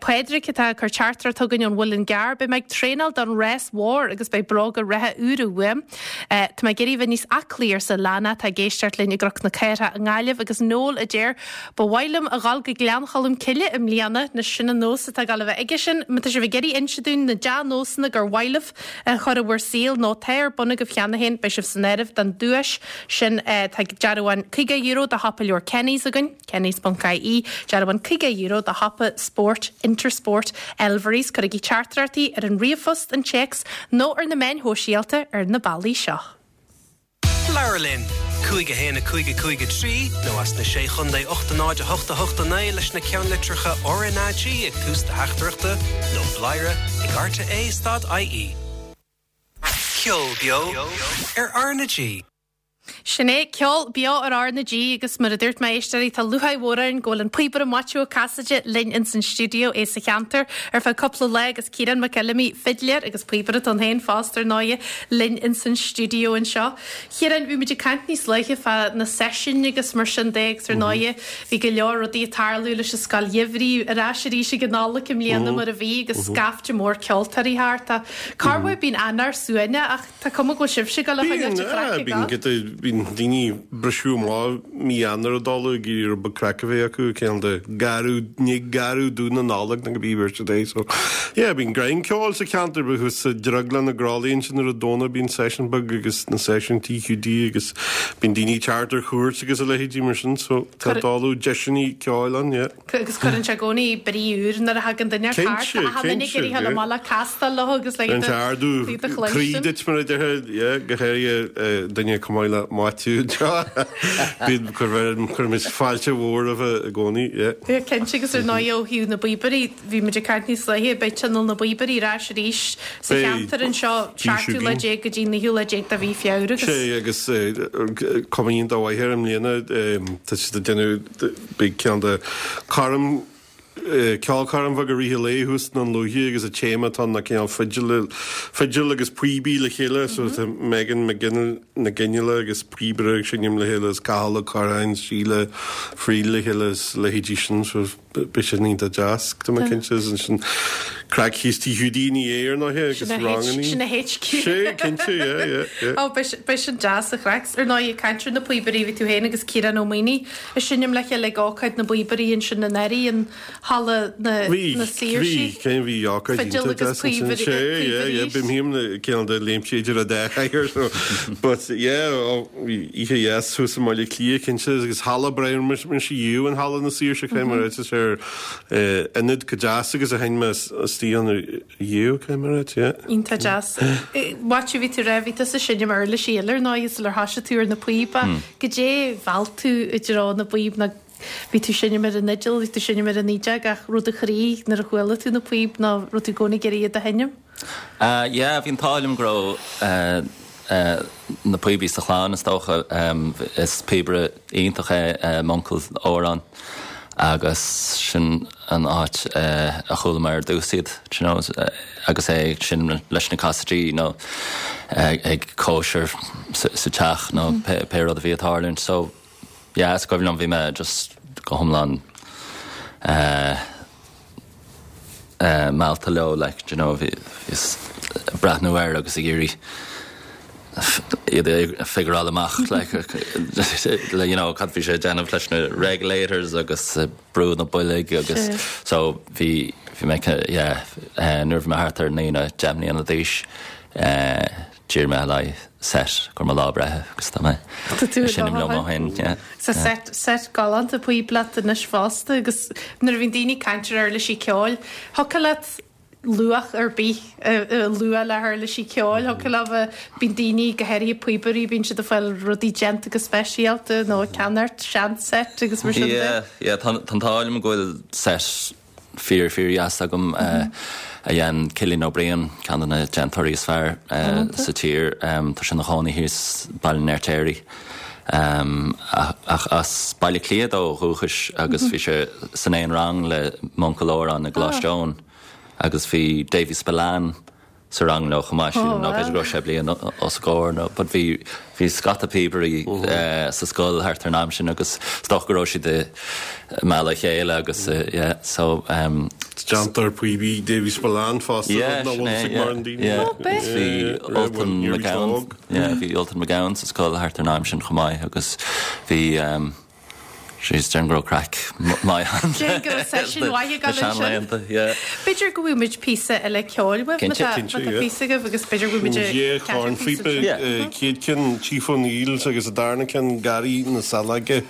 Pádraig atá ag cur teachtaireacht chugainn ón Mhuileann gCearr, Beidh mé ag traenáil don rás mhór agus beidh bróga reatha úra uaim. Tá mé ag iarraidh bheith níos aclaí, arsa Lana atá ag éisteacht linn i gCnoc na Cathrach i nGaillimh agus Noel a deir, Ba mhaith liom a dhul go Gleann Cholm Cille i mbliana, anois sin an nós atá ag dul a bheith aige sin. Má tá sibh ag iarraidh inse dúinn na dea-nósanna gur mhaith libh a chur i bhur saol nó atá ar bun agaibh cheana féin, beidh sibh san áireamh don duais sin. Tá dearbhán €50 do shiopa leabhar Kenny's againn, kennys.ie, dearbhán €50 do shiopa spóirt Intersport Elverys. Cuirigí teachtaireachtaí ar an ríomhphost, an téacs nó ar na meáin shóisialta ar na bealaí seo. Labhair linn! 5 1 5 5 3 nó as na Sé Chontae 8 0 8 8 9 leis na ceannlitreacha RnaG ag tús do theachtaireachta nó bladhaire ag rte stad ie. Ceol beo ar RnaG. Sin é, ceol beo ar RnaG agus mar a dúirt mé, a éisteoirí, tá lúcháir mhór orainn go bhfuil an píobaire Maitiú Ó Casaide linn ins an stiúideo, é sa cheantar ar feadh cúpla lá agus Ciarán Mac Fheilimí, fidléir agus píobaire atá ann féin fosta ar ndóighe, linn ins an stiúideo anseo. Chiaráin, bhí muid ag caint níos luaithe fá na seisiúin agus mar sin de agus ar ndóighe bhí go leor rudaí ag tarlú leis an Scoil Gheimhridh ar ais arís ag an Nollaig i mbliana mar a bhí agus scaifte mór ceoltóirí thart. Tá corruair bíonn Eanáir suaimhneach ach tá cuma go bhfuil sibhse ag dul a choinneáil an chraic ag Bíonn giota, bíonn daoine ag briseadh amach mí Eanáir ag dul ag iarraidh rud beag craic a bheith acu, cineál de gearradh, ní gearradh dubh na Nollag nó cibé bheirt a dé so yeah bíonn greim ceoil sa cheantar bíonn thuas sa Drioglann i gCroithlí ansin ar an Domhnach bíonn seisiún beag agus na seisiúin TQD agus bíonn daoine ag teacht ar chuairt agus a leithéidí mar sin so tá dáileadh deiseanna ceoil ann yeah. Agus cuireann sé i gcónaí brí úr nuair a thagann duine thart, Cinnte, achan duine ag cinnte, iarraidh dhul yeah. amach le castáil leo agus le Cuireann iad sé a ardú iad a croí chluinstin. duit mar a déarfá, yeah, go háirithe duine chomh maith le Maitiú anseo. Bíonn, cuirimid fáilte mhór roimhe i gcónaí, yeah. Yeah, cinnte, agus ar ndóigh ó thaobh na bpíobairí, bhí muid ag caint níos luaithe, beidh Tionól na bPíobairí ar ais arís sa Beidh, cheantar anseo, bhí 17ú lá siad. go dtí 19ú lá de mhí Feabhra agus. Sé, agus cuma iontach mhaith air i mbliana, tá siad ag déanamh, Beidh ceann de choirm, ceolchoirm bheag i rith an lae thuas i nDún Lúiche agus an téama atá ann ná cineál fidil, fidil agus píobaí le chéile so tá Megan Mac Fhionnghaile agus píobaire ag seinm le chéile is Cathal Ó Curráin, Síle Friel le chéile is leithéidí sin so beidh sin iontach deas tá mé cinnte is ansin craic thíos Tigh Hiúdaí ina dhiaidh ar ndóighe agus rangannaí. Sin a HQ. Sé, cinnte, yeah, yeah, yeah. Ó, beidh sin deas an chraic. Ar ndóigh, ag caint ar na píobairí, bhí tú féin agus Ciarán Ó Maonaigh ag seinm le chéile ag ócáid na bpíobairí ansin anuraidh in Halla na Bhí, Saoirsí. bhí, cén bhí ócáid Fidil iontach agus deas ansin. píobairí, Sé, yeah, yeah, píobairí. bím féin le cineál de léimtí idir an dá chathaoir, so, but yeah, ó, bhí oíche dheas thuas i mBaile Átha Cliath, cinnte, agus halla breá, mise riamh in Halla na Saoirse, cé mar tá sé ar eh, ionad chomh deas agus a sheinn mé istigh ann riamh, cé mar yeah. Iontach deas. Maitiú, bhí tú ag rá, bhí tusa ag seinm uirlisí eile ar ndóigh sular thoisigh tú ar na píoba. Goidé mheall tú i dtreo na bpíob nó bhí tú ag seinm ar an fhidil, bhí tú ag seinm ar an fhídeog ach raibh do chroí nuair a chuala tú na píob nó raibh tú i gcónaí ag iarraidh iad a sheinm? Yeah, bhí an t-ádh liom go raibh na píobairí sa chlann is dócha. Is píobaire iontach é m'uncail Odhrán agus sin an áit a chuala mé ar dtús iad, you know, agus é ag seinm leis na Casaidí nó ag cóisir sa teach nó pé rud a bhí ag tarlúint. So, yeah, is cuimhin liom bhí mé just go hiomlán eh, meallta leo like do you know bhíos ag breathnú air agus ag iarraidh iad a figureáil amach like you know cad bhí sé ag déanamh leis na regulators agus brú na boilg agus so bhí bhí mé yeah nuair a bhí mé thart ar 9 nó 10 mbliana d'aois D'iarr mé le haghaidh set do mo lá breithe agus tá mé Tá tú ag seinm liom ó shin, yeah. Tá set, set galánta píob leat anois fosta agus nuair a bhíonn daoine ag caint ar uirlisí ceoil, thiocfadh leat luach ar bith a lua le huirlisí ceoil, thiocfadh leo bheith, bíonn daoine, go háirithe píobairí, bíonn siad ag fáil rudaí déanta go speisialta nó ag ceannacht sean-set agus mar sin de. Yeah, yeah, tá an t-ádh liom go bhfuil set fíor, fíor dheas agam a dhein Cillian Ó Briain, ceann de na déantóirí is fearr sa tír. Tá sé ina chónaí thíos Baile an Fheirtéaraigh ach as Baile Átha Cliath dó ó dhúchas agus bhí sé san aon rang le m'uncail Odhrán i gColáiste Eoin. Agus bhí Davy Spillane sa rang leo chomh maith, sílim, nó b'fhéidir go raibh sé bliain os a gcomhair nó but bhí bhí scata píobairí sa scoil thart ar an am sin agus is dócha go raibh siad ag mealladh a chéile agus yeah so um Déantar píobaí Davy Spillane fosta yeah nach sin bhfuil é fhios ag yeah mórán daoine. yeah Ó b'é. bhí Ultan McGowan yeah bhí Ultan McGowan sa scoil thart ar an am sin chomh maith agus bhí um Jeez, déarfainn go raibh craic maith ann. Déarfainn go raibh session mhaith ag Na dul ansin. seanlaethanta, yeah. B'fhéidir go bhfaighidh muid píosa eile ceoil uaibh má Cinnte. tá Cinnte, má tá yeah. píosa agaibh agus b'fhéidir go bhfaighidh muid Dhá ceathrú píosa chornphíopa, ansin. Yeah. chéad ceann Chief O'Neill's agus an darna ceann Garraí na Saileoige.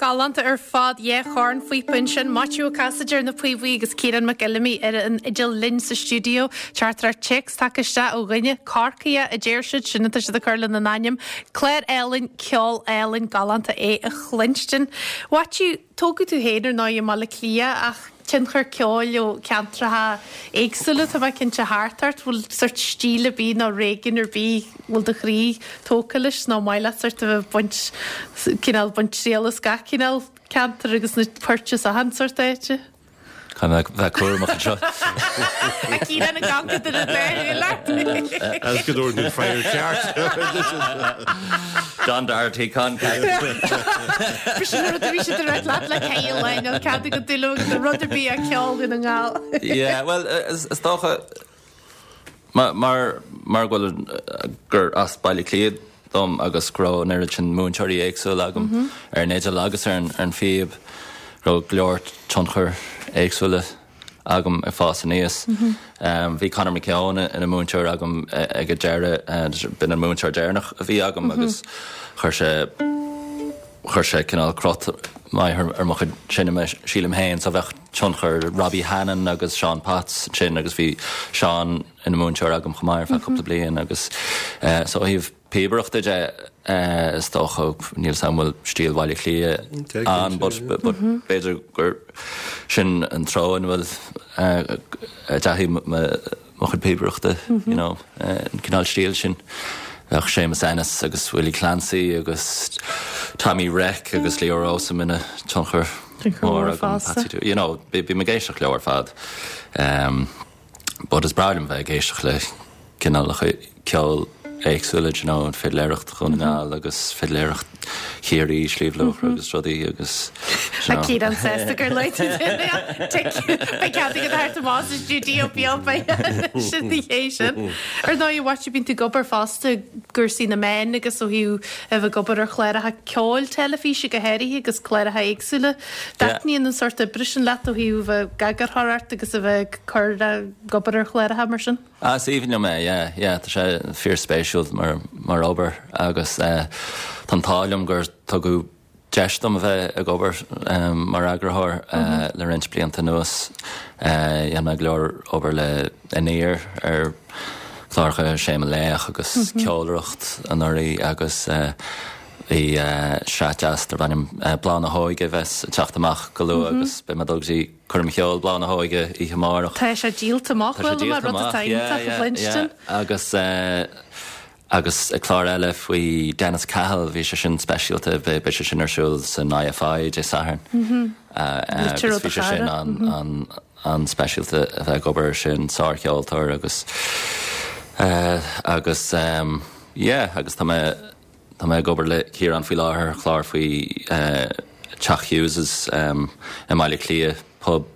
Galánta ar fad, dhá chornphíopa ansin, Maitiú Ó Casaide ar na píobaí agus Ciarán Mac Fheilimí ar an fhidil linn sa stiúideo. Teachtaireacht téacs tagtha isteach ó dhuine, Corcaíoch a deir siad, sin atá siad ag cur lena n-ainm. Clár álainn, ceol álainn, galánta é a chluinstin. Mhaitiú, tógadh tú féin ar ndóigh i mBaile Átha Cliath ach tionchar ceoil ó cheantracha éagsúla, tá mé cinnte thart ort. Bhfuil sort stíl ar bith nó réigiún ar bith bhfuil do chroí tógtha leis nó maith leat sort a bheith ag baint, cineál baint triail as gach cineál ceantar agus na poirt as achan sort áite? Caithfidh mé bheith cúramach anseo. A Chiaráin ag amharc idir an dá shúil ort. As go dtabharfaidh tú freagra ceart. Don Doherty, Con B'shin an rud a bhí siad ag rá leat le Kyle Lionel, cead agat dul agus rud ar bith a ceol Dhún na nGall. Yeah, well, is dócha, mar mar go bhfuil gur as Baile Átha Cliath dom agus go raibh an oiread sin múinteoirí éagsúla agam ar an fhidil agus ar an phíob, go raibh go leor tionchar éagsúla agam ag fás aníos. Bhí Conor McKeown ina mhúinteoir agam ag an deireadh, b'in an múinteoir deireanach a bhí agam agus chuir sé chuir sé cineál crot maith ar mo chuid seinme, sílim féin, so bheadh tionchar Robbie Hannan agus Seán Potts ansin agus bhí Seán ina mhúinteoir agam chomh maith ar feadh cúpla bliain agus so ó thaobh. píobaireachta de, is dócha, níl 's a'm an bhfuil stíl Bhaile Átha Cliath ann but b'fhéidir gur sin an treo ina bhfuil a dteachaigh mo chuid píobaireachta, you know, an cineál stíl sin. Bheadh Séamus Ennis agus Willie Clancy agus Tommy Reck agus Leo Rowsome ina tionchar mór agam, Patsy, you know, bím ag éisteacht leo ar fad. But is breá liom bheith ag éisteacht le cineálacha ceoil éagsúla, do you know, fidléireacht Dhún na nGall agus fidléireacht Chiarraí, Sliabh Luachra agus rudaí agus, do you know. Tá Ciarán sásta gur luaigh tú é. Tic. Beidh cead agat theacht amach sa stiúideo beag beidh sin ní hé sin. Ar ndóigh, a Mhaitiú, bíonn tú ag obair fosta i gcúrsaí na meán agus ó thaobh a bheith ag obair ar chláracha ceoil teilifíse go háirithe agus cláracha éagsúla. Taitníonn an sórt oibre sin leat ó thaobh a bheith ag eagarthóireacht agus a bheith ag cur ag obair ar chláracha mar sin? Ah, is aoibhinn liom é, yeah, yeah, tá sé fíorspéisiúil mar, mar obair agus eh, tá an t-ádh liom gur tugadh deis dom a bheith ag obair eh, mar eagarthóir eh, le roinnt blianta anuas. Eh, dhein mé go leor obair le Aniar ar chláracha Sé Mo Laoch agus Ceolaireacht anuraidh agus eh, Bhí sraith deas darb ainm Bláth na hÓige a bheas ag teacht amach go luath agus beidh mé ag dul go dtí coirm cheoil Bláth na hÓige oíche amárach. Tá sé díolta amach, Tá sé bhuel, díolta rud amach, atá yeah, iontach a yeah, chluinstin. yeah. Agus agus clár eile faoi Dennis Cahill, bhí sé sin speisialta, beidh sé sin ar siúl san IFI Dé Sathairn. Litir Agus ó do bhí sé sin chara. an an-speisialta a bheith ag obair air sin, sárcheoltóir agus agus yeah agus tá mé tá mé ag obair le Ciarán faoi láthair ar chlár faoi Teach Hughes's i mBaile Átha Cliath, pub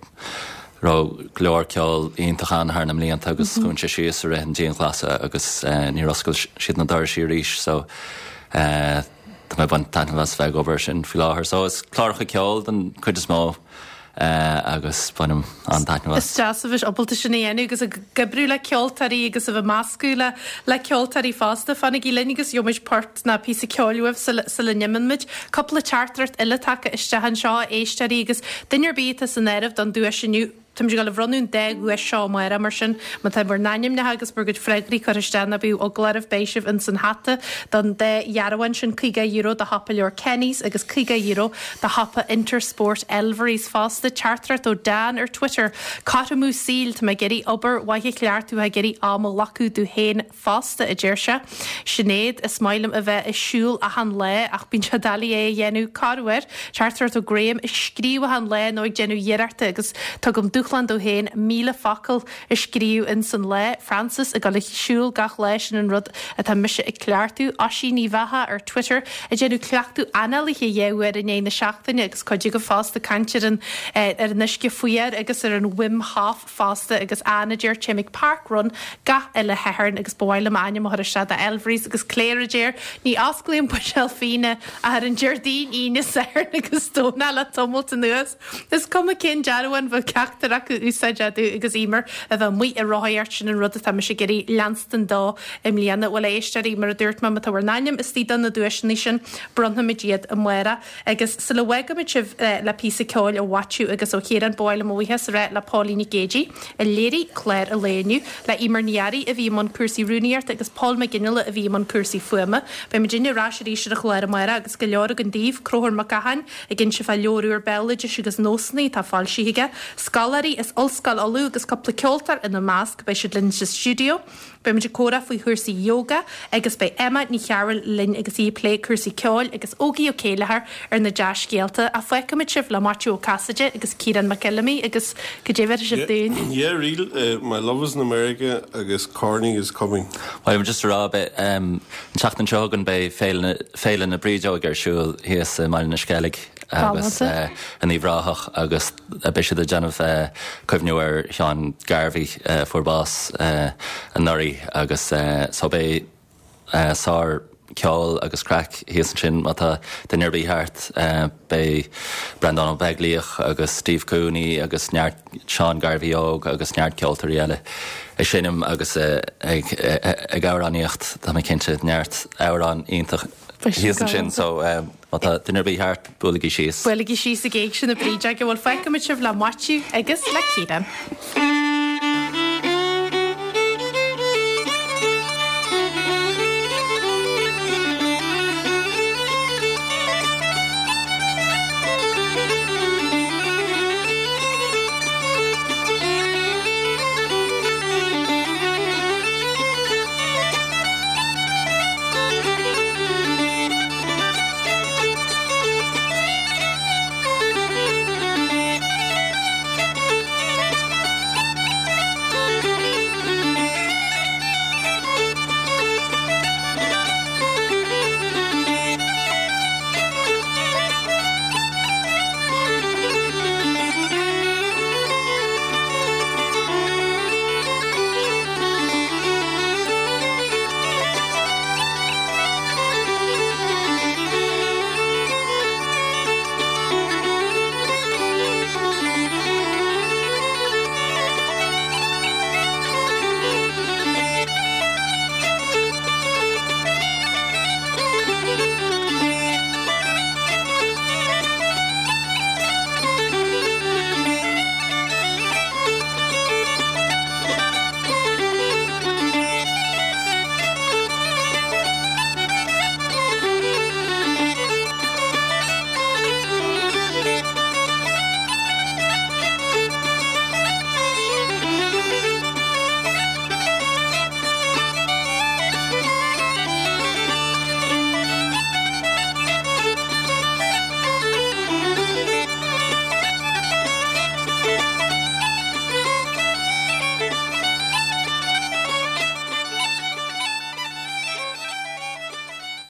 a raibh go leor ceol iontach ann thar na mblianta agus dhún sé síos i rith an dianghlasála agus níor oscail siad na dorais arís so tá mé ag baint taitneamh as bheith ag obair air sin faoi láthair. So is cláracha ceoil den chuid is mó. agus bainim an-taitneamh as. Is deas a bheith ábalta sin a dhéanamh agus ag oibriú le ceoltóirí agus a bheith meascadh le le ceoltóirí fosta. Fanaigí linn agus gheobhaimid port ná píosa ceoil uaibh sula sula n-imíonn muid. Cúpla teachtaireacht eile tagtha isteach anseo, a éisteoirí, agus duine ar bith atá san áireamh don duais inniu, Táimid ag dul a bhronnadh an dá dhuais seo amárach, mar sin má tá bhur n-ainmneacha agus bhur gcuid freagraí curtha isteach ná bíodh eagla oraibh, beidh sibh ins an hata don dá dhearbhán sin, €50 do shiopa leabhar Kenny's agus €50 do shiopa Intersport Elverys fosta. Teachtaireacht ó Dan ar Twitter, Cothromú saoil, tá mé ag iarraidh obair mhaith a chleachtadh, ag iarraidh am a ghlacadh domh féin fosta, a deir sé. Sinéad, Is maith liom a bheith ag siúl achan lá ach bíonn sé doiligh é a dhéanamh corruair. Teachtaireacht ó Graham, Ag scríobh achan lá nó ag déanamh iarrachta agus tugaim dúshlán domh féin 1,000 focal a scríobh ins an lá. Frances, Ag dul ag siúl gach lá, sin an rud atá mise ag cleachtadh. Oisín Uí Bheatha ar Twitter, Ag déanamh cleachtadh análaithe dhá uair in aghaidh na seachtaine agus cuid agaibh fosta ag caint ar an ar an uisce fuar agus ar an Wim Hof fosta agus Anne a deir Téim ag Park Run gach uile Shatharn agus ba mhaith liom m'ainm a chur isteach do Elvery's agus Claire a deir Ní osclaím buidéal fíona ach ar an Déardaoin, Aoine, Satharn agus Domhnach le tamalt anuas. Is cuma cén dearbhán bheadh ceachtar acu úsáid acu agus Emer a bheith amuigh ag rothaíocht sin an rud atá mise ag iarraidh leanstan dó i mbliana. Bhuel a éisteoirí, mar a dúirt mé, má tá bhur n-ainm istigh do na duaiseanna sin, bronnfaimid iad amárach. Agus sula bhfágaimid sibh le píosa ceoil ó Mhaitiú agus ó Chiarán, ba mhaith liom mo bhuíochas a rá le Póilín Nic Géidigh, a léirigh clár an lae inniu, le Emer Ní Fhearraigh a bhí i mbun cúrsaí rúnaíochta agus Paul McGinley a bhí i mbun cúrsaí fuaime. Beidh muidinne ar ais arís ar an chlár amárach agus go leor againn daoibh, Conchúr Mac Gacháin ag inse fá leabhar úr béaloidis agus nósanna atá foilsithe aige, scoláirí as Ollscoil Uladh agus cúpla ceoltóir ina measc, beidh siad linn sa stiúideo. Beidh muid ag comhrá faoi chúrsaí yoga agus beidh Emma Ní Chearúil linn agus í ag plé cúrsaí ceoil agus Ógie Ó Céilleachair ar na dea-scéalta. Ach fágfaimid sibh le Maitiú Ó Casaide agus Ciarán Mac Fheilimí agus cad é bhéarfaidh sibh dúinn? Yeah, real, My Love is in America agus Corny is Coming. Bhuel, just a rá, beidh, an tseachtain seo chugainn beidh Féile, Féile na Brídeoige ar siúl thíos i mBaile na Sceilg agus in Uíbh Ráthach agus beidh siad ag déanamh cuimhniú ar Sheán Garvey a fuair bás anuraidh agus so beidh sár ceol agus craic thíos ansin má tá duine ar bith thart. Beidh Breandán Ó Beaglaoich agus Steve Cooney agus neart Seán Garvey óg agus neart ceoltóirí eile ag seinm agus ag amhránaíocht tá mé cinnte neart amhrán iontach thíos ansin so Má tá duine ar bith thart, buailigí síos. Buailigí síos ag Éigse na Brídeoige. Bhuel, fágfaimid sibh le Maitiú agus le Ciarán.